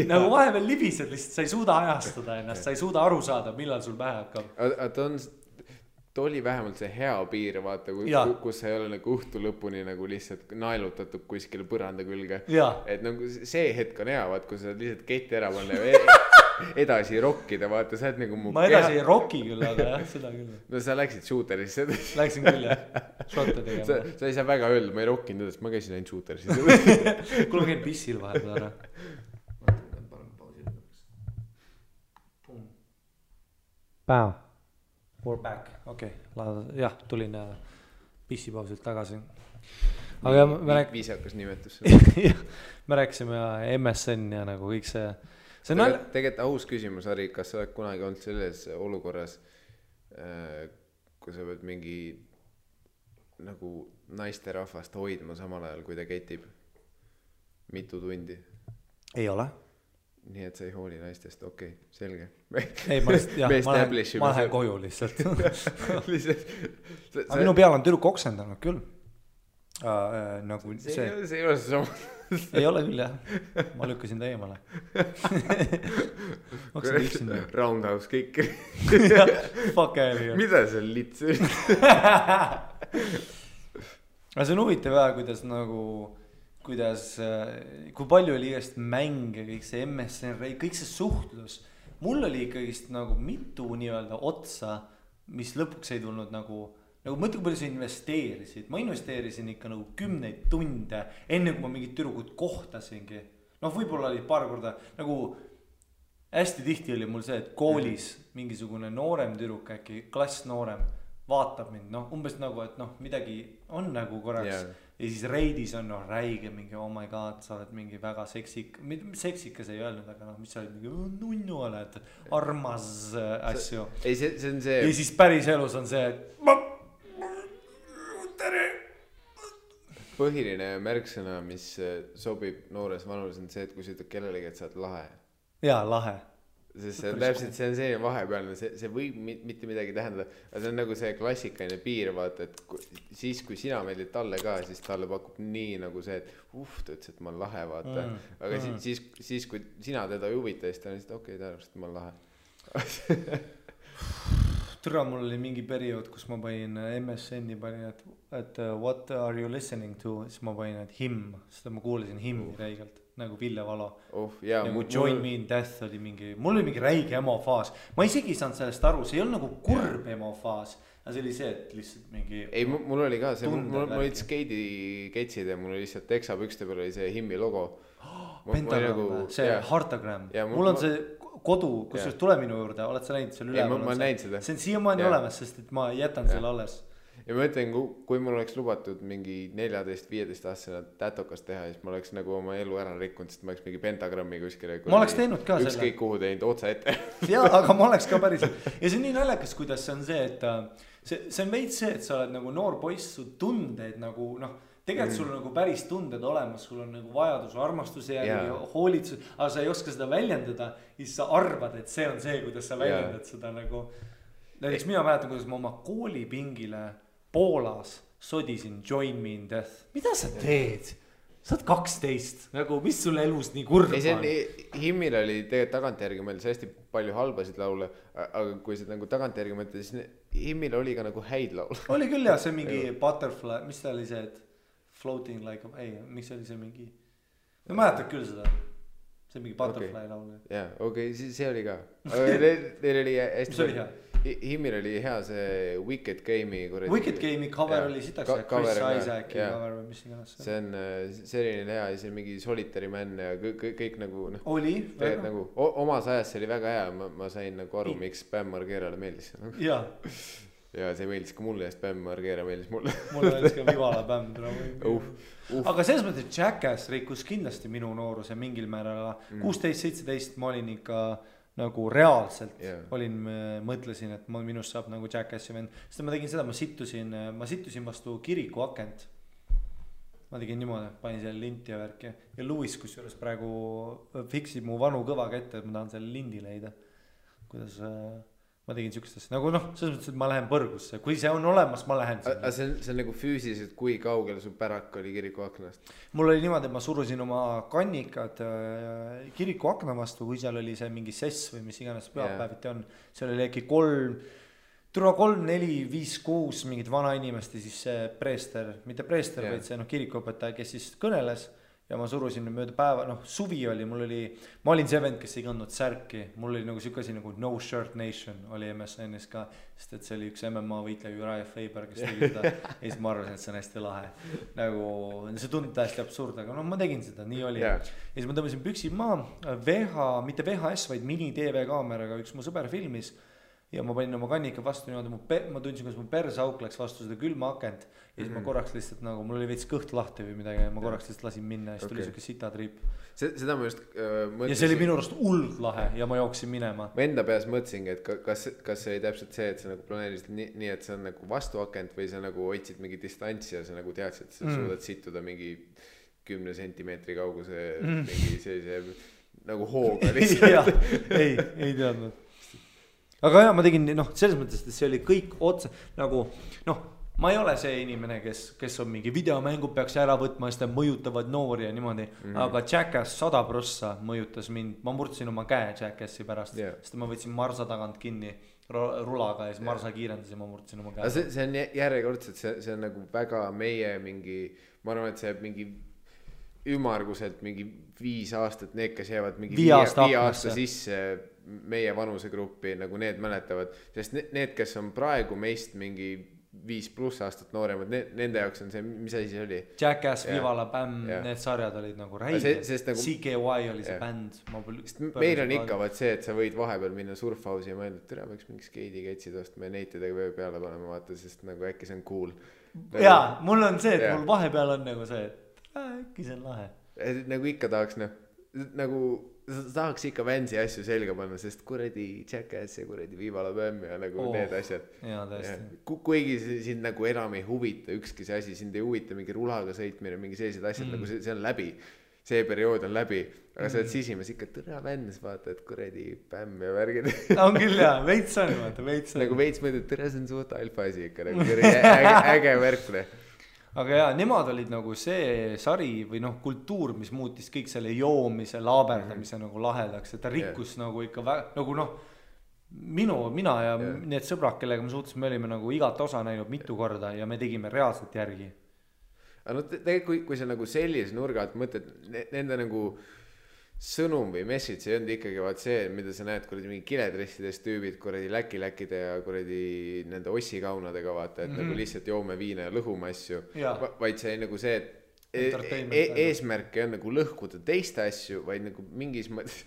nagu vahepeal libised lihtsalt, sa ei suuda ajastada ennast, sa ei suuda aru saada, millal sul pähe hakkab. Ta oli vähemalt see hea piir, vaata, kus sa ei ole nagu õhtu lõpuni nagu lihtsalt naelutatud kuskile põranda külge. Et nagu see hetk on hea, vaat, kui sa lihtsalt keti ära panna ja edasi rokkida, vaata, sa oled nagu mu ma edasi ei rocki küll, aga jah, seda küll. No sa läksid shooterisse. Läksin küll, jah. Šotte tegema. Sa ei saa väga öelda, ma ei rockinud edasi, ma käisin ainult shooterisse. Kuule, käin pissil vahepeal ära. Päev. We're back, okei, jah, tulin pissipausilt tagasi. Aga viisakas nimetus. Me rääkisime MSN ja nagu kõik see tegelikult aus küsimus, Harri, kas sa oled kunagi olnud selles olukorras, kui sa pead mingi nagu naiste rahvast hoidma samal ajal, kui ta ketib mitu tundi? Ei ole. Nii et sa ei hooli naistest, okei, selge. Ei, ma lähen koju lihtsalt. Aga minu peal on tüdruk oksendanud küll. Nagu see ei ole see sama. Ei ole küll, jah. Ma lükkasin ta eemale. Roundhouse kick. Fuck ääri. Mida see on lits? Aga see on huvitav jah, kuidas kui palju oli igast mänge, kõik see MSN, kõik see suhtlus. Mul oli ikkagist nagu mitu nii-öelda otsa, mis lõpuks ei tulnud nagu mõtle, kui palju sa investeerisid. Ma investeerisin ikka nagu 10 tunde, enne kui ma mingid tüdrukud kohtasingi. Võib-olla oli paar korda, nagu hästi tihti oli mul see, et koolis mingisugune noorem tüdruk, äkki klass noorem, vaatab mind, umbes nagu, et midagi on nagu korraks. Ja siis reidis on räige mingi, oh my god, sa oled mingi väga seksikas ei öelnud, aga mis sa oled mingi nunnu oled, armas asju. Ei, see on see. Ja siis päris elus on see, tere. Põhiline märksõna, mis sobib noores vanus on see, et kui sa ütled kellelegi, et sa oled lahe. Jaa, lahe. sest see on täpselt, see on see vahepealne, see võib mitte midagi tähendada, aga see on nagu see klassikaline piir, vaata, et siis kui sina meeldid talle ka, siis talle pakub nii nagu see, et ta ütles, et ma olen lahe, vaata. Aga siis kui sina teda ei huvita, siis ta on lihtsalt okei, ta arvas, et ma olen lahe. Türa, mul oli mingi periood, kus ma panin MSN-i panin, et what are you listening to, siis ma panin, et him, seda ma kuulasin himmi räigelt, nagu Ville Valo. Nagu Join Me in Death oli mingi, mul oli mingi räige emofaas. Ma isegi ei saanud sellest aru, see ei olnud nagu kurb emofaas, aga see oli see, et lihtsalt mingi... Ei, mul oli ka see, mul olid skeidiketsid ja mul oli lihtsalt teksapükste peal oli see himmi logo. Pentagram, see Heartagram. Mul on see kodu, kus tuleb minu juurde, oled sa näinud seal üleval? Ma näin seda. See on siiamaani olemas, sest et ma jätan selle alles. Ja ma ütlen, kui mul oleks lubatud mingi 14-15 aastasena tätokas teha, siis ma oleks nagu oma elu ära rikkunud, sest ma oleks mingi pentagrammi kuskile. Ma oleks teinud ka selle. Ükskõik kuhu teinud otsa ette. Jaa, aga ma oleks ka päriselt. Ja see on nii naljakas, kuidas see on see, et see on veits see, et sa oled nagu noor poiss, su tundeid nagu tegelikult sul on nagu päris tunded olemas, sul on nagu vajadus armastuse järgi, hoolitsus, aga sa ei oska seda väljendada, siis sa arvad, et see on see, kuidas sa väljendad seda nagu. Näiteks mina mäletan, kuidas ma oma koolipingile Poolas sodisin Join Me in Death. Mida sa teed? Sa oled 12, nagu mis sul elus nii kurb on? Himmil oli tegelikult tagantjärgi mõeldes hästi palju halbasid laule, aga kui sa nagu tagantjärgi mõeldes, siis Himmil oli ka nagu häid laule. Oli küll jah, see mingi Butterfly, mis ta oli see, et Floating like a... Ei, miks oli see mingi... Ma mäletad küll seda. See mingi Butterfly laul. Jaa, okei, see oli ka. Neil oli hästi... Mis oli hea? Himmil oli hea see Wicked Game'i Wicked Game'i cover oli sitaks Chris Isaaci cover või mis iganes. See oli hea ja see mingi Solitary Man ja kõik nagu oli väga nagu omas ajas see oli väga hea, ma sain nagu aru, miks Bam Margerale meeldis ja see meeldis ka mulle ja Bam Margera meeldis mulle meeldis ka Vivala Bam aga selles mõttes Jackass rikkus kindlasti minu nooruse mingil määral 16-17 ma olin ikka nagu reaalselt olin, mõtlesin, et minust saab nagu Jackassi vend, sest ma tegin seda, ma situsin vastu kiriku akent. Ma tegin niimoodi, panin selle linti ja värki ja Louis, kus juures praegu fiksib mu vanu kõvaga ette, et ma tahan selle lindi leida. Kuidas ma tegin siukestest, nagu selles mõttes, et ma lähen põrgusse, kui see on olemas, ma lähen sinna. See on nagu füüsiliselt, kui kaugel su pärak oli kiriku aknast? Mul oli niimoodi, et ma surusin oma kannikad kiriku akna vastu, kui seal oli see mingi sess või mis iganes pühapäeviti on. Seal oli äkki 3, 4, 5, 6 mingid vana inimest ja siis see preester, mitte preester, vaid see kirikuõpetaja, kes siis kõneles. Ja ma surusin mööda päeva, suvi oli, ma olin see vend, kes ei kandnud särki, mul oli nagu siuke asi nagu No Shirt Nation oli MSN-is ka, sest et see oli üks MMA võitleja Uriah Faber, kes tegi seda ja siis ma arvasin, et see on hästi lahe. Nagu, see tundub täiesti absurd, aga ma tegin seda, nii oli. Ja siis ma tõmbasin püksid maa, mitte VHS, vaid mini-TV kaameraga, üks mu sõber filmis ja ma panin oma kannika vastu niimoodi, ma tundsin, kuidas mu persauk läks vastu seda külma akent ja siis ma korraks lihtsalt nagu, mul oli veits kõht lahti või midagi ja ma korraks lihtsalt lasin minna ja siis tuli siuke sitatriip. Seda ma just mõtlesin. Ja see oli minu arust hullult lahe ja ma jooksin minema. Ma enda peas mõtlesingi, et kas see oli täpselt see, et sa nagu planeerisid nii, et see on nagu vastu akent või sa nagu hoidsid mingi distantsi ja sa nagu teadsid, et sa suudad situda mingi 10 sentimeetri kauguse mingi sellise nagu hooga lihtsalt. ei teadnud. Aga jah, ma tegin, selles mõttes, et see oli kõik otsa, nagu, ma ei ole see inimene, kes on mingi videomängud peaks ära võtma, sest mõjutavad noori ja niimoodi, aga Jackass 100% mõjutas mind, ma murdsin oma käe Jackassi pärast, sest ma võtsin marsa tagant kinni rulaga ja siis marsa kiirendas ja ma murdsin oma käe. See on järjekordselt, see on nagu väga meie mingi, ma arvan, et see mingi ümmarguselt mingi 5 aastat, need, kes jäävad mingi 5 aasta sisse meie vanusegruppi, nagu need mäletavad, sest need, kes on praegu meist mingi 5+ aastat nooremad, nende jaoks on see, mis asi see oli? Jackass, Vivala, Bam, need sarjad olid nagu räiged, nagu, CKY oli see bänd. Meil on ikka vaat see, et sa võid vahepeal minna surfhausi ja mõelda, et tere, võiks mingi skeidiketsid ostma ja neitidega vöö peale panema, vaata, sest nagu äkki see on cool. Jaa, mul on see, et mul vahepeal on nagu see, et äkki see on lahe. Nagu ikka tahaks, nagu tahaks ikka Vansi asju selga panna, sest kuradi Jackass ja kuradi Vivala Bam ja nagu need asjad. Jaa, tõesti. Kuigi sind nagu enam ei huvita ükski see asi, sind ei huvita mingi rulaga sõitmine, mingi sellised asjad, nagu see on läbi. see periood on läbi, aga sa oled sisimas ikka tõra vännes, vaata, et kuradi pämm ja värgid. On küll jah, veits on, vaata, veits on. Nagu veits mõtled, tõra see on suht alfa asi ikka, nagu äge värkne. Aga jaa, nemad olid nagu see sari või noh, kultuur, mis muutis kõik selle joomise, laaberdamise nagu lahedaks, et ta rikkus nagu ikka nagu noh, mina ja need sõbrad, kellega me suhtes, me olime nagu igat osa näinud mitu korda ja me tegime reaalselt järgi. Aga no tegelikult, kui sa nagu sellise nurga alt mõtled, nende nagu sõnum või message ei olnud ikkagi vaat see, mida sa näed kuradi mingi kiledressides tüübid kuradi läkide ja kuradi nende ossikaunadega vaata, et nagu lihtsalt joome viina ja lõhume asju, vaid see nagu see, et eesmärk ei on nagu lõhkuda teiste asju, vaid nagu mingis mõttes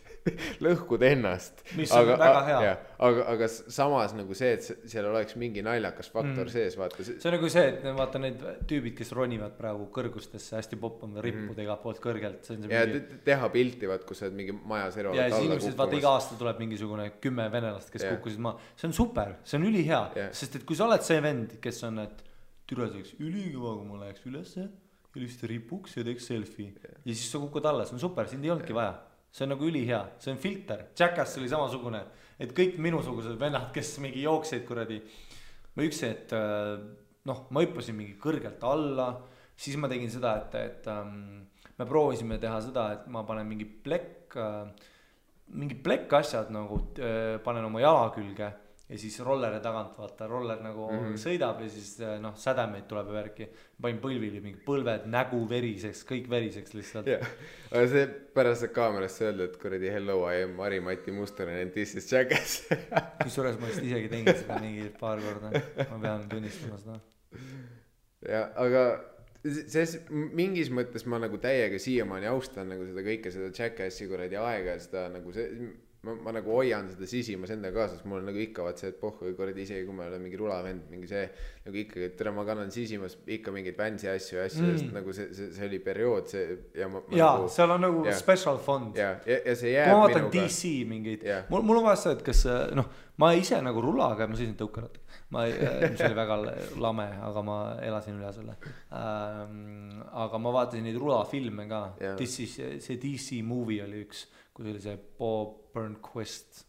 lõhkuda ennast. Mis on väga hea. Aga samas nagu see, et seal oleks mingi naljakas faktor sees, vaata. See on nagu see, et vaata need tüübid, kes ronivad praegu kõrgustesse, hästi poppama rippud igalt poolt kõrgelt. Ja teha pilti, vaat, kus sa oled mingi maja serval. Ja siis inimesed, vaata, iga aasta tuleb mingisugune 10 venelast, kes kukkusid maa. See on super, see on ülihea. Sest et kui sa oled see vend, kes on, et türaseks ülikõva, kui ma läheks ülesse, ja lihtsalt ripuks ja teeks selfie. Ja siis sa kukud alla, see on super, sind ei olnudki vaja. See on nagu ülihea, see on filter. Jackass oli samasugune, et kõik minusugused vennad, kes mingi jookseid kuradi. Ma üksi, et noh, ma hüppasin mingi kõrgelt alla, siis ma tegin seda, et me proovisime teha seda, et ma panen mingi plekk asjad nagu panen oma jala külge ja siis rolleri tagant, vaata, roller nagu sõidab ja siis noh, sädemeid tuleb ja värki. Panin põlvili mingi põlved, nägu veriseks, kõik veriseks lihtsalt. Aga see pärast kaamerast öelda, et kuradi hello, I am Mari-Mati Mustonen and this is Jackass. Kusjuures ma vist isegi tegin seda mingi paar korda, ma pean tunnistama seda. Ja, aga mingis mõttes ma nagu täiega siiamaani austan nagu seda kõike, seda Jackassi kuradi aega ja seda nagu see ma nagu hoian seda sisimas enda kaasas, mul on nagu ikka vaat see, et pohhu korrad isegi, kui ma olen mingi rulavend, mingi see nagu ikkagi, et tere, ma kannan sisimas ikka mingeid vänsi asju, sest nagu see oli periood see ja nagu, seal on nagu special fond. Ja see jääb minuga. Ma vaatan DC mingeid, mul on vaja seda, et kas noh, ma ise nagu rulaga, ma sõisin tõukarat, mis oli väga lame, aga ma elasin üle selle. Aga ma vaatasin neid rulafilme ka, see DC movie oli üks, kui oli see Bob Burnquist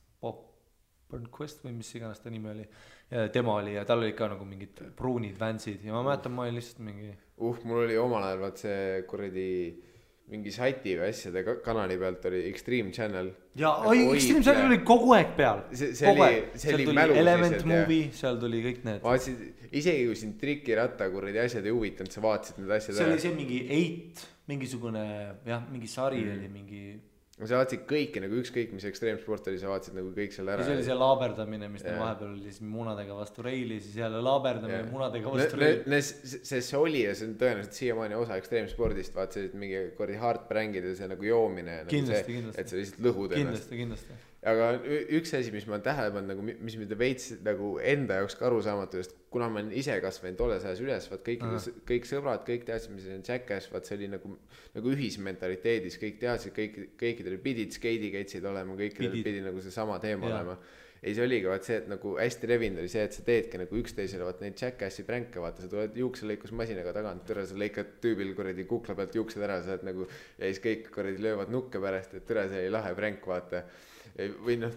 või mis iganes ta nimi oli ja tema oli ja tal oli ka nagu mingid pruunid vänsid ja ma mäletan, ma olin lihtsalt mingi mul oli omal ajal vaat see kuradi mingi sati või asjade kanali pealt oli Extreme Channel ja Extreme Channel oli kogu aeg peal see oli mälu Element Movie, seal tuli kõik need isegi kui sind trikiratta kuradi asjad ei huvitanud, sa vaatasid need asjad see oli see mingi 8 mingisugune mingi sari oli mingi sa vaatasid kõiki nagu ükskõik mis ekstreemsport oli, sa vaatasid nagu kõik seal ära. Ja see oli see laaberdamine, mis vahepeal oli siis munadega vastu reili, siis jälle laaberdamine munadega vastu reili. See oli ja see on tõenäoliselt siiamaani osa ekstreemspordist, vaat see mingi kordi hardbrängid ja see nagu joomine. Kindlasti. Et sa lihtsalt lõhud ennast. Kindlasti. Aga üks asi, mis ma olen tähele pannud, nagu, mis mida veits nagu enda jaoks ka arusaamatu, sest kuna ma olen ise kasvanud tolles ajas üles, vaat kõik sõbrad, kõik teadsid, mis on Jackass, vaat see oli nagu ühismentaliteedis, kõik teadsid, kõikidel pidid skeidikeitsid olema, kõikidel pidi nagu see sama teema olema. Ei, see oligi vaat see, et nagu hästi revinud oli see, et sa teedki nagu üksteisele vaat neid Jackassi pränke, vaata, sa tuled juukselõikusmasinaga tagant, türa sa lõikad tüübil kuradi kukla pealt juuksed ära, sa oled nagu, ja siis kõik kuradi löövad nukke pärast, et türa see oli lahe pränk, vaata. Või noh,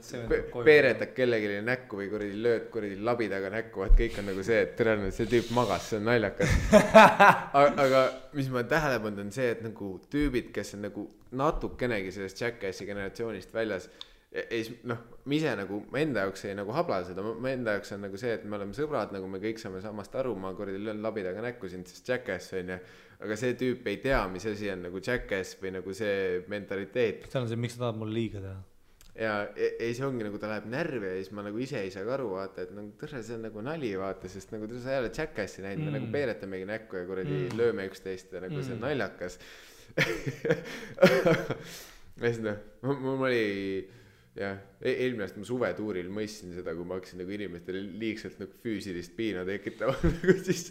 peeretad kellegile näkku või kuradi lööd kuradi labidaga näkku, et kõik on nagu see, et tõenäoliselt see tüüp magas, see on naljakas. Aga mis ma tähele pannud on see, et nagu tüübid, kes on nagu natukenegi sellest Jackassi generatsioonist väljas, noh, ma ise nagu, ma enda jaoks ei nagu habla seda, ma enda jaoks on nagu see, et me oleme sõbrad, nagu me kõik saame samast aru, ma kuradi löön labidaga näkku sind, sest Jackass on ja, aga see tüüp ei tea, mis asi on nagu Jackass või nagu see mentaliteet. See on see, miks sa tahad mulle liiga teha? Ja ei see ongi nagu ta läheb närvi ja siis ma nagu ise ei saa aru vaata, et nagu tõrre see on nagu nali vaata, sest nagu tõrre sa ei ole Jackassi näinud, me nagu peeretamegi näkku ja kuradi lööme üksteist ja nagu see on naljakas. Ja siis noh, mul oli jah, eelmine aasta ma suvetuuril mõistsin seda, kui ma hakkasin nagu inimestele liigselt nagu füüsilist piina tekitama, siis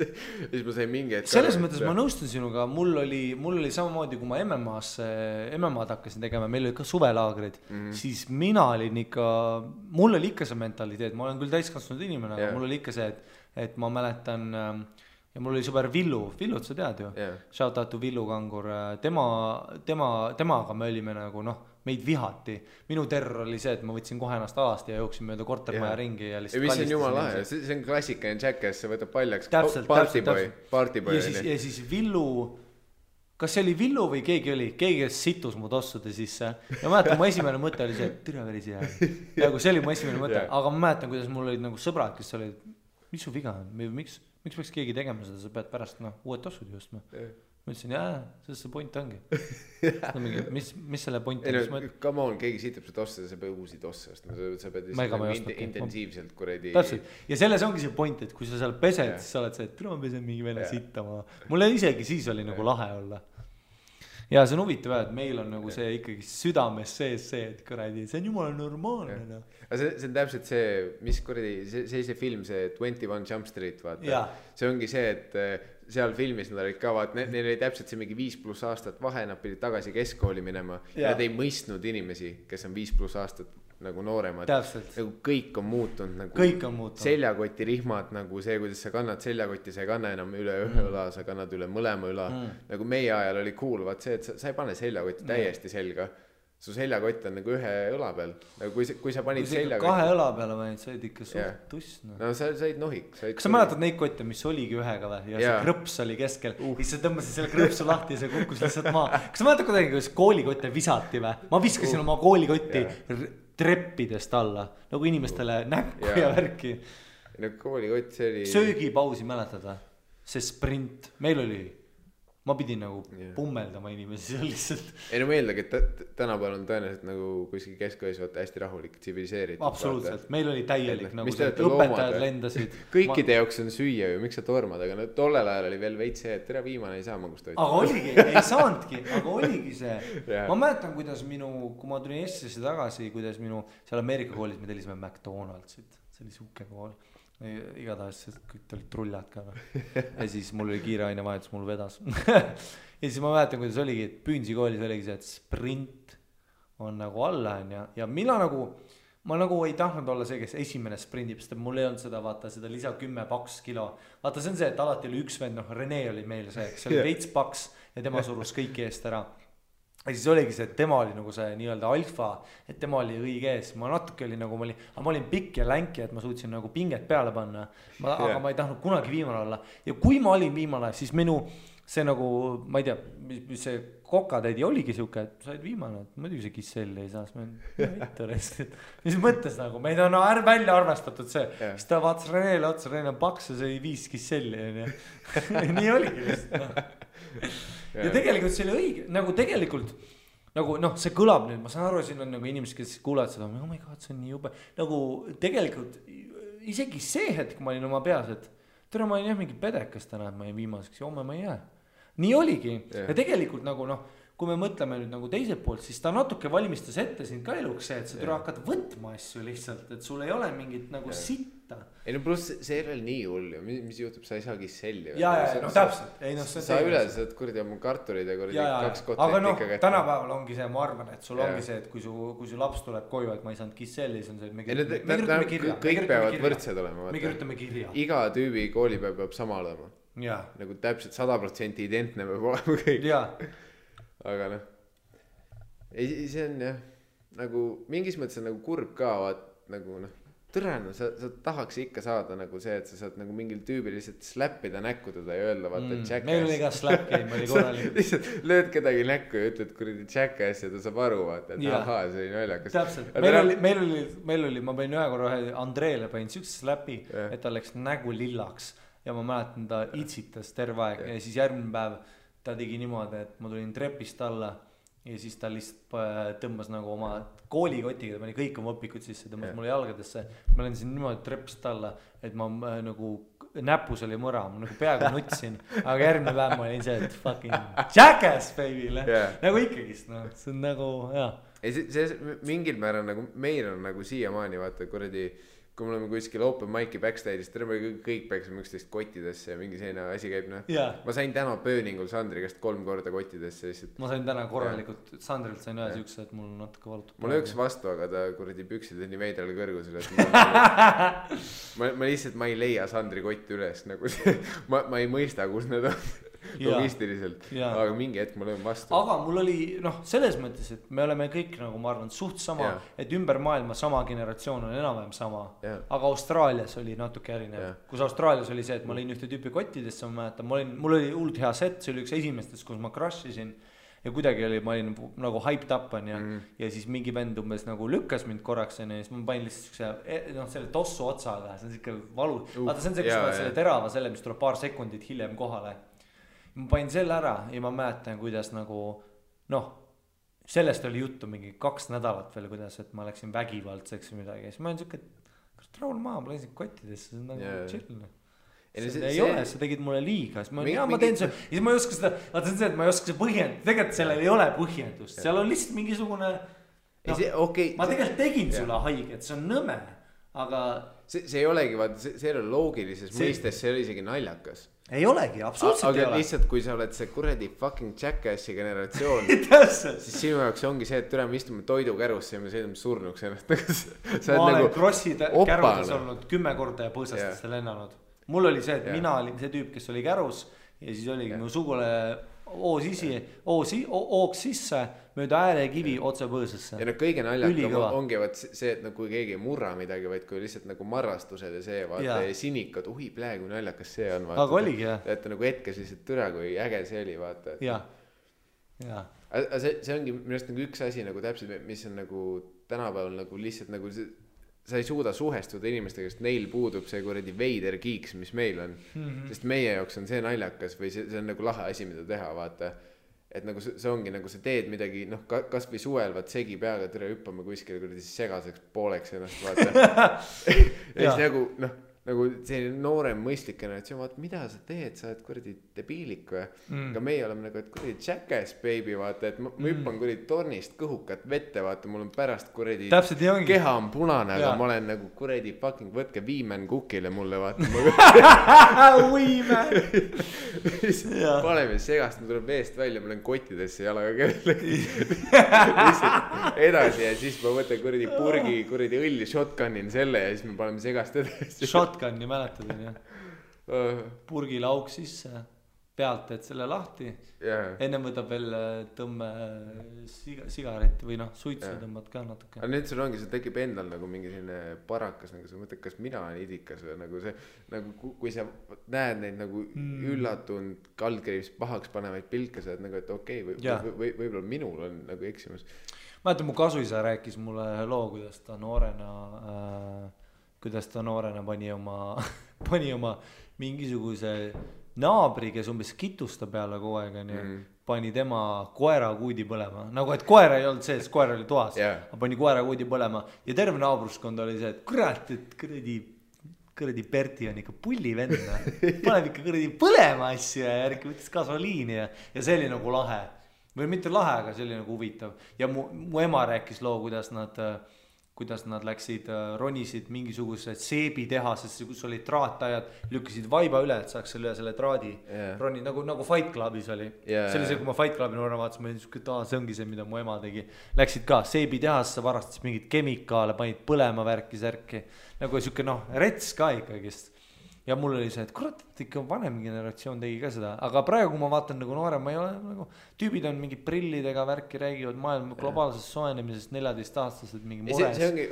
ma sain mingi hetk selles mõttes ma nõustun sinuga, mul oli samamoodi, kui ma MMA'd hakkasin tegema, meil oli ka suvelaagrid, siis mina olin ikka, mul oli ikka see mentaliteet, ma olen küll täiskasvanud inimene, aga mul oli ikka see, et ma mäletan, ja mul oli sõber Villut sa tead ju yeah. Shout out to Villu Kangur, temaga me olime nagu meid vihati, minu terror oli see, et ma võtsin kohe ennast alast ja jooksin mööda kortermaja ringi ja lihtsalt mis on jumala lahe, see on klassikaline Jackass, see võtab paljaks partyboy ja siis Villu, kas see oli Villu või keegi kes situs mu tossude sisse ja ma mäletan, mu esimene mõte oli see, et türa veris jää nagu see oli mu esimene mõte yeah. Aga ma mäletan, kuidas mul olid nagu sõbrad, kes olid, mis su viga on, miks peaks keegi tegema seda, sa pead pärast uued tossud justma yeah. Ma ütlesin, sellest see point ongi mis selle point on? Come on, keegi sitab su tosse, sa pead uusi tosse ostma, sa pead intensiivselt kuradi ja selles ongi see point, et kui sa seal pesed yeah. Siis sa oled see, et ma pesen mingi vene yeah. Sittama mulle isegi siis oli nagu lahe olla ja see on huvitav, et meil on nagu see ikkagi südames sees see, et kuradi, see on jumala normaalne no. See on täpselt see, mis kuradi, see film, see 21 Jump Street, vaata yeah. See ongi see, et seal filmis nad olid ka, vaat neil oli täpselt see mingi 5+ aastat vahe, nad pidid tagasi keskkooli minema yeah. Ja nad ei mõistnud inimesi, kes on 5+ aastat nagu nooremad nagu kõik on muutunud nagu seljakoti rihmad nagu see, kuidas sa kannad seljakotti, sa ei kanna enam üle ühe õla, sa kannad üle mõlema õla nagu meie ajal oli cool, vaat see, et sa ei pane seljakotti täiesti selga su seljakott on nagu ühe õla peal nagu kui sa panid seljakotti kahe õla peale panid, sa olid ikka suht tuss no sa olid nohik kas sa mäletad neid kotte, mis oligi ühega või ja see krõps oli keskel siis sa tõmbasid selle krõpsu lahti ja see kukkus lihtsalt maa kas sa mäletad kuidagi, kuidas koolikotte visati või ma viskasin oma koolikotti treppidest alla nagu inimestele näkku ja värki no koolikott see oli söögipausi mäletad või see sprint meil oli ma pidin nagu pummeldama inimesi seal lihtsalt ei no ma eeldagi, et tänapäeval on tõenäoliselt nagu kuskil keskkoolis vaata hästi rahulik, tsiviliseeritud absoluutselt, meil oli täielik nagu see, õpetajad lendasid kõikide jaoks on süüa ju, miks sa tormad, aga no tollel ajal oli veel veits see, et tere viimane ei saa magustoitu aga oligi, ei saanudki, aga oligi see ma mäletan, kuidas kui ma tulin Eestisse tagasi, kuidas seal Ameerika koolis me tellisime McDonaldsit see oli suke kool igatahes kõik olid trullad ka ja siis mul oli kiire ainevahetus, mul vedas ja siis ma mäletan, kuidas oligi, et Püünsi koolis oligi see, et sprint on nagu alla ja mina nagu ma nagu ei tahtnud olla see, kes esimene sprindib, sest mul ei olnud seda, vaata seda lisa 10 paks kilo vaata see on see, et alati oli üks vend, Rene oli meil see, kes oli veits paks ja tema surus kõiki eest ära ja siis oligi see, et tema oli nagu see nii-öelda alfa, et tema oli õige ees, ma natuke oli nagu, ma olin pikk ja länki, et ma suutsin nagu pinget peale panna, aga ma ei tahtnud kunagi viimane olla ja kui ma olin viimane, siis minu see nagu, ma ei tea, mis see kokatäidi oligi siuke, et sa olid viimane, et muidugi see Kisselli ei saa, mis mõttes nagu, meid on välja arvestatud see, siis ta vaatas Renele otsa, Rene on paks ja see oli 5 Kisselli nii oligi lihtsalt ja tegelikult see oli õige, nagu tegelikult nagu see kõlab nüüd, ma saan aru, siin on nagu inimesed, kes kuulevad seda, oh my god, see on nii jube nagu tegelikult isegi see hetk ma olin oma peas, et tere, ma olin jah mingi pedekas täna, et ma jäin viimaseks ja homme ma ei jää nii oligi ja tegelikult nagu kui me mõtleme nüüd nagu teiselt poolt, siis ta natuke valmistas ette sind ka eluks see, et sa tule hakkad võtma asju lihtsalt, et sul ei ole mingit nagu sitta. Ei no pluss see ei ole nii hull ju, mis juhtub, sa ei saa Kisselli. Ja no täpselt. Sa üle saad kuradi oma karturid ja kuradi 2 kotti. Aga tänapäeval ongi see, ma arvan, et sul ongi see, et kui su laps tuleb koju, et ma ei saanud Kisselli, siis on see, et me kirjutame kirja. Kõik peavad võrdsed olema. Me kirjutame kirja. Iga tüübi koolipäev peab sama olema. Nagu täpselt 100% identne peab olema kõik. Aga see on jah nagu mingis mõttes on nagu kurb ka vaat nagu tõrena sa tahaks ikka saada nagu see, et sa saad nagu mingil tüübil lihtsalt släppida näkku teda ja öelda vaata Jackass. Meil oli ka slap game oli korralik. Lihtsalt lööd kedagi näkku ja ütled kuradi Jackass ja ta saab aru vaata, et ahaa, see oli naljakas. Täpselt, meil oli, ma panin ühe korra Andreele panin siukse slapi, et ta läks nägu lillaks ja ma mäletan, ta itsitas terve aeg ja siis järgmine päev ta tegi niimoodi, et ma tulin trepist alla ja siis ta lihtsalt tõmbas nagu oma koolikotiga, ta pani kõik oma õpikud sisse, tõmbas mulle jalgadesse. Ma lendasin niimoodi trepist alla, et ma nagu näpus oli mõra, ma nagu peaaegu nutsin, aga järgmine päev ma olin see, et fucking Jackass baby'le, nagu ikkagist, see on nagu, See mingil määral nagu meil on nagu siiamaani vaata kuradi kui me oleme kuskil open mic'i backstage'is, me kõik peaksime üksteist kottidesse ja mingi selline asi käib, noh. Ma sain täna pööningul Sandri käest 3 korda kottidesse lihtsalt. Ma sain täna korralikult, Sandrilt sain ühe siukse, et mul natuke valutab. Mul üks vastu, aga ta kuradi püksid on nii veidrale kõrgusele, et ma lihtsalt, ma ei leia Sandri kotti üles, nagu see, ma ei mõista, kus need on. Logistiliselt, aga mingi hetk ma löön vastu. Aga mul oli, selles mõttes, et me oleme kõik, nagu ma arvan, suht sama, et ümber maailma sama generatsioon on enam-vähem sama, aga Austraalias oli natuke erinev. Kus Austraalias oli see, et ma lõin ühte tüüpi kottidesse, ma mäletan, mul oli hullult hea set, see oli üks esimestest, kus ma crashisin ja kuidagi oli, ma olin nagu hyped up on ja siis mingi vend umbes nagu lükkas mind korraks ja siis ma panin lihtsalt selle tossu otsaga, see on siuke valu, vaata see on see, kus ma selle terava selle, mis tuleb paar sekundit hiljem kohale. Ma panin selle ära ja ma mäletan, kuidas nagu, sellest oli juttu mingi 2 nädalat veel, kuidas, et ma läksin vägivaldseks või midagi. Siis ma olin siuke, kas rahul maha, ma läksin kottidesse, see on nagu chill. Ei ole, sa tegid mulle liiga, siis ma teen see, siis ma ei oska seda, vaata see on see, et ma ei oska see põhjendust, tegelikult sellel ei ole põhjendust, seal on lihtsalt mingisugune, ma tegelikult tegin sulle haiget, see on nõme, aga see ei olegi, vaata, see ei ole loogilises mõistes, see ei ole isegi naljakas. Ei olegi, absoluutselt ei ole. Aga lihtsalt, kui sa oled see kuradi fucking jackassi generatsioon, siis sinu jaoks ongi see, et me istume toidukärusse ja me sõidame surnuks ennast. Ma olen Krossi kärudes olnud 10 korda ja põõsastesse lennanud. Mul oli see, et mina olin see tüüp, kes oli kärus ja siis oligi mu sugule ooks sisse mööda äärekivi otse põõsasse. Ja kõige naljakam ongi see, et kui keegi ei murra midagi, vaid kui lihtsalt nagu marrastused ja see, vaata ja sinikad, praegu naljakas see on. Aga oligi, jah. Et nagu hetkes lihtsalt türa, kui äge see oli, vaata. See ongi minust nagu üks asi nagu täpselt, mis on nagu tänapäeval nagu lihtsalt nagu sa ei suuda suhestuda inimestega, sest neil puudub see kuradi veider kiiks, mis meil on. Sest meie jaoks on see naljakas või see on nagu lahe asi, mida teha, vaata. Et nagu see ongi nagu sa teed midagi, kas või suvel, vaat segi peaga türa hüppame kuskile kuradi segaseks pooleks ennast, vaata. Ja siis nagu selline noorem mõistlik generatsioon, vaata, mida sa teed, sa oled kuradi debiilik või? Aga meie oleme nagu, et kuradi jackass baby, vaata, et ma hüppan kuradi tornist kõhukat vette, vaata, mul on pärast kuradi keha on punane, aga ma olen nagu kuradi fucking võtke Viimen kukile mulle, vaata. Viimen! Paneme segast, ma tuleb veest välja, ma olen kottidesse jalaga kellelegi. Edasi ja siis ma võtan kuradi purgi, kuradi õlli shotgunin selle ja siis me paneme segast edasi. Shotgunni mäletad, on jah? Purgile auk sisse, pealt, et selle lahti. Enne võtab veel tõmme sigaret või suitsu tõmbad ka natuke. Aga nüüd sul ongi, see tekib endal nagu mingi selline parakas, nagu sa mõtled, kas mina olen idikas või nagu see, nagu kui sa näed neid nagu üllatunud kaldkriivis pahaks panevaid pilke, sa oled nagu, et okei, võib-olla minul on nagu eksimus. Mäletan, mu kasuisa rääkis mulle loo, kuidas ta noorena pani oma mingisuguse naabri, kes umbes kitusta peale kogu aeg, pani tema koera kuudi põlema. Nagu, et koera ei olnud sees, koera oli toas. Aga pani koera kuudi põlema. Ja terve naabruskond oli see, et kurat, et kõradi Berti on ikka pulli venna. Paneb ikka kõradi põlema asju ja järgi võttis gasoliini ja see oli nagu lahe. Või mitte lahe, aga see oli nagu huvitav. Ja mu ema rääkis loo, kuidas nad läksid, ronisid mingisugused seebitehasesse, kus olid traatajad, lükkasid vaiba üle, et saaks selle traadi roni, nagu Fight Clubis oli. See oli see, kui ma Fight Clubi noorena vaatasin, ma olin, et see ongi see, mida mu ema tegi. Läksid ka seebitehasse, varastas mingid kemikaale, panid põlema värki särki. Nagu siuke rets ka ikkagist. Ja mul oli see, et kurat, et ikka vanem generatsioon tegi ka seda. Aga praegu, kui ma vaatan nagu noorem, ma ei ole nagu, tüübid on mingi prillidega värki, räägivad maailma globaalsest soenemisest 14-aastased mingi mures. See ongi,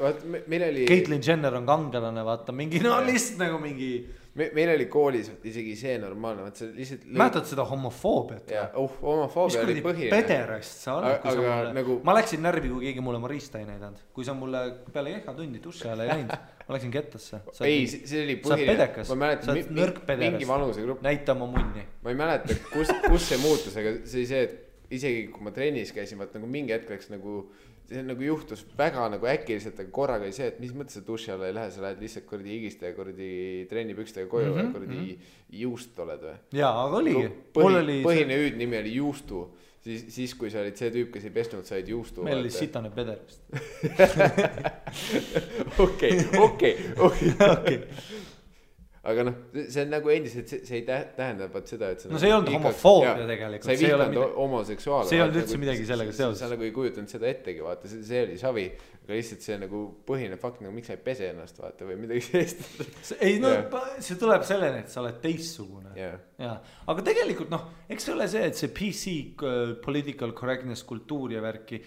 meil oli... Caitlyn Jenner on kangelane, vaata, mingi, lihtsalt nagu mingi... Meil oli koolis isegi see normaalne, vaat see lihtsalt... Mäletad seda homofoobiat? Homofoobia oli põhiline. Mis pederast sa oled, kui sa mulle... Nagu... Ma läksin närvi, kui keegi mulle Marista ei näidanud. Kui sa mulle peale kehatundi tusse ajal ei läinud, ma läksin kettasse. Ei, see oli põhiline. Sa oled pedekas. Ma mäletan, mingi vanusegrupp. Näita oma munni. Ma ei mäleta, kus see muutus, aga see oli see, et isegi kui ma trennis käisin, vaat nagu mingi hetk läks nagu... See nagu juhtus väga nagu äkiliselt, aga korraga oli see, et mis mõttes sa duši alla ei lähe, sa lähed lihtsalt kordi higiste ja kordi trennipükstega koju ja kordi juust oled või? Jaa, aga oligi. Põhine hüüdnimi oli juustu. siis kui sa olid see tüüp, kes ei pesnud, said juustu. Meil oli sitane peder vist. Okei. Aga noh, see on nagu endiselt, see ei tähenda seda, et no see ei olnud homofoobia tegelikult. Sa ei vihkanud homoseksuaale. See ei olnud üldse midagi sellega seoses. Sa nagu ei kujutanud seda ettegi, vaata, see oli savi. Aga lihtsalt see nagu põhine fakt, nagu miks sa ei pese ennast, vaata, või midagi sellist. Ei no, see tuleb selleni, et sa oled teissugune. Ja. Aga tegelikult noh, eks see ole see, et see PC political correctness kultuur ja värki.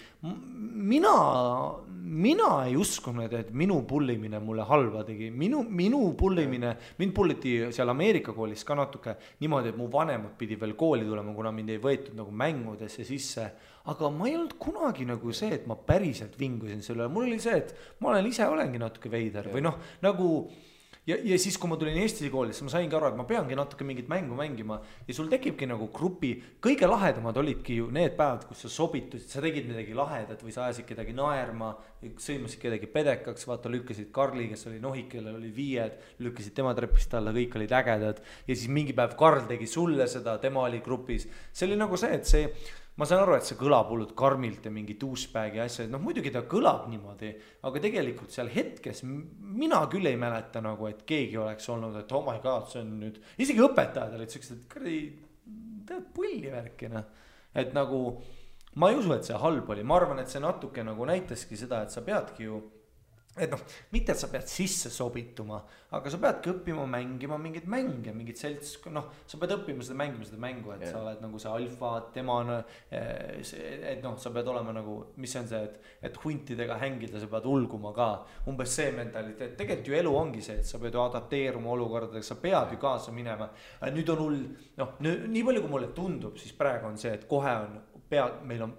Mina ei uskunud, et minu pullimine mulle halva tegi. Minu pullimine, mind pulliti seal Ameerika koolis ka natuke niimoodi, et mu vanemad pidi veel kooli tulema, kuna mind ei võetud nagu mängudesse sisse. Aga ma ei olnud kunagi nagu see, et ma päriselt vingusin selle. Mul oli see, et ma olengi natuke veider või noh, nagu ja siis, kui ma tulin Eesti koolis, ma saingi aru, et ma peangi natuke mingit mängu mängima ja sul tekibki nagu grupi, kõige lahedamad olidki ju need päevad, kus sa sobitusid, sa tegid midagi lahedat või sa ajasid kedagi naerma, sõimasid kedagi pedekaks, vaata lükkasid Karli, kes oli nohik, kellel oli 5, lükkasid tema trepist alla, kõik olid ägedad ja siis mingi päev Karl tegi sulle seda, tema oli grupis. See oli nagu see, et see ma saan aru, et see kõlab hullult karmilt ja mingi douchebagi asja, noh muidugi ta kõlab niimoodi, aga tegelikult seal hetkes mina küll ei mäleta nagu, et keegi oleks olnud, et oh my god, see on nüüd, isegi õpetajad olid sellised, et tead pulli värkina, et nagu ma ei usu, et see halb oli, ma arvan, et see natuke nagu näitaski seda, et sa peadki ju et noh, mitte et sa pead sisse sobituma, aga sa peadki õppima mängima mingid mänge, mingid selts, noh, sa pead õppima seda mängu, et sa oled nagu see alfa, tema, et noh, sa pead olema nagu, mis see on see, et huntidega hängida, sa pead ulguma ka, umbes see mentaliteet, tegelikult ju elu ongi see, et sa pead ju adapteeruma olukordadega, sa pead ju kaasa minema, nüüd on hull, noh, nii palju kui mulle tundub, siis praegu on see, et kohe on, meil on,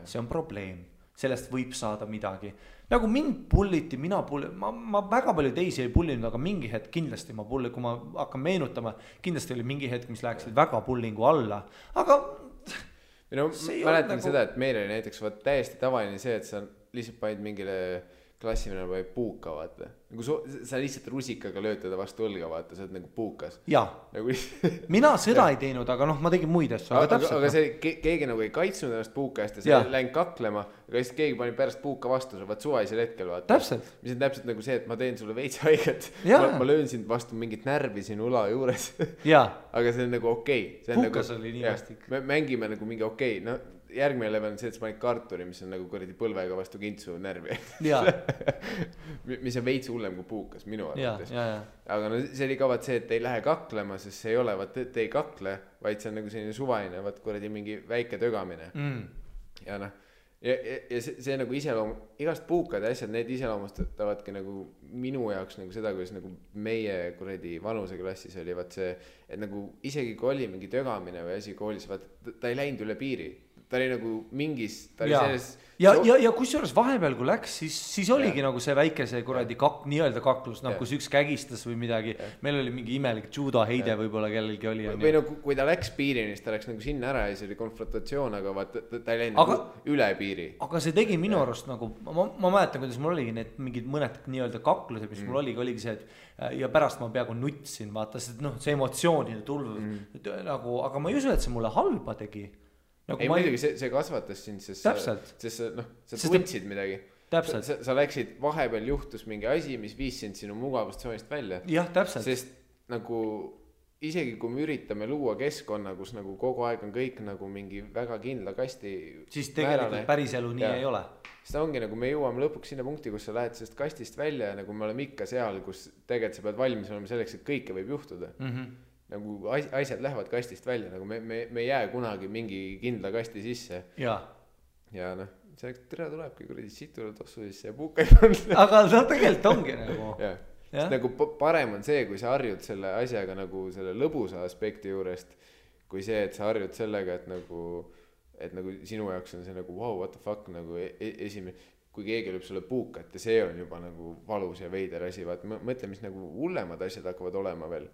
see on probleem, sellest võib saada midagi. Nagu mind pulliti, ma väga palju teisi ei pullinud, aga mingi hetk kindlasti ma pulli, kui ma hakkan meenutama, kindlasti oli mingi hetk, mis läheksid väga pullingu alla, aga no, mäletan nagu seda, et meil oli näiteks täiesti tavaline see, et sa lihtsalt panid mingile klassimine või puuka, vaata. Nagu sa lihtsalt rusikaga löötada vastu õlga, vaata, sa oled nagu puukas. Jaa, nagu mina seda ei teinud, aga noh, ma tegin muid asju. Aga see keegi nagu ei kaitsnud ennast puuka eest ja sa läinud kaklema, aga siis keegi pani pärast puuka vastu, sa vaat suvaisel hetkel, vaata. Täpselt. Mis on täpselt nagu see, et ma teen sulle veits haiget. Ma löön sind vastu mingit närvi sinu ula juures. Aga see on nagu okei. Puukas oli nii vastik. Me mängime nagu mingi okei, no järgmine level on see, et sa panid karturi, mis on nagu kuradi põlvega vastu kintsu närvi. Mis on veits hullem kui puukas minu arvates. Aga no see oli ka vaat see, et ei lähe kaklema, sest see ei ole, vaat et ei kakle, vaid see on nagu selline suvaline, vaat kuradi mingi väike tögamine. Ja noh, ja see nagu igast puukad ja asjad, need iseloomustatavadki nagu minu jaoks nagu seda, kuidas nagu meie kuradi vanuseklassis oli vaat see, et nagu isegi kui oli mingi tögamine või asi koolis, vaat ta ei läinud üle piiri. Ta oli nagu mingis, ta oli selles ja kusjuures vahepeal kui läks, siis oligi nagu see väike see kuradi nii-öelda kaklus, noh kus üks kägistas või midagi, meil oli mingi imelik judo heide võib-olla kellelgi oli või no kui ta läks piirini, siis ta läks nagu sinna ära ja see oli konfrontatsioon, aga vaat ta ei läinud nagu üle piiri. Aga see tegi minu arust nagu, ma mäletan, kuidas mul oligi need mingid mõned nii-öelda kaklused, mis mul oligi see, et ja pärast ma peaaegu nutsin, vaata, sest noh, see emotsioonide tulv nagu, aga ma ei usu, et see mulle halba tegi. Nagu ei muidugi, see kasvatas sind, sest sa tundsid midagi. Sa läksid, vahepeal juhtus mingi asi, mis viis sind sinu mugavustsoonist välja. Jah, täpselt. Sest nagu isegi kui me üritame luua keskkonna, kus nagu kogu aeg on kõik nagu mingi väga kindla kasti siis tegelikult päris elu nii ei ole. Siis ta ongi nagu me jõuame lõpuks sinna punkti, kus sa lähed sellest kastist välja ja nagu me oleme ikka seal, kus tegelikult sa pead valmis olema selleks, et kõike võib juhtuda. Nagu asjad lähevad kastist välja, nagu me ei jää kunagi mingi kindla kasti sisse. Ja noh, selleks tere tulebki kuradi situle tossu sisse ja puuka ei panna. Aga see tegelikult ongi nagu. Sest nagu parem on see, kui sa harjud selle asjaga nagu selle lõbusa aspekti juurest, kui see, et sa harjud sellega, et nagu sinu jaoks on see nagu wow, what the fuck, nagu esimene, kui keegi lööb sulle puukat ja see on juba nagu valus ja veider asi, vaat mõtle, mis nagu hullemad asjad hakkavad olema veel.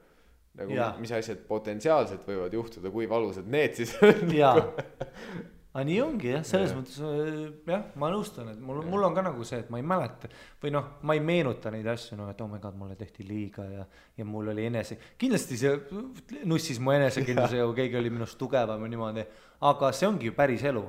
Nagu mis asjad potentsiaalselt võivad juhtuda, kui valusad need siis on. aga nii ongi jah, selles mõttes jah, ma nõustun, et mul on ka nagu see, et ma ei mäleta või noh, ma ei meenuta neid asju, no et oh my god, mulle tehti liiga ja mul oli kindlasti see nussis mu enesekindlusega, kui keegi oli minust tugevam ja niimoodi, aga see ongi ju päris elu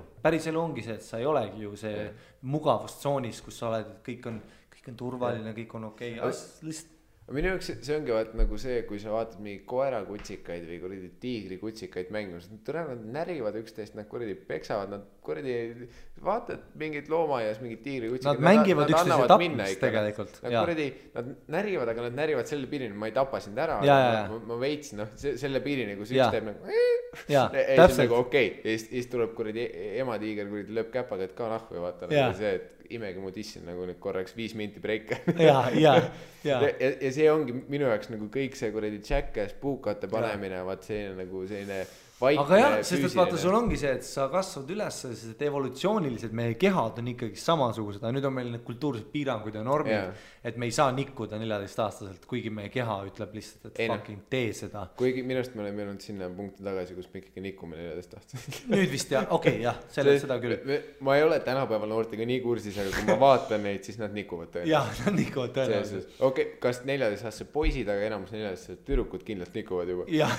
ongi see, et sa ei olegi ju see mugavustsoonis, kus sa oled, et kõik on turvaline, kõik on okei. Lihtsalt minu jaoks see ongi vaat nagu see, kui sa vaatad mingi koerakutsikaid või kuradi tiigrikutsikaid mängimas, nad närivad üksteist, nad kuradi peksavad, nad kuradi vaatad mingit loomaaias, mingit tiigrikutsikaid. Nad mängivad üksteise tapmist tegelikult. Nad kuradi, nad närivad, aga nad närivad selle piirini, ma ei tapa sind ära, ma veitsin, selle piirini, kus üks teeb nagu ei, see on nagu okei. Ja siis tuleb kuradi ematiiger, kuradi lööb käpaga, et ka nahku ja vaata nagu see, et imegi mu dissin nagu nüüd korraks 5 minti breike. Ja see ongi minu jaoks nagu kõik see kuradi Jackass, puukate panemine, vaat selline nagu selline vaikne aga jah, sest et vaata, sul ongi see, et sa kasvad üles, sest et evolutsiooniliselt meie kehad on ikkagi samasugused, aga nüüd on meil need kultuursed piirangud ja normid, et me ei saa nikkuda 14-aastaselt, kuigi meie keha ütleb lihtsalt, et fucking tee seda. Kuigi minust me oleme jõudnud sinna punkti tagasi, kus me ikkagi nikume 14-aastaselt. Nüüd vist jah, okei, jah, seda küll. Ma ei ole tänapäeval noortega nii kursis, aga kui ma vaatan neid, siis nad nikuvad tõenäoliselt. Jah, nad nikuvad tõenäoliselt. Okei, kas 14-aastased poisid, aga enamus 14-aastased tüdrukud kindlalt nikuvad juba. Jah,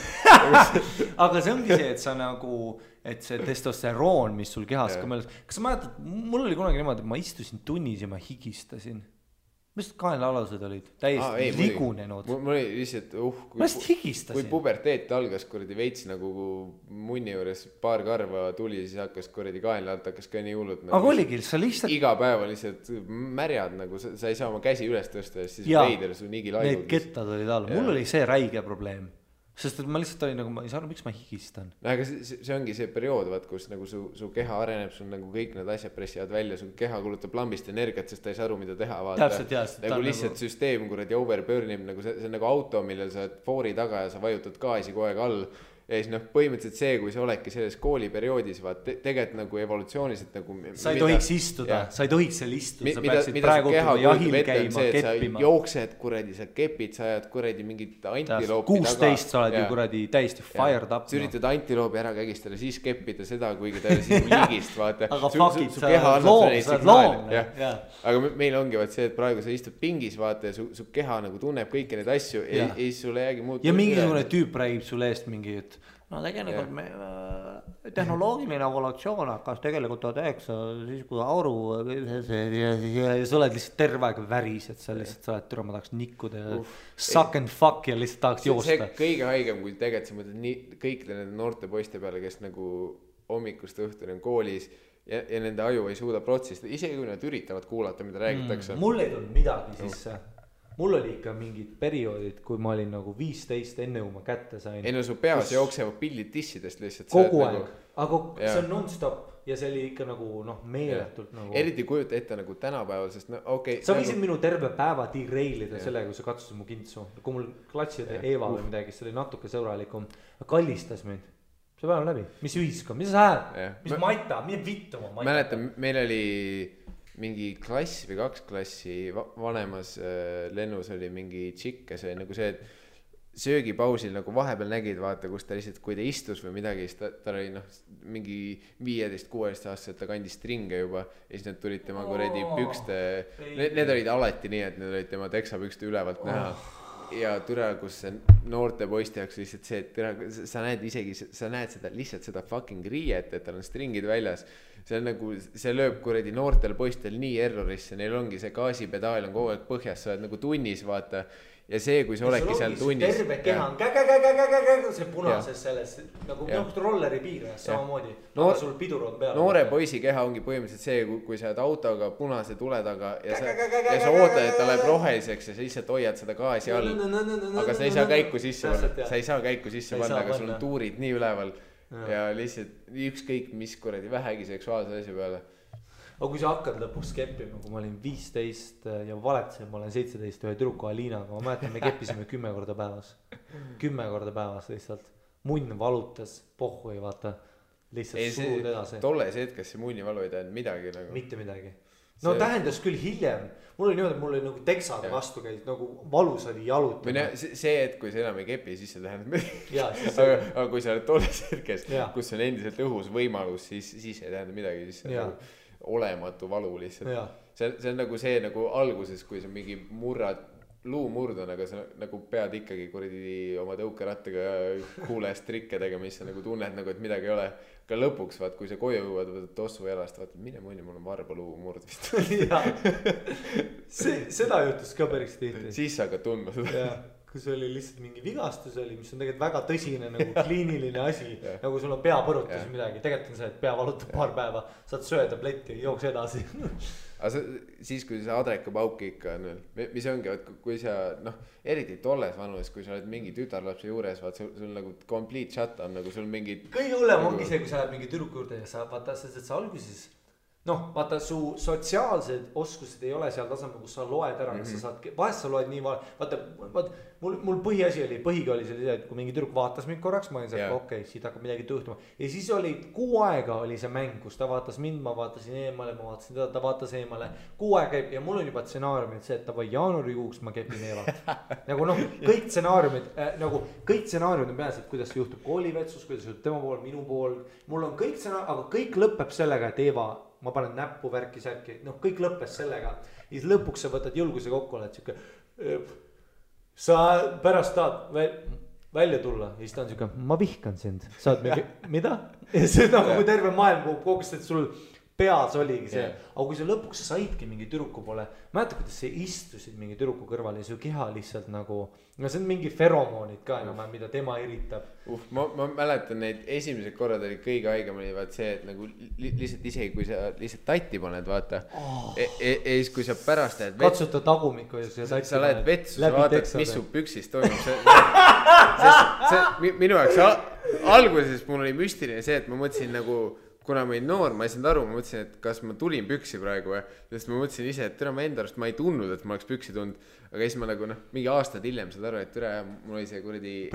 aga see ongi see, et sa nagu, et see testosteroon, mis sul kehas ka mõeldes, kas sa mäletad, mul oli kunagi niimoodi, et ma istusin tunnis ja ma higistasin. Mis kaenlaalused olid? Täiesti ligunenud. Mul oli lihtsalt, ma lihtsalt higistasin. Kui puberteet algas kuradi veits nagu munni juures paar karva tuli, siis hakkas kuradi kaenlaalt hakkas ka nii hullud. Aga oligi, sa lihtsalt iga päeva lihtsalt märjad nagu, sa ei saa oma käsi üles tõsta ja siis veider su nigi laigud. Need kettad olid all, mul oli see räige probleem. Sest et ma lihtsalt olin nagu, ma ei saa aru, miks ma higistan. Aga see ongi see periood, vaat, kus nagu su keha areneb, sul nagu kõik need asjad pressivad välja, su keha kulutab lambist energiat, sest ta ei saa aru, mida teha. Täpselt. Nagu lihtsalt süsteem kuradi overburnib, nagu see on nagu auto, millel sa foori taga ja sa vajutad gaasi kogu aeg all. Ja siis põhimõtteliselt see, kui sa oledki selles kooliperioodis, tegelikult nagu evolutsiooniliselt nagu sa ei tohiks istuda, sa ei tohiks seal istuda, sa peaksid praegu jahil käima, keppima. Sa jooksed kuradi, sa kepid, sa ajad kuradi mingit antiloopi 16 sa oled ju kuradi täiesti fired up. Sa üritad antiloopi ära kägistada, siis keppida seda, kuigi ta oli siis liigist, vaata. Aga fuckid, sa oled loom. Aga meil ongi vaat see, et praegu sa istud pingis, vaata, ja su keha nagu tunneb kõiki neid asju ja siis sulle jäägi muud. Ja mingisugune tüüp räägib sulle eest mingi, et no tegelikult me tehnoloogiline evolutsioon hakkas tegelikult 19, siis kui auru ja sa oled lihtsalt terve aeg väris, et sa lihtsalt sa oled türa, ma tahaks nikkuda ja suck and fuck ja lihtsalt tahaks joosta. See kõige haigem, kui tegelikult sa mõtled nii kõikide nende noorte poiste peale, kes nagu hommikust õhtuni on koolis ja nende aju ei suuda protsessida, isegi kui nad üritavad kuulata, mida räägitakse. Mul ei tulnud midagi sisse. Mul oli ikka mingid perioodid, kui ma olin nagu 15 enne, kui ma kätte sain. Ei no su peas jooksevad pildid dissidest lihtsalt. Kogu aeg, aga see on non-stop ja see oli ikka nagu meeletult nagu. Eriti kujuta ette nagu tänapäeval, sest okei. Sa võisid minu terve päeva derailida sellega, kui sa katsusid mu kintsu. Kui mul klatsid Eva või midagi, see oli natuke sõbralikum. Kallistas mind. See päev läbi. Mis ühiskond, mis sa hääd? Mis maita, mine vittu ma maita. Mäletan, meil oli mingi klass või 2 klassi vanemas lennus oli mingi tšikk, ja see nagu see, et söögipausil nagu vahepeal nägid, vaata, kus ta lihtsalt, kui ta istus või midagi, siis ta oli mingi 15-16 aastaselt, ta kandis stringe juba ja siis need tulid tema kuredi pükste, need olid alati nii, et need olid tema teksapükste ülevalt näha. Ja türa, kus see noorte poiste jaoks lihtsalt see, et türa, sa näed isegi, sa näed seda lihtsalt seda fucking riiet, et tal on stringid väljas. See on nagu, see lööb kuredi noortel poistel nii errorisse, neil ongi see gaasipedaal on kogu aeg põhjas, sa oled nagu tunnis, vaata. Ja see, kui sa oledki seal tunnis. Terve keha on see punases selles, nagu rolleri piirajas samamoodi. Aga sul pidur on peal. Noore poisi keha ongi põhimõtteliselt see, kui sa oled autoga punase tule taga ja sa ootad, et ta läheb roheliseks ja sa lihtsalt hoiad seda gaasi all. Aga sa ei saa käiku sisse panna, sa ei saa käiku sisse panna, aga sul on tuurid nii üleval. Ja lihtsalt ükskõik mis kuradi vähegi seksuaalse asja peale. Aga kui sa hakkad lõpuks keppima, kui ma olin 15 ja valetasin, ma olen 17 ühe tüdruku Aliinaga, ma mäletan, me keppisime 10 korda päevas. 10 korda päevas lihtsalt. Munn valutas, pohhu ei vaata, lihtsalt suud edasi. Tolles hetkes see munni valu ei tähend midagi nagu. Mitte midagi. no tähendas küll hiljem, mul oli niimoodi, mul oli nagu teksade vastu käis, nagu valus oli jalutada. See, et kui sa enam ei kepi, siis see tähendab aga kui sa oled tolles hetkes, kus on endiselt õhus võimalus, siis ei tähenda midagi, siis see on nagu olematu valu lihtsalt. See on nagu see nagu alguses, kui sa mingi luumurd on, aga sa nagu pead ikkagi kuradi oma tõukerattaga kuulest trikke tegema, mis sa nagu tunned nagu, et midagi ei ole. Ka lõpuks, vaat, kui sa koju jõuad, võtad tossu jalast, vaat, mine mõni, mul on varba luumurd vist. Seda juhtus ka päris tihti. Siis sa hakkad tundma seda. Kus oli lihtsalt mingi vigastus oli, mis on tegelikult väga tõsine nagu kliiniline asi. Nagu sul on peapõrutus midagi. Tegelikult on see, et pea valutab paar päeva, saad söötabletti, jooks edasi. Aga siis, kui see adrekapauki ikka on veel, mis ongi, kui sa, eriti tolles vanuses, kui sa oled mingi tütarlapse juures, vaat sul nagu complete shut on, nagu sul mingi... Kõige hullem ongi see, kui sa oled mingi tüdruku juurde ja sa vaata, sest et sa alguses... vaata, su sotsiaalsed oskused ei ole seal tasemel, kus sa loed ära, kas sa saad, vahest sa loed nii vaata, mul põhiasi põhiga oli see, et kui mingi tüdruk vaatas mind korraks, ma olin seal, okei, siit hakkab midagi tõhtuma. Ja siis oli 6 aega oli see mäng, kus ta vaatas mind, ma vaatasin eemale, ma vaatasin teda, ta vaatas eemale. 6 aega käib ja mul on juba stsenaariumid see, et tavai jaanuarikuuks ma kepin Eevat. Nagu kõik stsenaariumid on peas, et kuidas see juhtub koolivetsus, kuidas juhtub tema pool, minu pool. Mul on kõik stsenaariumid, aga kõik lõpeb sellega, et Eeva ma panen näppu värki särki, kõik lõppes sellega. Ja siis lõpuks sa võtad julguse kokku, oled siuke, sa pärast tahad välja tulla. Ja siis ta on siuke, ma vihkan sind. Saad mingi, mida? Ja see on nagu terve maailm kogus, et sul peas oligi see. Aga kui sa lõpuks saidki mingi tüdruku poole, mäeta, kuidas sa istusid mingi tüdruku kõrval ja su keha lihtsalt nagu, see on mingi feromoonid ka enam, mida tema eritab. Ma mäletan neid esimesed korrad oli kõige haigem oli vaat see, et nagu lihtsalt isegi kui sa lihtsalt tatti paned, vaata. Ja siis kui sa pärast lähed katsuta tagumikku ja sa lähed vetsu, sa vaatad, mis su püksist toimub. Minu jaoks alguses mul oli müstiline see, et ma mõtlesin nagu kuna ma olin noor, ma ei saanud aru, ma mõtlesin, et kas ma tulin püksi praegu, sest ma mõtlesin ise, et ma enda arust ma ei tundnud, et ma oleks püksi tundnud, aga siis ma nagu mingi aastad hiljem saad aru, et mul oli see kuradi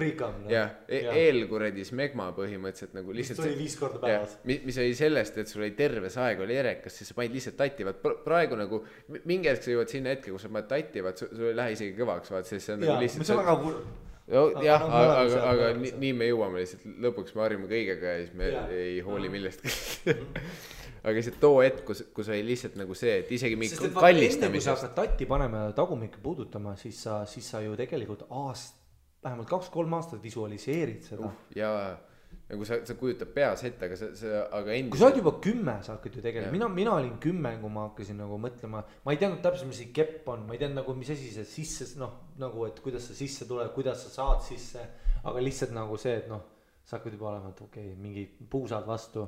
eelkuradi smegma põhimõtteliselt nagu lihtsalt mis tuli 5 korda päevas mis oli sellest, et sul oli terves aeg oli erekas, siis sa panid lihtsalt tatti, vaat praegu nagu mingi hetk sa jõuad sinna hetke, kus sa paned tatti, vaat sul ei lähe isegi kõvaks, vaat siis see on nagu lihtsalt mis on väga kurb. Aga nii me jõuame lihtsalt, lõpuks me harjume kõigega ja siis me ei hooli millestki. Aga see too hetk, kus oli lihtsalt nagu see, et isegi mingi kallistamisest. Enne kui sa hakkad tatti panema ja tagumikke puudutama, siis sa ju tegelikult vähemalt 2-3 aastat visualiseerid seda. Nagu sa kujutad peas ette, aga endiselt... Kui sa oled juba 10, sa hakkad ju tegelikult, mina olin 10, kui ma hakkasin nagu mõtlema, ma ei teadnud täpselt, mis see kepp on, ma ei teadnud nagu, mis asi see sisse, nagu, et kuidas sa sisse tuleb, kuidas sa saad sisse, aga lihtsalt nagu see, et sa hakkad juba olema, et okei, mingi puusad vastu.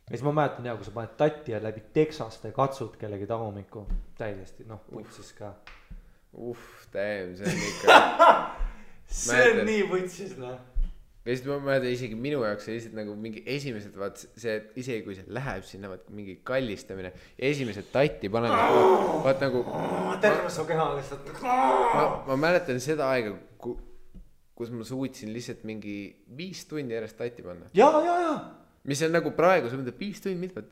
Ja siis ma mäletan kui sa paned tatti ja läbi teksaste katsud kellegi tagumikku, täiesti, putsis ka. See on ikka... see on nii putsis, Ja siis ma mäletan isegi minu jaoks lihtsalt nagu mingi esimesed vaat see, et isegi kui see läheb sinna vaat mingi kallistamine ja esimesed tatti panen vaat nagu terve su keha lihtsalt ma mäletan seda aega, kus ma suutsin lihtsalt mingi 5 tundi järjest tatti panna. Ja. Mis on nagu praegu, sa mõtled 5 tundi mitmed.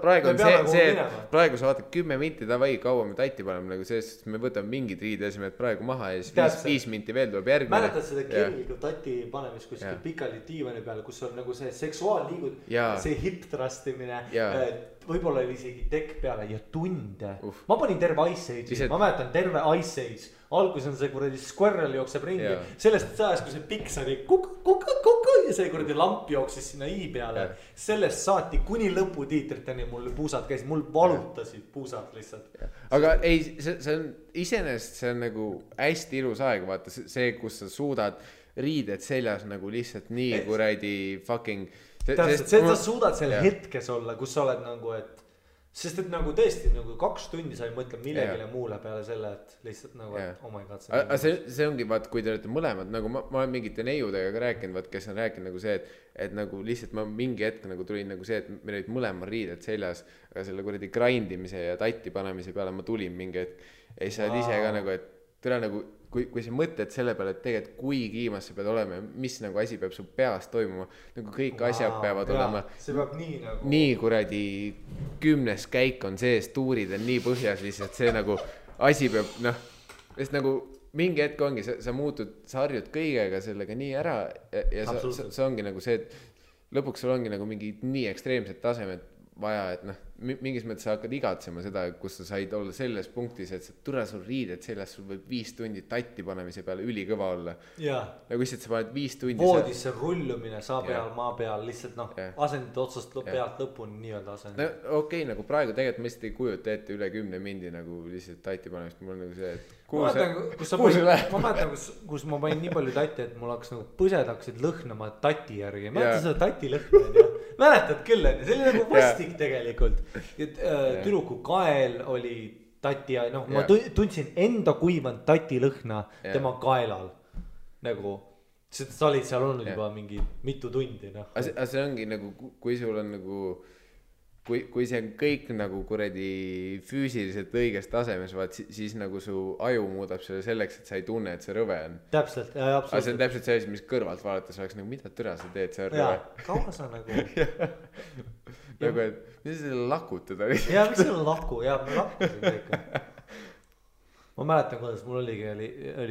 Praegu on see, praegu sa vaatad 10 minti davai kaua me tatti paneme, nagu sellest me võtame mingid riideasemed praegu maha ja siis 5 minti veel tuleb järgmine. Mäletad seda kirgliku tatti panemist kuskil pikali diivani peal, kus on nagu see seksuaalliigud, see hip thrustimine, võib-olla oli isegi tekk peale ja tunde. Ma panin terve Ice Age'i, ma mäletan terve Ice Age. Algus on see kuradi squirrel jookseb ringi, sellest ajast, kui see piks oli kuku ja see kuradi lamp jooksis sinna i peale. Sellest saati kuni lõputiitriteni mul puusad käisid, mul valutasid puusad lihtsalt. Aga ei, see on iseenesest, see on nagu hästi ilus aeg, vaata see, kus sa suudad riided seljas nagu lihtsalt nii kuradi fucking... Täpselt, sa suudad seal hetkes olla, kus sa oled nagu, et sest et nagu tõesti nagu 2 tundi sa ei mõtle millegile muule peale selle, et lihtsalt nagu, et oh my god. See ongi, vaat, kui te olete mõlemad, nagu ma olen mingite neiudega ka rääkinud, vaat, kes on rääkinud nagu see, et nagu lihtsalt ma mingi hetk nagu tulin nagu see, et meil olid mõlemad riided seljas, aga selle kuradi grindimise ja tatti panemise peale ma tulin mingi hetk. Ja siis sa oled ise ka nagu, et tere nagu kui sa mõtled selle peale, et tegelikult kui kiimas sa pead olema ja mis nagu asi peab su peas toimuma, nagu kõik asjad peavad olema see peab nii kuradi 10 käik on sees, tuurid on nii põhjas lihtsalt, see nagu asi peab sest nagu mingi hetk ongi, sa muutud, sa harjud kõigega sellega nii ära ja see ongi nagu see, et lõpuks sul ongi nagu mingi nii ekstreemsed tasemed vaja, et mingis mõttes sa hakkad igatsema seda, kus sa said olla selles punktis, et türa sul riided seljas, sul võib 5 tundi tatti panemise peale ülikõva olla. Nagu lihtsalt sa paned 5 tundi voodisse rullumine saa peal, maa peal, lihtsalt asendid otsast pealt lõpuni nii-öelda asendid. Okei, nagu praegu tegelikult ma lihtsalt ei kujuta ette üle 10 mindi nagu lihtsalt tatti panemist, mul on nagu see, et ma mäletan, kus ma panin nii palju tatti, et mul hakkas nagu põsed hakkasid lõhnama tatti järgi. Mäletan seda tatti lõhna, mäletad küll, see oli nagu vastik tegelikult. Tüdruku kael oli tatti ja ma tundsin enda kuivanud tatti lõhna tema kaelal. Nagu, sa olid seal olnud juba mingi mitu tundi. Aga see ongi nagu, kui sul on nagu kui see on kõik nagu kuradi füüsiliselt õiges tasemes, siis nagu su aju muudab selle selleks, et sa ei tunne, et see rõve on. Täpselt, absoluutselt. Aga see on täpselt see, mis kõrvalt vaadates oleks nagu, mida türa sa teed, see on rõve. Kaua sa nagu... nagu, et mis selle lakutada? Miks selle laku? Me lakkusin ikka. Ma mäletan, kuidas mul oli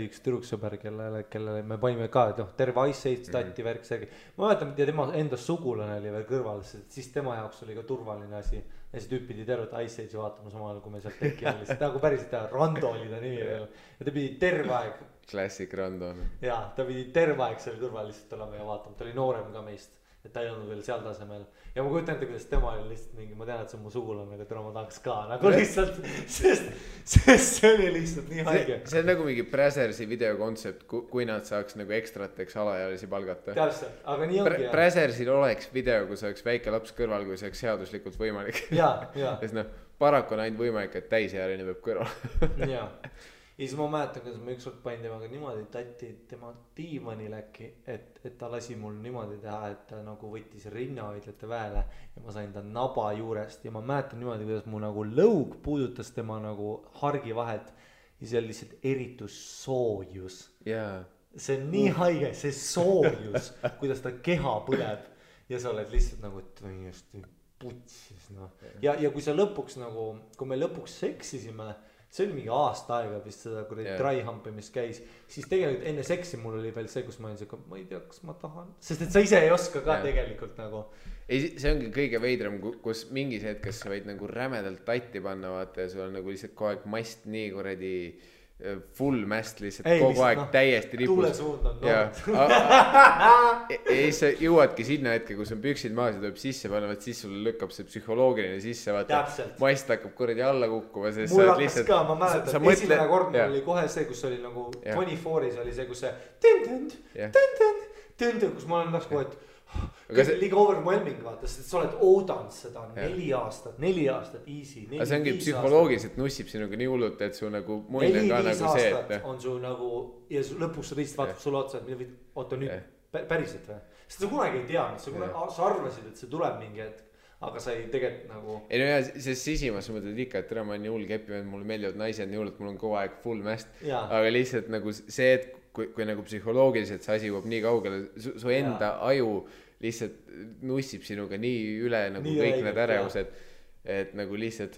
üks tüdruksõber, kellele me panime ka, terve Ice Age tatti värk segi. Ma mäletan, ja tema enda sugulane oli veel kõrval, siis tema jaoks oli ka turvaline asi. Ja see tüüp pidi tervet Ice Age'i vaatama samal, kui me sealt teki oli. Nagu päriselt Rando oli ta nimi veel. Ja ta pidi terve aeg. Classic Rando. Ja, ta pidi terve aeg seal kõrval lihtsalt olema ja vaatama. Ta oli noorem ka meist. Et ta ei olnud veel seal tasemel. Ja ma kujutan ette, kuidas tema oli lihtsalt mingi, ma tean, et see on mu sugulane, aga täna ma tahaks ka nagu lihtsalt, sest see oli lihtsalt nii haige. See on nagu mingi Brazersi videokontsept, kui nad saaks nagu ekstrateks alaealisi palgata. Täpselt, aga nii ongi. Brazersil oleks video, kus oleks väike laps kõrval, kui see oleks seaduslikult võimalik. Ja. Sest paraku on ainult võimalik, et täisealine peab kõrval. Ja. Ja siis ma mäletan, kuidas ma ükskord panin temaga niimoodi tatti tema diivanil äkki, et ta lasi mul niimoodi teha, et ta nagu võttis rinnahoidlate väele ja ma sain ta naba juurest ja ma mäletan niimoodi, kuidas mu nagu lõug puudutas tema nagu hargi vahelt ja see oli lihtsalt eritus soojus. See on nii haige, see soojus, kuidas ta keha põleb ja sa oled lihtsalt nagu täiesti putsis. Ja kui sa lõpuks nagu, kui me lõpuks seksisime, see oli mingi aasta aega vist seda dry humpimist käis, siis tegelikult enne seksi mul oli veel see, kus ma olin see, ma ei tea, kas ma tahan, sest et sa ise ei oska ka tegelikult nagu. Ei, see ongi kõige veidram, kus mingis hetkes sa võid nagu rämedalt tatti panna, vaata ja sul on nagu lihtsalt kogu aeg mast nii kuradi full mast lihtsalt kogu aeg täiesti ripus. Tuulesuund on nood. Ja sa jõuadki sinna hetke, kus on püksid maas ja tuleb sisse panna, siis sul lükkab see psühholoogiline sisse, vaata. Mast hakkab kuradi alla kukkuma. Mul hakkas ka, ma mäletan, esimene kord mul oli kohe see, kus oli nagu 24-s oli see, kus see kus ma olen nagu, et liiga overwhelming vaata, sest sa oled oodanud seda 4 aastat easy. Aga see ongi psühholoogiliselt nussib sinuga nii hullult, et su nagu mull on ka nagu see, et on su nagu ja lõpuks sa teist vaatab sulle otsa, et oota nüüd päriselt või? Sest sa kunagi ei tea, sa arvasid, et see tuleb mingi hetk, aga sa ei tegelikult nagu ei no jah, sest sisimas sa mõtled ikka, et tere, ma olen nii hull kepi, mulle meeldivad naised nii hull, et mul on kogu aeg full mast, aga lihtsalt nagu see, et kui nagu psühholoogiliselt see asi jõuab nii kaugele, su enda aju lihtsalt nussib sinuga nii üle nagu nii kõik need ärevused, et nagu lihtsalt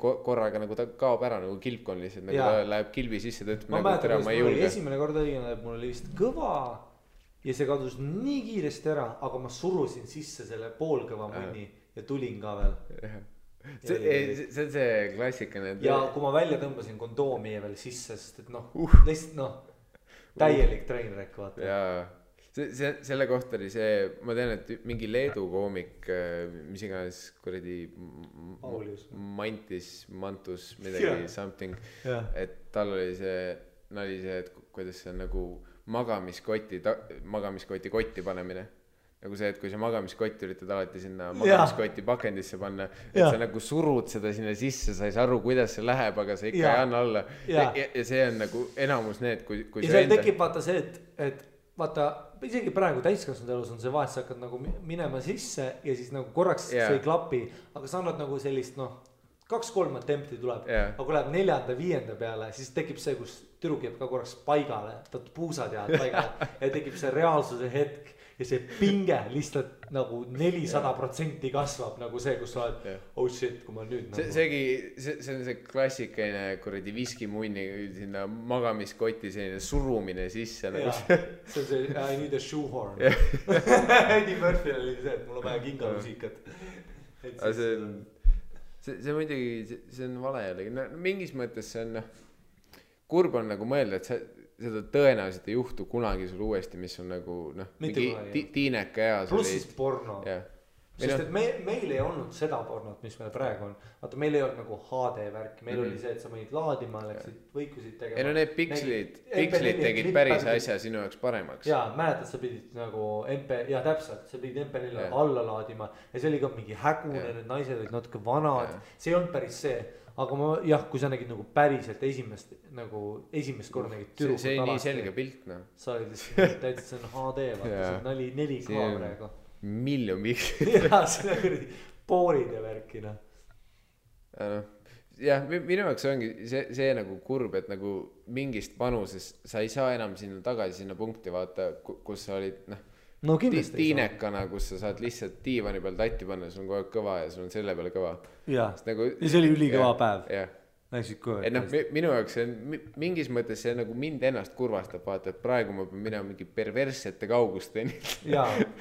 korraga nagu ta kaob ära nagu kilpkon lihtsalt, nagu ta läheb kilbi sisse, ta ütleb nagu tere, ma ei julge. Esimene kord oli, mul oli vist kõva ja see kadus nii kiiresti ära, aga ma surusin sisse selle poolkõva mõni ja tulin ka veel. See on see klassikane. Ja kui ma välja tõmbasin kondoomi veel sisse, sest et lihtsalt täielik trainwreck vaata. Jaa, selle kohta oli see, ma tean, et mingi Leedu koomik, mis iganes kuradi Mantus, midagi something, et tal oli see, et kuidas see on nagu magamiskoti kotti panemine. Nagu see, et kui sa magamiskott üritad alati sinna magamiskoti pakendisse panna, et sa nagu surud seda sinna sisse, sa ei saa aru, kuidas see läheb, aga sa ikka ei anna alla. Ja see on nagu enamus need, kui ja seal tekib vaata see, et vaata, isegi praegu täiskasvanud elus on see vahest, sa hakkad nagu minema sisse ja siis nagu korraks see ei klapi, aga sa annad nagu sellist 2-3 attempti tuleb aga kui läheb 4.-5. peale siis tekib see kus tüdruk jääb ka korraks paigale puusad jäävad paigale ja tekib see reaalsuse hetk ja see pinge lihtsalt nagu 400% kasvab nagu see kus sa oled oh shit kui ma nüüd nagu... see on see klassikaline kuradi viskimunni sinna magamiskotti selline surumine sisse nagu see on see I need a shoehorn Eddie Murphy oli see et mul on vaja kingamusikat aga see muidugi see on vale jällegi no, mingis mõttes see on kurb on nagu mõelda et seda tõenäoliselt ei juhtu kunagi sul uuesti mis on nagu noh mingi tiineka eas pluss siis porno sest et meil ei olnud seda pornot mis meil praegu on vaata meil ei olnud nagu HD värki meil oli see et sa mõnid laadima läksid võikusid tegema ei no need pikslid tegid päris asja sinu jaoks paremaks jaa mäletad sa pidid nagu ja täpselt sa pidid MP4 alla laadima ja see oli ka mingi hägune need naised olid natuke vanad see ei olnud päris see aga ma kui sa nägid nagu päriselt esimest korda nägid tüdrukut see nii selge pilt noh sa olid lihtsalt täitsa see on HD vaata see oli 4K praegu miljon jaa see on kuradi poorid ja värki noh jah minu jaoks ongi see nagu kurb et nagu mingist vanusest sa ei saa enam sinna tagasi sinna punkti vaata kus sa olid no kindlasti tiinekana kus sa saad lihtsalt diivani peal tatti panna sul on kogu aeg kõva ja sul on selle peale kõva jaa nagu, ja see oli ülikõva päev et noh minu jaoks see on mingis mõttes see nagu mind ennast kurvastab vaata et praegu ma pean minema mingi perverssete kaugusteni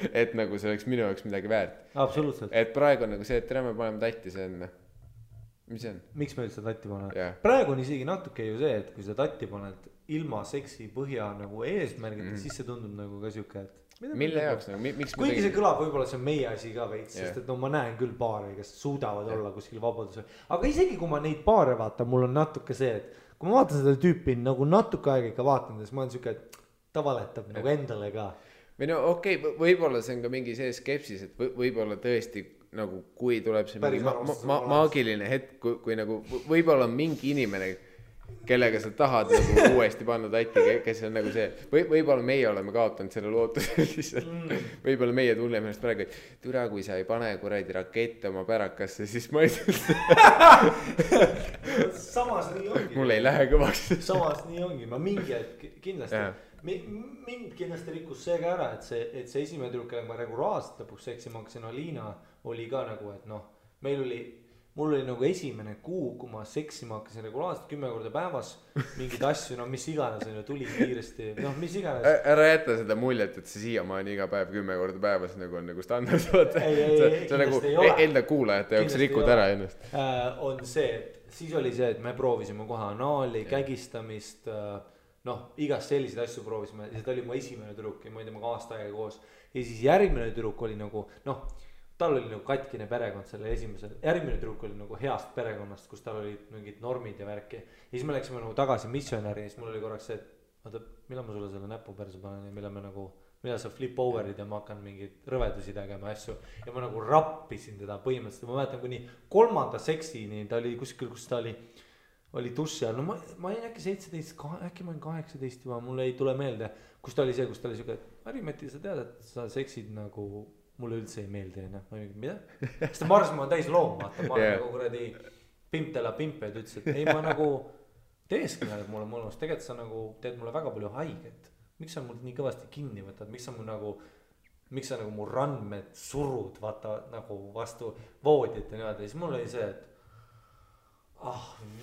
et nagu see oleks minu jaoks midagi väärt absoluutselt et praegu on nagu see et tere me paneme tatti see on mis see on miks me üldse tatti paneme praegu on isegi natuke ju see et kui sa tatti paned ilma seksi põhja nagu eesmärgita siis see tundub nagu ka siuke et mille jaoks nagu miks kuigi see kõlab võib-olla see on meie asi ka veits sest et no ma näen küll paare kes suudavad olla kuskil vabadusel aga isegi kui ma neid paare vaatan mul on natuke see et kui ma vaatan seda tüüpi nagu natuke aega ikka vaatan siis ma olen siuke et ta valetab nagu endale ka või no okei võib-olla see on ka mingi see skepsis et võib-olla tõesti nagu kui tuleb see mingi maagiline hetk kui nagu võib-olla on mingi inimene kellega sa tahad nagu uuesti panna tatti, kes on nagu see, võib-olla meie oleme kaotanud selle lootuse lihtsalt, võib-olla meie tunneme ennast praegu, et türa, kui sa ei pane kuradi rakette oma pärakasse, siis ma ei samas nii ongi. Mul ei lähe kõvaks. Samas nii ongi, ma mingi hetk kindlasti, mind kindlasti rikkus see ka ära, et see esimene tüdruk, kellega ma regulaarselt lõpuks seksima hakkasin, Alina, oli ka nagu, et noh, mul oli nagu esimene kuu, kui ma seksima hakkasin regulaarselt 10 korda päevas, mingid asju, no mis iganes on ju, tuli kiiresti, noh mis iganes. Ära jätta seda muljet, et see siiamaani iga päev 10 korda päevas nagu on nagu standard. See on nagu enda kuulajate jaoks rikud ära ennast. On see, et siis oli see, et me proovisime kohe anaali, kägistamist, noh igast selliseid asju proovisime, ja see oli mu esimene tüdruk ja ma ei tea, ma aasta aega koos. Ja siis järgmine tüdruk oli nagu, noh, tal oli nagu katkine perekond selle esimese, järgmine tüdruk oli nagu heast perekonnast, kus tal olid mingid normid ja värki. Ja siis me läksime nagu tagasi missionäri ja siis mul oli korraks see, et vaata, millal ma sulle selle näpu perse panen ja millal sa flip over'id ja ma hakkan mingeid rõvedusi tegema asju. Ja ma nagu rappisin teda põhimõtteliselt, ma mäletan kuni 3. seksini, ta oli kuskil, kus ta oli duši all, no ma olin äkki 17, äkki ma olin 18 juba, mulle ei tule meelde, kus ta oli see, kus ta oli siuke, et Mari-Mati, sa tead, et sa seksid nagu mulle üldse ei meeldi, noh, ma ei mingi, mida? Sest ma arvasin, ma olen täis loom, vaata, ma olen nagu kuradi pimptela pimpe, et ütles, et ei, ma nagu teeskõneled mulle mõnus, tegelikult sa nagu teed mulle väga palju haiget. Miks sa mul nii kõvasti kinni võtad, miks sa nagu mu randmed surud, vaata, nagu vastu voodit ja niimoodi, siis mul oli see, et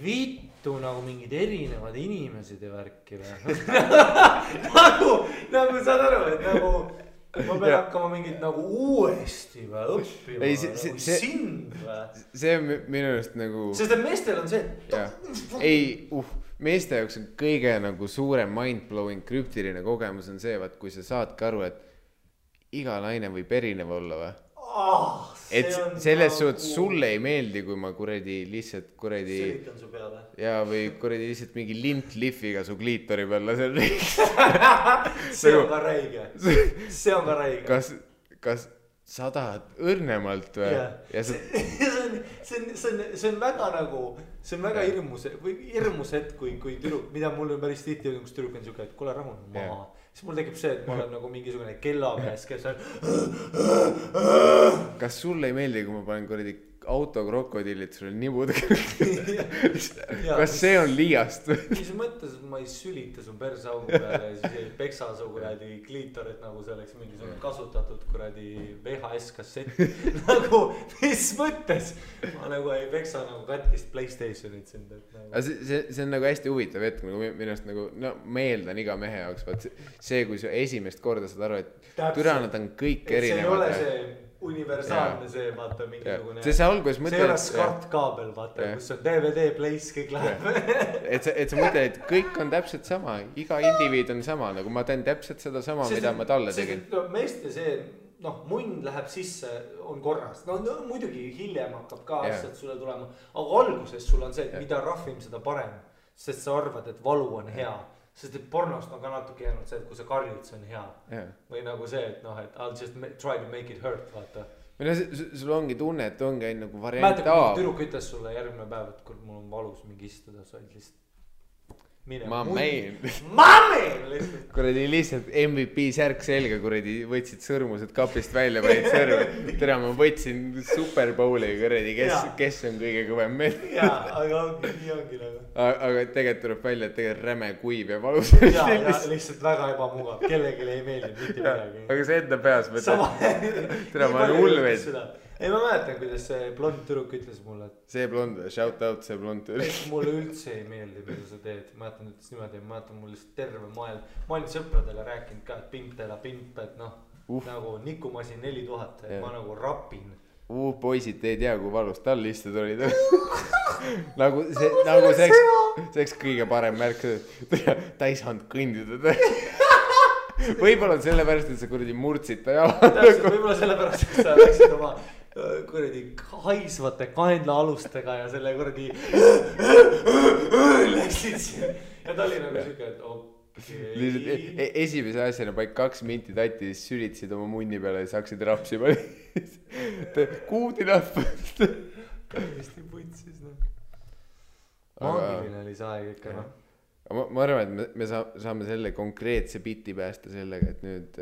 vittu nagu mingid erinevad inimesed ja värki või. nagu saad aru, et nagu ma pean hakkama mingit nagu uuesti või õppima, ei, nagu sind või. See on minu just nagu... Sest et meestel on see... meeste jaoks on kõige nagu suurem mind-blowing krüptiline kogemus on see, kui sa saadki aru, et iga naine võib erinev olla või. Et selles suhtes sulle ei meeldi, kui ma kuradi lihtsalt kuradi... Selitan su peale. Ja või kuradi lihtsalt mingi lintliffiga su kliitori peal lasen riiks. See on ka räige. See on ka räige. Kas sa tahad õrnemalt või? Ja see on väga nagu, see on väga hirmus hetk, kui tüdruk, mida mul on päris tihti, kus tüdruk on siuke, et kuule rahun maha. Siis mul tekib see, et ma olen nagu mingisugune kellamees, kes on... Kas sulle ei meeldi, kui ma panen kuradi autokrokodillid sul nibud kas see on liiast või? Mis mõttes ma ei sülita su persaugu peale ja siis ei peksa su kuradi kliitorit nagu see oleks mingisugune kasutatud kuradi VHS kassett nagu mis mõttes ma nagu ei peksa nagu katkist PlayStationit sind nagu. See on nagu hästi huvitav hetk nagu minu arust nagu no ma eeldan iga mehe jaoks vaat see kui sa esimest korda saad aru et türa nad on kõik erinevad see ei ole see universaalne see vaata mingisugune see alguses mõtled see ei ole SCART-kaabel vaata kus on DVD place kõik läheb et sa mõtled et kõik on täpselt sama iga indiviid on sama nagu ma teen täpselt seda sama mida ma talle tegin no meeste see noh munn läheb sisse on korras no muidugi hiljem hakkab ka asjad sulle tulema aga alguses sul on see et mida rahvim seda parem sest sa arvad et valu on hea sest et pornost on ka natuke jäänud see, et kui sa karjud, see on hea. Või nagu see, et noh, et I'll just try to make it hurt, vaata. Või no sul ongi tunne, et ongi nagu variant A. Mäletab, kui tüdruk ütles sulle järgmine päev, et kui mul on valus mingi istuda, sa olid lihtsalt Mameen kuradi lihtsalt MVP särk selga kuradi võtsid sõrmused kapist välja panid sõrme tere ma võtsin Super Bowli kuradi kes on kõige kõvem meil aga nii ongi nagu aga tegelikult tuleb välja et tegelikult räme kuiv ja valus ja lihtsalt väga ebamugav kellelegi ei meeldi mitte midagi aga see enda peas tere ma olen hull veid ei ma mäletan kuidas see blond tüdruk ütles mulle et see blond shout out see blond tüdruk mulle üldse ei meeldi mida sa teed ma mäletan ütles niimoodi ma mäletan mul lihtsalt terve maailm ma olin sõpradele rääkinud ka et pimp teela pimp et noh nagu nikumasin 4000 et ma nagu rapin poisid te ei tea kui valus tal istud olid nagu see oleks kõige parem märk ta ei saanud kõndida võib-olla on sellepärast et sa kuradi murdsid ta jala võib-olla sellepärast et sa läksid oma kuradi haisvate kaenlaalustega ja selle kuradi läksid siin ja ta oli nagu siuke et okei esimese asjana paik 2 minti tatti siis sülitasid oma munni peale ja siis hakkasid rapsima good enough täiesti putsis noh maagiline oli see aeg ikka noh ma arvan et me saame selle konkreetse biti päästa sellega et nüüd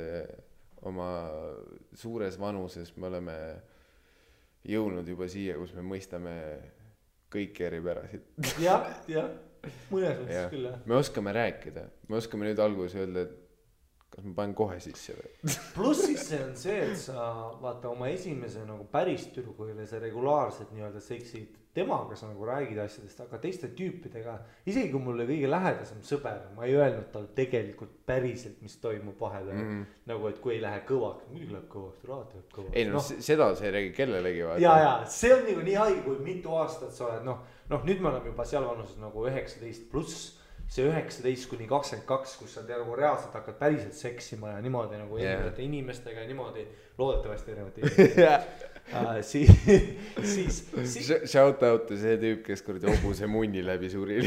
oma suures vanuses me oleme jõudnud juba siia kus me mõistame kõiki eripärasid jah mõnes mõttes küll jah me oskame rääkida me oskame nüüd alguses öelda et kas ma panen kohe sisse või pluss siis see on see et sa vaata oma esimese nagu päris tüdrukule sa regulaarselt nii-öelda seksid temaga sa nagu räägid asjadest aga teiste tüüpidega isegi kui mulle kõige lähedasem sõber ma ei öelnud tal tegelikult päriselt mis toimub vahepeal nagu et kui ei lähe kõvaks muidugi läheb kõvaks raad läheb kõvaks ei no seda sa ei räägi kellelegi vaata ja see on nagu nii haige kui mitu aastat sa oled noh nüüd me oleme juba seal vanuses nagu 19 pluss see 19 kuni 22 kus sa nagu reaalselt hakkad päriselt seksima ja niimoodi nagu erinevate inimestega ja niimoodi loodetavasti erinevate inimestega siis shout out to see tüüp kes kuradi hobuse munni läbi suri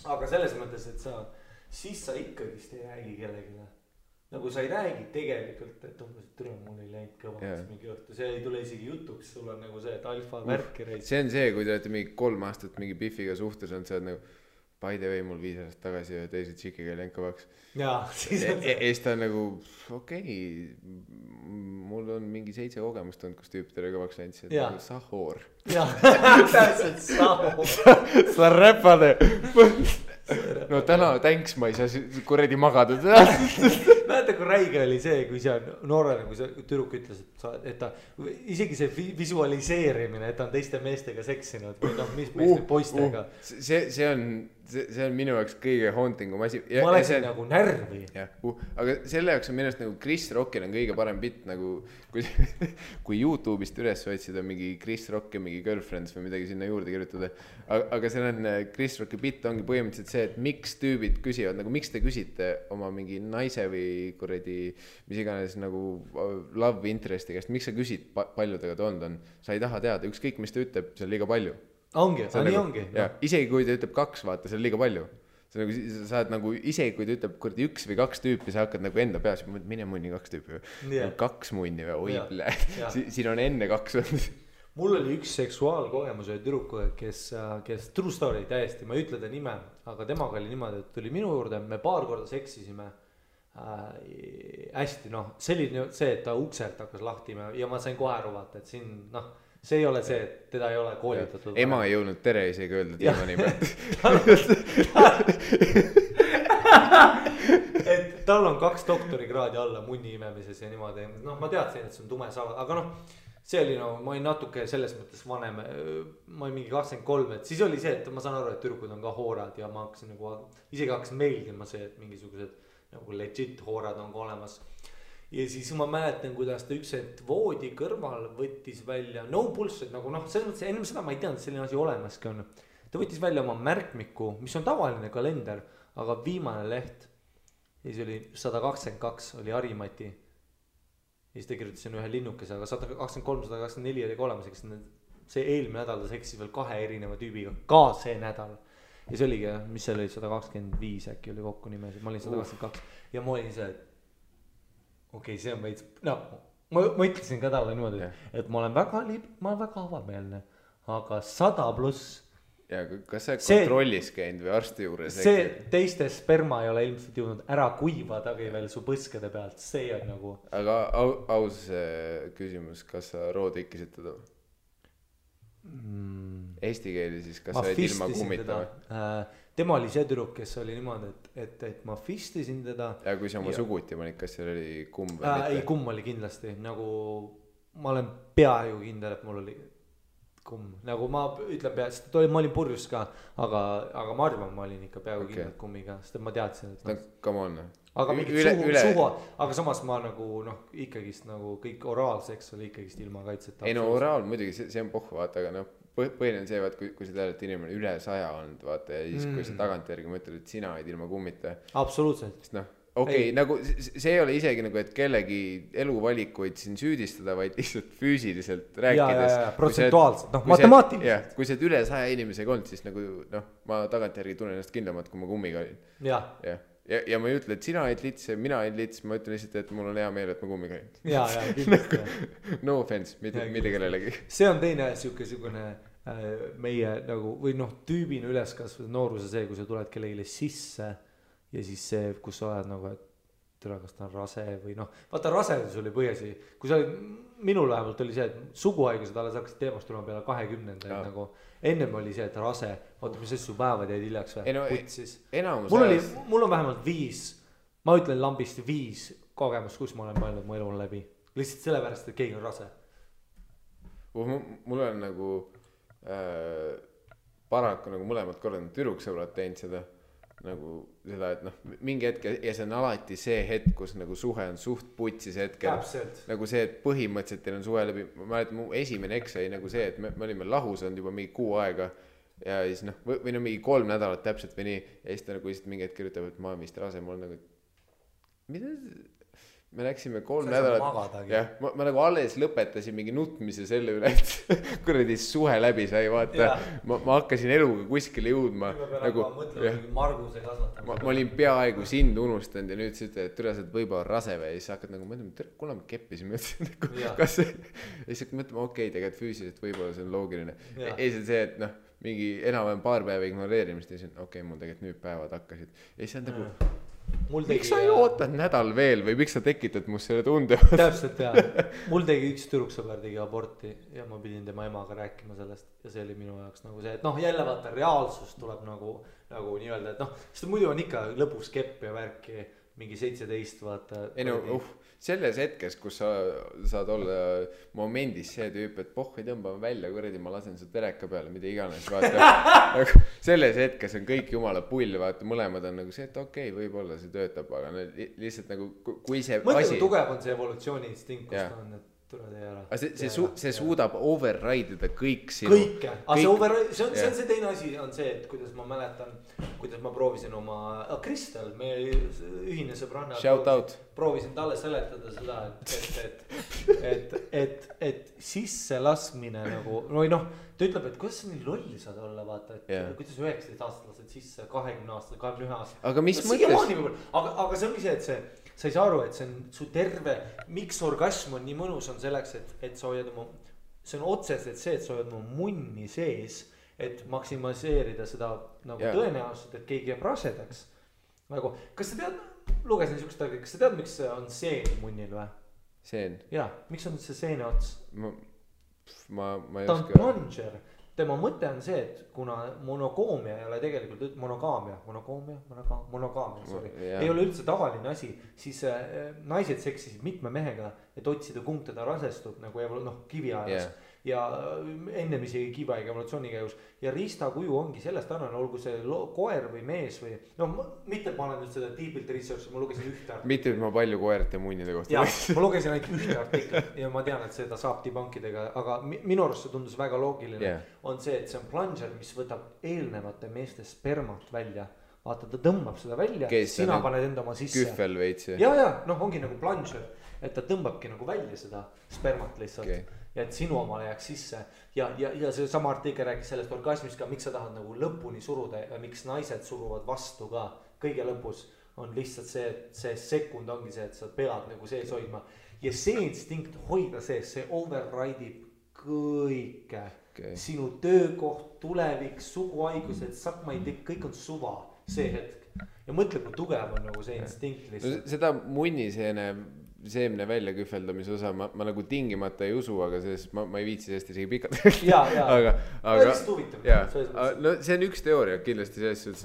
aga selles mõttes et siis sa ikkagist ei räägi kellegile nagu sa ei räägi tegelikult et umbes türa mul ei läinud kõvaks mingi õhtu see ei tule isegi jutuks sul on nagu see et alfa värki reis see on see kui te olete mingi 3 aastat mingi Biffiga suhtes on sa oled nagu by the way mul 5 aastat tagasi ja teise tšikiga ei läinud kõvaks ja siis ta on nagu okei mul on mingi 7 kogemust olnud kus tüüpidele kõvaks läinud see on nagu sahhoor täpselt sahhoor sa räpade no täna thanks ma ei saa kuradi magada mäletan kui räige oli see kui see on noorena kui see tüdruk ütles et ta isegi see visualiseerimine et ta on teiste meestega seksinud või noh mis meeste poistega see on minu jaoks kõige hauntingum asi ma läksin nagu närvi aga selle jaoks on minu arust nagu Chris Rockil on kõige parem bitt nagu kui YouTube'ist üles otsida mingi Chris Rock ja mingi Girlfriends või midagi sinna juurde kirjutada aga see on Chris Rocki bitt ongi põhimõtteliselt see et miks tüübid küsivad nagu miks te küsite oma mingi naise või kuradi mis iganes nagu love interest'i käest miks sa küsid palju tega ta on sa ei taha teada ükskõik mis ta ütleb see on liiga palju ongi nii ongi isegi kui ta ütleb 2 vaata see on liiga palju sa nagu sa oled nagu isegi kui ta ütleb kuradi 1 või 2 tüüpi sa hakkad nagu enda peas mine munni 2 tüüpi või 2 munni või oi siin on enne 2 mul oli üks seksuaalkogemus ühe tüdrukuga kes true story täiesti ma ei ütle ta nime aga temaga oli niimoodi et tuli minu juurde me paar korda seksisime hästi noh, see oli see, et ta ukselt hakkas lahti ja ma sain kohe aru vaata, et siin noh, see ei ole see, et teda ei ole koolitatud. Ema ei jõudnud tere isegi öelda diivani pealt. et tal on 2 doktorikraadi alla munni imemises ja niimoodi, noh ma teadsin, et see on tume saal, aga noh, see oli no, ma olin natuke selles mõttes vanem, ma olin mingi 23, et siis oli see, et ma saan aru, et tüdrukud on ka hoorad ja ma hakkasin nagu, isegi hakkasin meeldima see, et mingisugused nagu legit hoorad on ka olemas. Ja siis ma mäletan, kuidas ta üks hetk voodi kõrval võttis välja, no bullshit, nagu noh, selles mõttes ennem seda ma ei teadnud, et selline asi olemaski on. Ta võttis välja oma märkmiku, mis on tavaline kalender, aga viimane leht, ja siis oli 122, oli Harimati. Ja siis ta kirjutasin ühe linnukese, aga 123, 124 oli ka olemas, eks see eelmine nädal ta seksis veel 2 erineva tüübiga, ka see nädal. Ja see oligi, mis seal oli 125 äkki oli kokku nimesid, ma olin 122 ja ma olin see, et okei, see on veits, no ma ütlesin ka talle niimoodi, et ma olen väga avameelne, aga 100+. Ja kas sa kontrollis käinud või arsti juures? See teiste sperma ei ole ilmselt jõudnud ära kuivadagi veel su põskede pealt, see on nagu. Aga aus küsimus, kas sa roodikkisid teda? Eesti keeli siis, kas sa olid ilma kummitama? Tema oli see tüdruk, kes oli niimoodi, et ma fistisin teda. Ja kui sa oma suguti panid, kas seal oli kumm või mitte? Ei, kumm oli kindlasti, nagu ma olen peaaegu kindel, et mul oli kumm, nagu ma ütlen sest ma olin purjus ka, aga ma arvan, ma olin ikka peaaegu kindlalt kummiga, sest ma teadsin, et come on. Aga mingid suhu, aga samas ma nagu noh, ikkagist nagu kõik oraalseks oli ikkagist ilma kaitseta. Ei no oraal muidugi, see on pohv, vaata, aga noh, põhiline on see, vaat, kui sa tead, et inimene üle 100 olnud, vaata, ja siis kui sa tagantjärgi mõtled, et sina olid ilma kummita. Absoluutselt. Sest noh, okei, nagu see ei ole isegi nagu, et kellegi eluvalikuid siin süüdistada, vaid lihtsalt füüsiliselt rääkides. Ja, protsentuaalselt, noh, matemaatiliselt. Kui sa et üle 100 inimesega olnud, siis nagu noh, ma tagantjärgi tunnen ennast kindlamad, kui ma kummiga olin. Ja ma ei ütle, et sina olid lits ja mina olid lits, ma ütlen lihtsalt, et mul on hea meel, et ma kummiga olin. Ja, kindlasti. No offense, mitte kellelegi. See on teine sihukene meie nagu, või noh, tüübina üleskasvada nooruse see, kui sa tuled kellegile sisse ja siis see, kus sa oled nagu, et tule, kas ta on rase või noh, vaata rasedus oli põhjasi, kui sa olid, minul vähemalt oli see, et suguhaigused alles hakkasid teemast tulema peale 20. Nagu ennem oli see, et rase, vaata mis asju päevad jäid hiljaks või, putsis. Mul on vähemalt 5, ma ütlen lambist 5 kogemust, kus ma olen mõelnud mu elu läbi, lihtsalt sellepärast, et keegi on rase. Mul on nagu paraku nagu mõlemad korrad tüdruksõbrad teinud seda nagu seda, et noh, mingi hetk ja see on alati see hetk, kus nagu suhe on suht putsis hetkel. Täpselt. Nagu see, et põhimõtteliselt teil on suhe läbi, ma mäletan, mu esimene eks oli nagu see, et me olime lahus olnud juba mingi 6 aega ja siis noh, või no mingi 3 nädalat täpselt või nii ja siis ta nagu lihtsalt mingi hetk kirjutab, et ma olen vist rase, mul on nagu, mida? Me läksime 3 nädalat, jah, ma nagu alles lõpetasin mingi nutmise selle üle, et kuradi suhe läbi sai, vaata, ma hakkasin eluga kuskile jõudma. Nagu, ma olin peaaegu sind unustanud ja nüüd sa ütled, et türa sa võib-olla rase või ja siis hakkad nagu mõtlema, kuule me keppisime, kas see, ja siis mõtlema, okei, tegelikult füüsiliselt võib-olla see on loogiline. Ei see, et noh, mingi enam-vähem paar päeva ignoreerimist ja siis okei, mul tegelikult nüüd päevad hakkasid. Ja siis on nagu miks sa ei ootad nädal veel või miks sa tekitad must selle tunde? Täpselt jah, mul tegi üks tüdruksõber tegi aborti ja ma pidin tema emaga rääkima sellest ja see oli minu jaoks nagu see, et noh jälle vaata reaalsus tuleb nagu nii-öelda, et noh sest muidu on ikka lõpus kepp ja värki mingi 17 vaata. Ei no selles hetkes, kus sa saad olla momendis see tüüp, et pohhi tõmbame välja, kuradi ma lasen su tereka peale, mida iganes, vaata. Selles hetkes on kõik jumala pull, vaata, mõlemad on nagu see, et okei, võib-olla see töötab, aga lihtsalt nagu, kui see mõtle, asi... tugev on see evolutsiooni instinkt, kus ta on, et tuleb tee ära. See suudab override'ida kõik sinu. Kõike, aga see on see teine asi on see, et kuidas ma mäletan, kuidas ma proovisin oma Kristel, meie ühine sõbranna. Shout out. Proovisin talle seletada seda, et sisse laskmine nagu, või noh, ta ütleb, et kuidas sa nii lolli saad olla, vaata, et kuidas 19 aastat lased sisse 20 aastat, 21 aastat. Aga mis mõttes? Aga see ongi see, et sa ei saa aru, et see on su terve, miks orgasm on nii mõnus on selleks, et sa hoiad oma, see on otseselt see, et sa hoiad oma munni sees, et maksimaliseerida seda nagu tõenäoliselt, et keegi jääb rasedaks. Nagu, kas sa tead, lugesin niisugust aega, kas sa tead, miks on seen munnil või? Seen? Jaa, miks on see seene ots? Ma ei ta on oska. plunger. Tema mõte on see, et kuna monogaamia ei ole tegelikult monogaamia, sorry, ei ole üldse tavaline asi, siis naised seksisid mitme mehega, et otsida kumb teda rasestub nagu kivi ajas. Ja ennem isegi kiviaega evolutsiooni käigus ja riistakuju ongi sellest annane, olgu see koer või mees või mitte, et ma olen nüüd seda deepilt research, ma lugesin ühte artiklit. Mitte, et ma palju koerte munnide kohta. Ja, ma lugesin ainult ühte artiklit ja ma tean, et seda saab debunkidega, aga minu arust see tundus väga loogiline. On see, et see on plunger, mis võtab eelnevate meeste spermat välja. Vaata, ta tõmbab seda välja, sina paned enda oma sisse. Kühvel veits. Ja, ongi nagu plunger, et ta tõmbabki nagu välja seda spermat lihtsalt. Okay. Ja et sinu omale jääks sisse ja see sama artikkel rääkis sellest orgasmist ka, miks sa tahad nagu lõpuni suruda ja miks naised suruvad vastu ka kõige lõpus on lihtsalt see, et see sekund ongi see, et sa pead nagu sees hoidma ja see instinkt hoida sees, see override'ib kõike sinu töökoht, tulevik, suguhaigused, sakmaitik, kõik on suva see hetk ja mõtle, kui tugev on nagu see instinkt lihtsalt. Seda munniseene seemne välja kühveldamise osa ma nagu tingimata ei usu, aga sellest ma ei viitsi sellest isegi pikalt. aga no see on üks teooria kindlasti selles suhtes,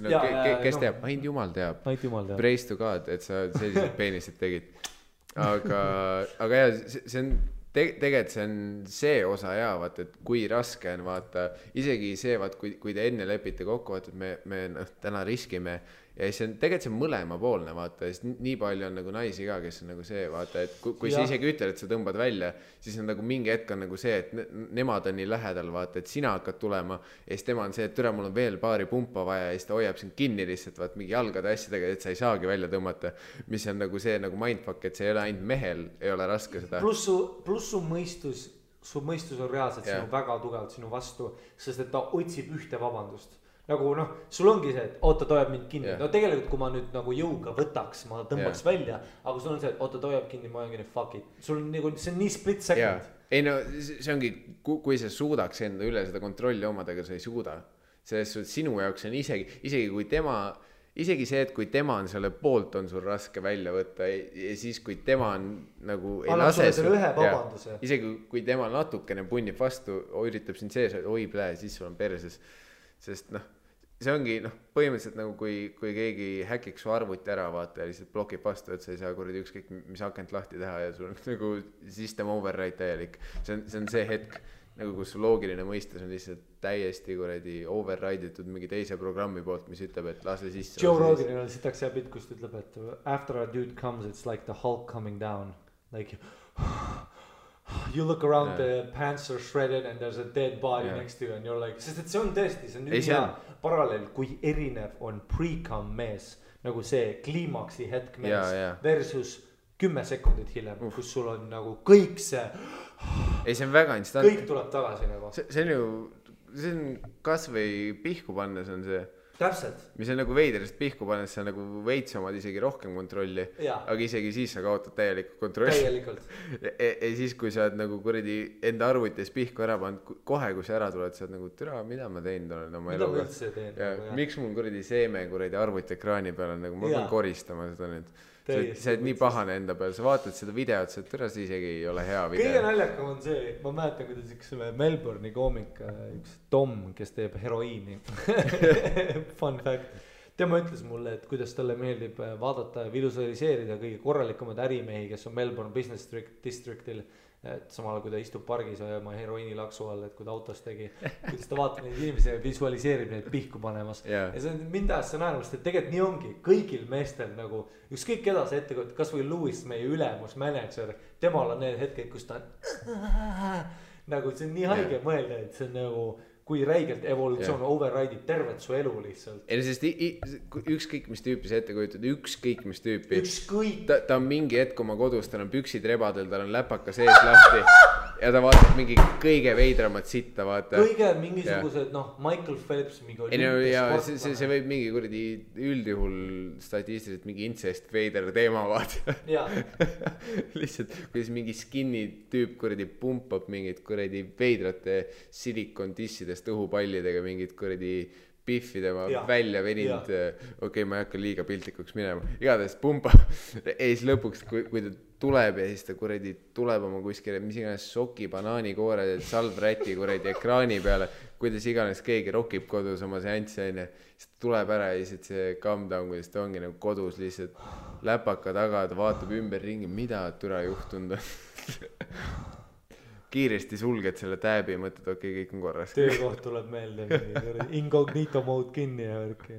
kes teab, ainult jumal teab. Praise to God, et sa sellised peenised tegid. Aga jah, see on tegelikult see on see osa ja vaata, et kui raske on vaata, isegi see vaat, kui te enne lepite kokku, vaata, et me täna riskime ja see on tegelikult see mõlema poolne vaata, sest nii palju on nagu naisi ka, kes on nagu see vaata, et kui sa isegi ütled, et sa tõmbad välja, siis on nagu mingi hetk on nagu see, et nemad on nii lähedal vaata, et sina hakkad tulema ja siis tema on see, et türa mul on veel paari pumpa vaja ja siis ta hoiab sind kinni lihtsalt vaat mingi jalgade asjadega, et sa ei saagi välja tõmmata, mis on nagu see nagu mindfuck, et see ei ole ainult mehel, ei ole raske seda. Plus su mõistus on reaalselt sinu väga tugevalt sinu vastu, sest et ta otsib ühte vabandust. Nagu sul ongi see, et oota, ta hoiab mind kinni. No tegelikult, kui ma nüüd nagu jõuga võtaks, ma tõmbaks välja, aga sul on see, et oota, ta hoiab kinni, ma olen kinni, fuck it. Sul on nagu, see on nii split second. Ei no, see ongi, kui sa suudaks enda üle seda kontrolli omadega, sa ei suuda. Selles suhtes sinu jaoks on isegi kui tema, isegi see, et kui tema on selle poolt, on sul raske välja võtta ja siis, kui tema on nagu ei lase isegi kui tema natukene punnib vastu, üritab sind sees, oi plee, siis sul on perses. Sest see ongi põhimõtteliselt nagu kui keegi häkiks su arvuti ära vaata ja lihtsalt blokib vastu, et sa ei saa kuradi ükskõik mis akent lahti teha ja sul on nagu system override täielik. See on see hetk, nagu kus su loogiline mõistes on lihtsalt täiesti kuradi override'itud mingi teise programmi poolt, mis ütleb, et lase sisse. Joe Roganil on sitaks hea pilt, kus ta ütleb, et after a dude comes, it's like the Hulk coming down. Like you look around, the pants are shredded and there's a dead body next to you and you're like, sest et see on tõesti, see on nüüd hea paralleel, kui erinev on pre-cum mees, nagu see kliimaksi hetk mees versus 10 sekundit hiljem, kus sul on nagu kõik see ei, see on väga instant. Kõik tuleb tagasi nagu. See on ju, see on kas või pihku pannes on see. Täpselt. Mis on nagu veiderist pihku pannes, sa nagu veits omad isegi rohkem kontrolli, aga isegi siis sa kaotad täielikult kontrolli. Täielikult. Ja siis, kui sa oled nagu kuradi enda arvutis pihku ära pannud, kohe kui sa ära tuled, sa oled nagu, türa, mida ma teinud olen oma eluga. Mida ma üldse teen? Miks mul kuradi seeme kuradi arvutiekraani peal on, nagu ma pean koristama seda nüüd. Sa oled nii pahane enda peal, sa vaatad seda videot, sa türa, see isegi ei ole hea video. Kõige naljakam on see, ma mäletan, kuidas üks Melbourne'i koomik, üks Tom, kes teeb heroiini. Fun fact. Tema ütles mulle, et kuidas talle meeldib vaadata ja visualiseerida kõige korralikumad ärimehi, kes on Melbourne Business Districtil. Et samal kui ta istub pargis ja oma heroiini laksu all, et kui ta autos tegi, kuidas ta vaatab neid inimesi ja visualiseerib neid pihku panemas. Ja see on mind taas naermast, et tegelikult nii ongi kõigil meestel nagu ükskõik keda see ette, kas või Louis, meie ülemus manager, temal on need hetked, kus ta on nagu see on nii haige mõelda, et see on nagu kui räigelt evolutsioon override'ib tervet su elu lihtsalt. Ei, sest ükskõik mis tüüpi sa ette kujutad, ükskõik mis tüüpi. Ükskõik. Ta on mingi hetk oma kodus, tal on püksid rebadel, tal on läpaka sees lahti ja ta vaatab mingi kõige veidramat sitta, vaata. Kõige mingisugused, Michael Phelps mingi olümpiasportlane. See võib mingi kuradi üldjuhul statistiliselt mingi incest veider teema, vaata. Lihtsalt, kuidas mingi skinny tüüp kuradi pumpab mingid kuradi veidrate silikon tissidest õhupallidega mingid kuradi Biffi tema Ja. välja veninud, okei, ma ei hakka liiga piltlikuks minema, igatahes pumba ja siis lõpuks, kui ta tuleb ja siis ta kuradi tuleb oma kuskile, mis iganes soki, banaanikoore, salvräti kuradi ekraani peale, kuidas iganes keegi rokib kodus oma seanssi, onju, siis ta tuleb ära ja siis see calm down, kuidas ta ongi nagu kodus lihtsalt läpaka taga, ta vaatab ümber ringi, mida türa juhtunud on. Kiiresti sulged selle tääbi ja mõtled, okei, kõik on korras. Töökoht tuleb meelde, incognito mode kinni ja värki.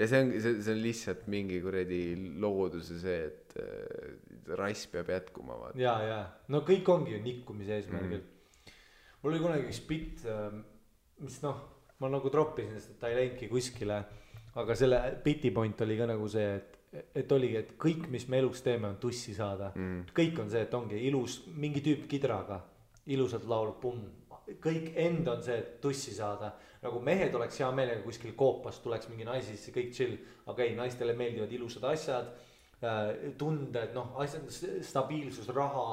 Ja see on lihtsalt mingi kuradi looduse see, et rass peab jätkuma. Ja. No kõik ongi ju nikkumise eesmärgil. Mul oli kunagi üks bitt, mis ma nagu troppisin, sest ta ei läinudki kuskile. Aga selle biti point oli ka nagu see, et oligi, et kõik, mis me elus teeme, on tussi saada. Kõik on see, et ongi ilus, mingi tüüp kidraga. Ilusalt laulub, pumm, kõik end on see, et tussi saada. Nagu mehed oleks hea meelega kuskil koopas, tuleks mingi naisi sisse, kõik chill. Aga ei, naistele meeldivad ilusad asjad, tunded, asjad, stabiilsus, raha,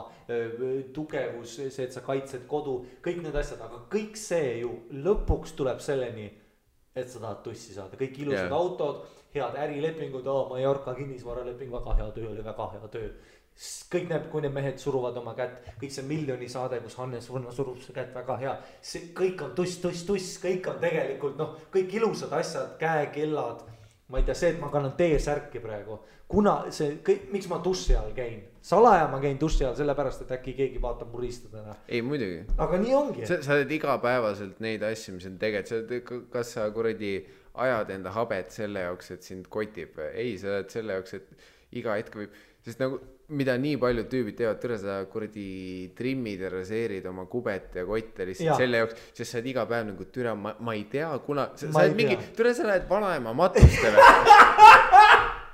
tugevus, see, et sa kaitsed kodu, kõik need asjad. Aga kõik see ju lõpuks tuleb selleni, et sa tahad tussi saada. Kõik ilusad autod, head ärilepingud, Mallorca kinnisvaraleping, väga hea töö oli, väga hea töö. Kõik näeb, kui need mehed suruvad oma kätt, kõik see miljoni saade, kus Hannes Võrno surub see kätt, väga hea. See kõik on tuss, kõik on tegelikult, kõik ilusad asjad, käekellad. Ma ei tea, see, et ma kannan T-särki praegu. Kuna see, miks ma tussi all käin? Salaja ma käin tussi all sellepärast, et äkki keegi vaatab mu riistadena. Ei, muidugi. Aga nii ongi. Sa oled igapäevaselt neid asju, mis on tegelikult, kas sa kuradi ajad enda habet selle jaoks, et sind kotib? Ei, sa oled selle jaoks, et iga hetk võib, sest nagu mida nii paljud tüübid teevad, türa sa kuradi trimmid ja raseerid oma kubet ja kotte lihtsalt selle jaoks, sest sa oled iga päev nagu türa, ma ei tea, kuna sa oled mingi, türa sa lähed vanaema matustele.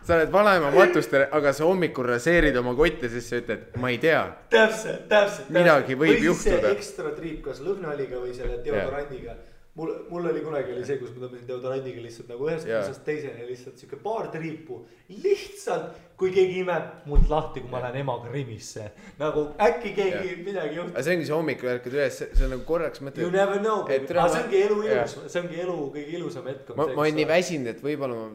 Sa oled vanaema matustele, aga sa hommikul raseerid oma kotte, sest sa ütled, ma ei tea. Täpselt. Midagi võib juhtuda. Või see ekstra triip, kas lõhnaliga või selle deodorandiga. Mul oli kunagi oli see, kus ma tõmbasin deodorandiga lihtsalt nagu ühest kusest teisene lihtsalt siuke paar triipu. Lihtsalt, kui keegi imeb mult lahti, kui ma lähen emaga rimisse. Nagu äkki keegi midagi juhtub. Aga see ongi see hommikul ärkad üles, see on nagu korraks mõtled. You never know, baby. Aga see ongi elu ilus, see ongi elu kõige ilusam hetk. Ma olen nii väsinud, et võib-olla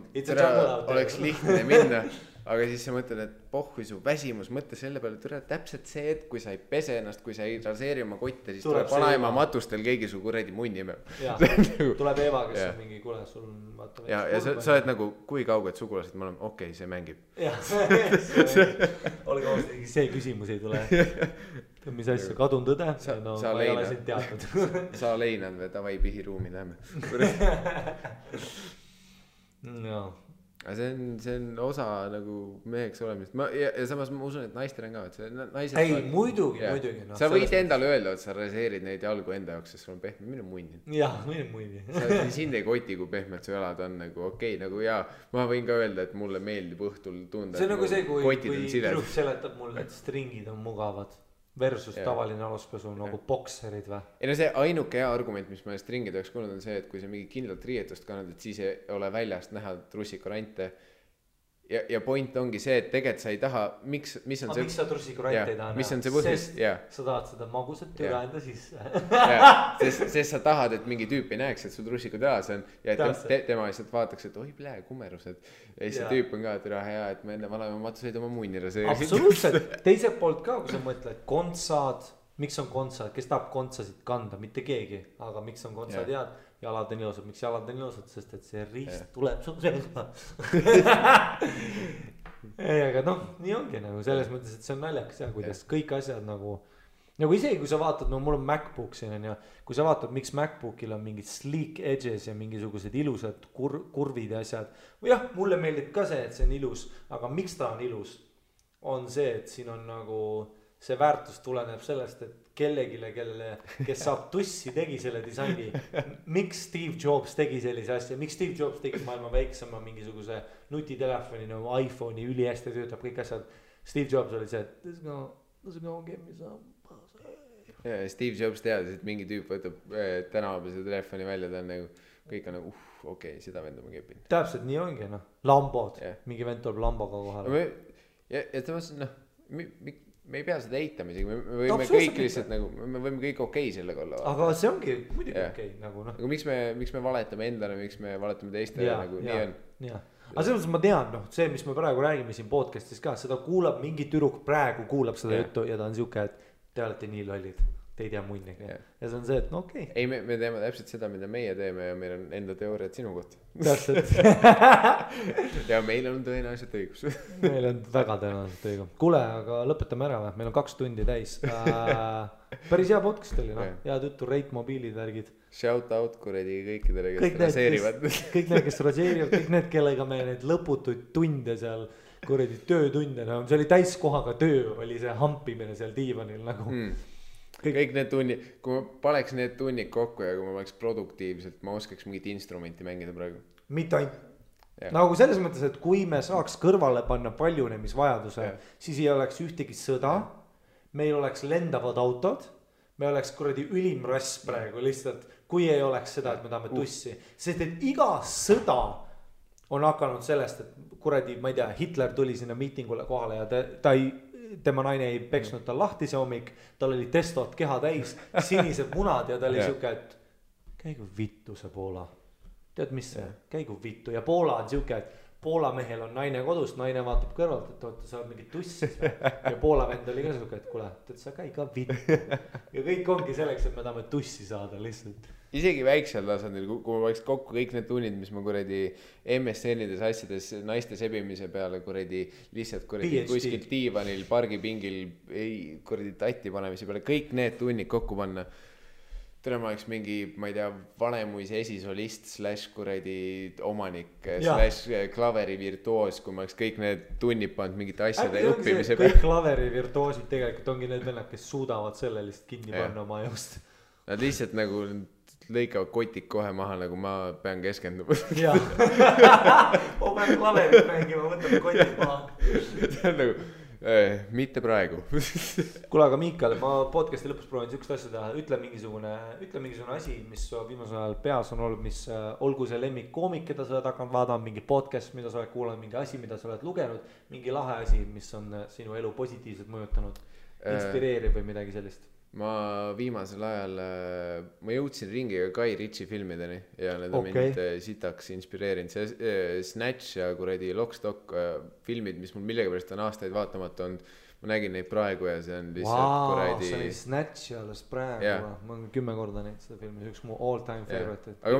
oleks lihtne minna. Aga siis sa mõtled, et pohhui su väsimus, mõtle selle peale, et täpselt see, et kui sa ei pese ennast, kui sa ei raseeri oma kotte, siis tuleb vanaema matustel keegi su kuradi munni imeb. Tuleb Eva, kes on mingi, kuule, sul on vaata. Ja sa oled nagu, kui kauged sugulased me oleme, okei, see mängib. Olge ausalt, see küsimus ei tule. Mis asja, kadun tõde? No ma ei ole sind teadnud. Sa leinad või davai pihiruumi läheme. No. See on osa nagu meheks olemist. Ja samas ma usun, et naistel on ka. Ei, muidugi. Sa võid endale öelda, et sa raseerid neid jalgu enda jaoks, sest sul on pehme. Mine munni. Jah, mine munni. Sind ei koti, kui pehmed su jalad on nagu okei. Nagu jaa, ma võin ka öelda, et mulle meeldib õhtul tunda. See on nagu see, kui tüdruk seletab mulle, et stringid on mugavad. Versus tavaline aluspesu nagu bokserid või? Ei no see ainuke hea argument, mis ma stringide jaoks kuulnud on see, et kui sa mingi kindlalt riietust kannad, et siis ei ole väljast näha trussikurante. Ja point ongi see, et tegelikult sa ei taha, mis on see... Miks sa trussikurante ei taha näha? Mis on see põhjus? Sest sa tahad seda magusat türa enda sisse. Sest sa tahad, et mingi tüüp ei näeks, et su trussikud jalas on ja et tema lihtsalt vaataks, et oi plee, kumerused. Ja siis see tüüp on ka türa hea, et ma enne vanaema matuseid oma munni raseerisin. Absoluutselt. Teiselt poolt ka, kui sa mõtled, kontsad, miks on kontsad, kes tahab kontsasid kanda, mitte keegi, aga miks on kontsad head? Jalad on ilusad, miks jalad on ilusad, sest et see riist tuleb su selga. Ei, aga nii ongi nagu selles mõttes, et see on naljakas ja kuidas kõik asjad nagu isegi kui sa vaatad, mul on MacBook siin ja kui sa vaatad, miks MacBookil on mingid sleek edges ja mingisugused ilusad kurvid ja asjad. Või jah, mulle meeldib ka see, et see on ilus, aga miks ta on ilus? On see, et siin on nagu see väärtus tuleneb sellest, et kellegile, kes saab tussi, tegi selle disaini. Miks Steve Jobs tegi sellise asja? Miks Steve Jobs tegi maailma väiksema mingisuguse nutitelefoni nagu iPhone'i üli hästi töötab kõik asjad. Steve Jobs oli see, et this is gonna give me some. Ja Steve Jobs teadis, et mingi tüüp võtab tänava see telefoni välja, ta on nagu, kõik on nagu, okei, seda venda ma kepin. Täpselt nii ongi, Lambod, mingi vend tuleb Lamboga kohale. Ja temas, me ei pea seda eitama isegi, me võime kõik lihtsalt nagu, me võime kõik okei sellega olla. Aga see ongi muidugi okei, nagu noh. Aga miks me valetame endale, miks me valetame teistele nagu nii on. Aga selles mõttes ma tean, noh, see, mis me praegu räägime siin podcastis ka, seda kuulab mingi tüdruk praegu kuulab seda juttu ja ta on siuke, et te olete nii lollid, te ei tea munnigi. Ja see on see, et no okei. Ei, me teeme täpselt seda, mida meie teeme ja meil on enda teooriad sinu kohta. Täpselt. Ja meil on tõenäoliselt õigus. Meil on väga tõenäoliselt õigus. Kuule, aga lõpetame ära või? Meil on 2 tundi täis. Päris hea podcast oli, noh. Head juttu, Rate mobiilid, värgid. Shout out kuredi kõikidele, kes raseerivad. Kõik need, kes raseerivad, kõik need, kellega me need lõputuid tunde seal, kuredi töötunde, no see oli täiskohaga töö, oli see hampimine seal diivanil nagu. Kõik need tunnid, kui ma paneks need tunnid kokku ja kui ma oleks produktiivselt, ma oskaks mingit instrumenti mängida praegu. Mitte ainult. Nagu selles mõttes, et kui me saaks kõrvale panna paljunemisvajaduse, siis ei oleks ühtegi sõda, meil oleks lendavad autod, me oleks kuradi ülim rass praegu lihtsalt, kui ei oleks seda, et me tahame tussi. Sest et iga sõda on hakanud sellest, et kuradi, ma ei tea, Hitler tuli sinna miitingule kohale ja tema naine ei peksnud tal lahti see hommik, tal oli testot keha täis, sinised munad ja ta oli siuke, et käigu vittu see Poola. Tead mis see, käigu vittu ja Poola on siuke, et Poola mehel on naine kodus, naine vaatab kõrvalt, et oota, sa oled mingi tussis ja Poola vend oli ka siuke, et kuule, tead sa käi ka vittu ja kõik ongi selleks, et me tahame tussi saada lihtsalt. Isegi väiksel tasandil, kui ma võiks kokku kõik need tunnid, mis ma kuradi MSN-ides asjades naiste sebimise peale kuradi lihtsalt kuradi kuskilt diivanil, pargipingil kuradi tatti panemise peale, kõik need tunnid kokku panna. Täna ma oleks mingi, ma ei tea, Vanemuise esisolist / kuradi omanik / klaveri virtuoos, kui ma oleks kõik need tunnid pannud mingite asjade õppimise peale. Kõik klaveri virtuoosid tegelikult ongi need vennad, kes suudavad selle lihtsalt kinni panna oma ajust. Nad lihtsalt nagu lõikavad kotik kohe maha, nagu ma pean keskenduma. Jaa. Ma pean klaverit mängima, võtame kotik maha. See on nagu, mitte praegu. Kuule, aga Miikal, ma podcasti lõpus proovin sükst asja teha. Ütle mingisugune asi, mis viimasel ajal peas on olnud, mis olgu see lemmik koomik, keda sa oled hakanud vaadama, mingi podcast, mida sa oled kuulanud, mingi asi, mida sa oled lugenud, mingi lahe asi, mis on sinu elu positiivselt mõjutanud, inspireeriv või midagi sellist. Ma viimasel ajal, ma jõudsin ringiga Guy Ritchie filmideni ja need on mind sitaks inspireerinud. See Snatch ja kuradi Lockstock filmid, mis mul millegipärast on aastaid vaatamata olnud, ma nägin neid praegu ja see on lihtsalt kuradi... see oli Snatch alles praegu, ma olen 10 korda näinud seda filmi, see üks mu all time favorite. Aga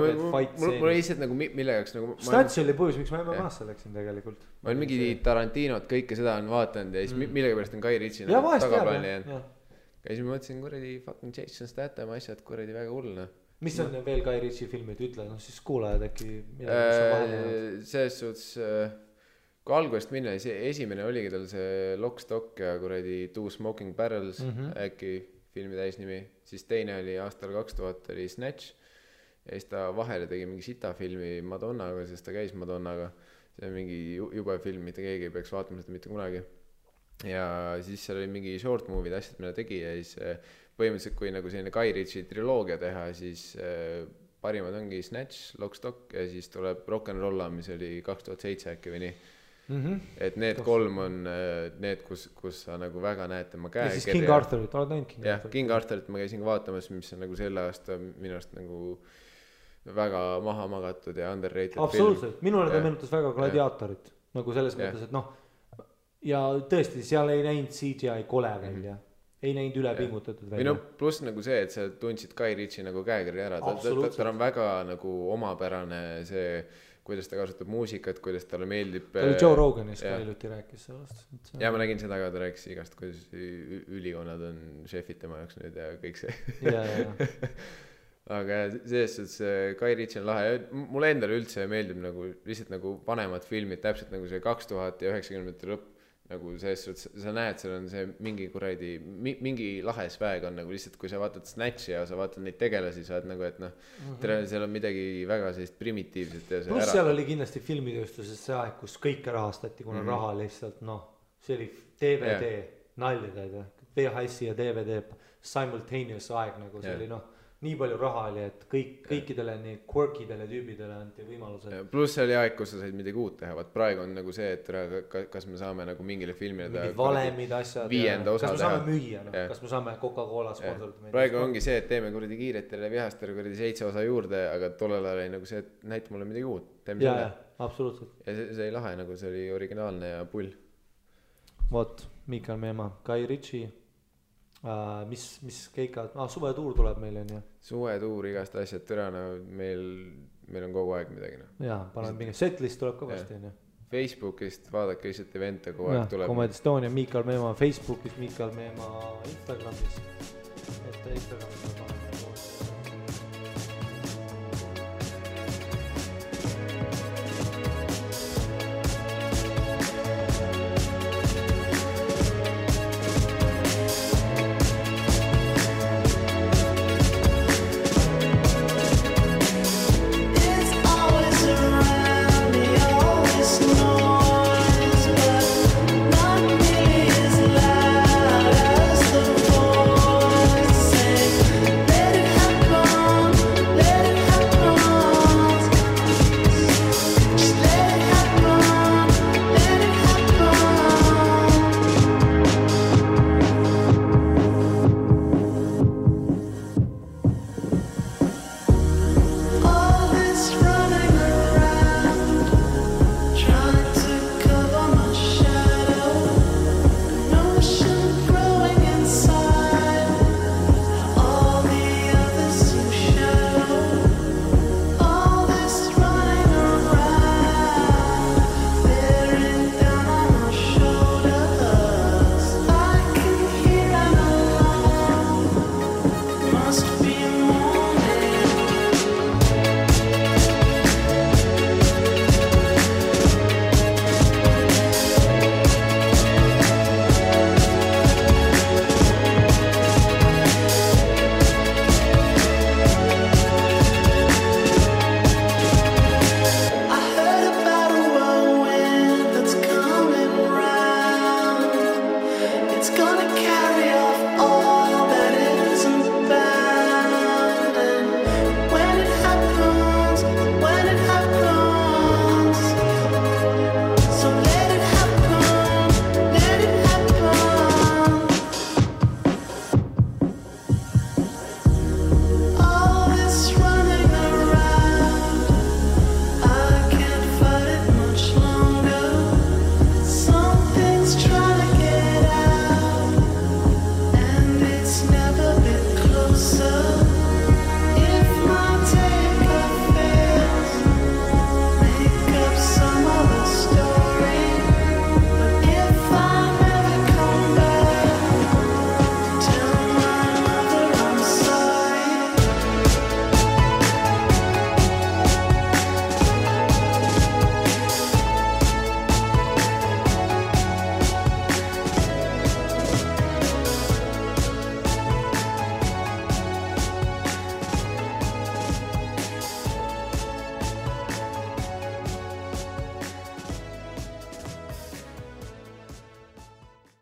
mul lihtsalt nagu mille jaoks nagu... Snatch oli põhjus, miks ma MMA-sse läksin tegelikult. Ma olen mingi Tarantinot, kõike seda on vaatanud ja siis millegipärast on Guy Ritchie tagaplaani jäänud. Ja siis ma mõtlesin kuradi fucking Jason Statham asjad kuradi väga hullna. Mis on veel Guy Ritchie filmid, ütle, no siis kuulajad äkki selles suhtes, kui algusest minna, esimene oligi tal see Lockstock ja kuradi Two Smoking Barrels äkki filmi täisnimi, siis teine oli aastal 2000 oli Snatch ja siis ta vahele tegi mingi sita filmi Madonnaga, sest ta käis Madonnaga, see on mingi jube film, mitte keegi ei peaks vaatama seda mitte kunagi. Ja siis seal oli mingi short movie asjad, mida tegi ja siis põhimõtteliselt kui nagu selline Guy Ritchie triloogia teha, siis parimad ongi Snatch, Lockstock ja siis tuleb Rock'n'Rolla, mis oli 2007 äkki või nii. Et need 3 on need, kus sa nagu väga näed tema käe. Ja siis King Arthurit, oled näinud King Arthurit? Jah, King Arthurit ma käisin vaatamas, mis on nagu selle aasta minu arust nagu väga maha magatud ja underrated absoluutselt, minule ta meenutas väga Gladiatorit, nagu selles mõttes, et noh, ja tõesti, seal ei näinud CGI kole välja, ei näinud ülepingutatud välja. Pluss nagu see, et sa tundsid Guy Ritchie nagu käekirja ära, ta on väga nagu omapärane see, kuidas ta kasutab muusikat, kuidas talle meeldib. Ta oli Joe Roganis ka iluti rääkis sellest. Ja ma nägin seda ka, ta rääkis igast, kuidas ülikonnad on šefid tema jaoks nüüd ja kõik see. Aga selles suhtes Guy Ritchie on lahe, mulle endale üldse meeldib nagu lihtsalt nagu vanemad filmid, täpselt nagu see 2000 ja 90 lõpp, nagu selles suhtes, sa näed, seal on see mingi kuradi, mingi lahe sväeg on nagu lihtsalt, kui sa vaatad Snatchi ja sa vaatad neid tegelasi, sa oled nagu, et noh, seal on midagi väga sellist primitiivset ja see plus seal oli kindlasti filmitööstuses see aeg, kus kõike rahastati, kuna raha lihtsalt, noh, see oli DVD, nalja teed, VHS ja DVD simultaneous aeg, nagu see oli, noh, nii palju raha oli, et kõikidele nii quirkidele tüübidele anti võimalused. Pluss see oli aeg, kus sa said midagi uut teha, vaat praegu on nagu see, et kas me saame nagu mingile filmile mingid valemid asjad, kas me saame müüa, kas me saame Coca-Cola sponsorida. Praegu ongi see, et teeme kuradi kiiretele vihastele kuradi 7 osa juurde, aga tollel ajal oli nagu see, et näita mulle midagi uut, teeme selle. Absoluutselt. Ja see ei lahe, nagu see oli originaalne ja pull. Vot, Miikal Meemaa, Guy Ritchie. Mis keikad, suvetuur tuleb meil on ju. Suvetuur, igast asjad türana, meil on kogu aeg midagi. Jaa, panen mingi setlist tuleb ka vasti. Facebookist vaadake lihtsalt evente kogu aeg tuleb. Comedy Estonia, Miikal Meemaa Facebookis, Miikal Meemaa Instagramis. Et Instagramis on panen.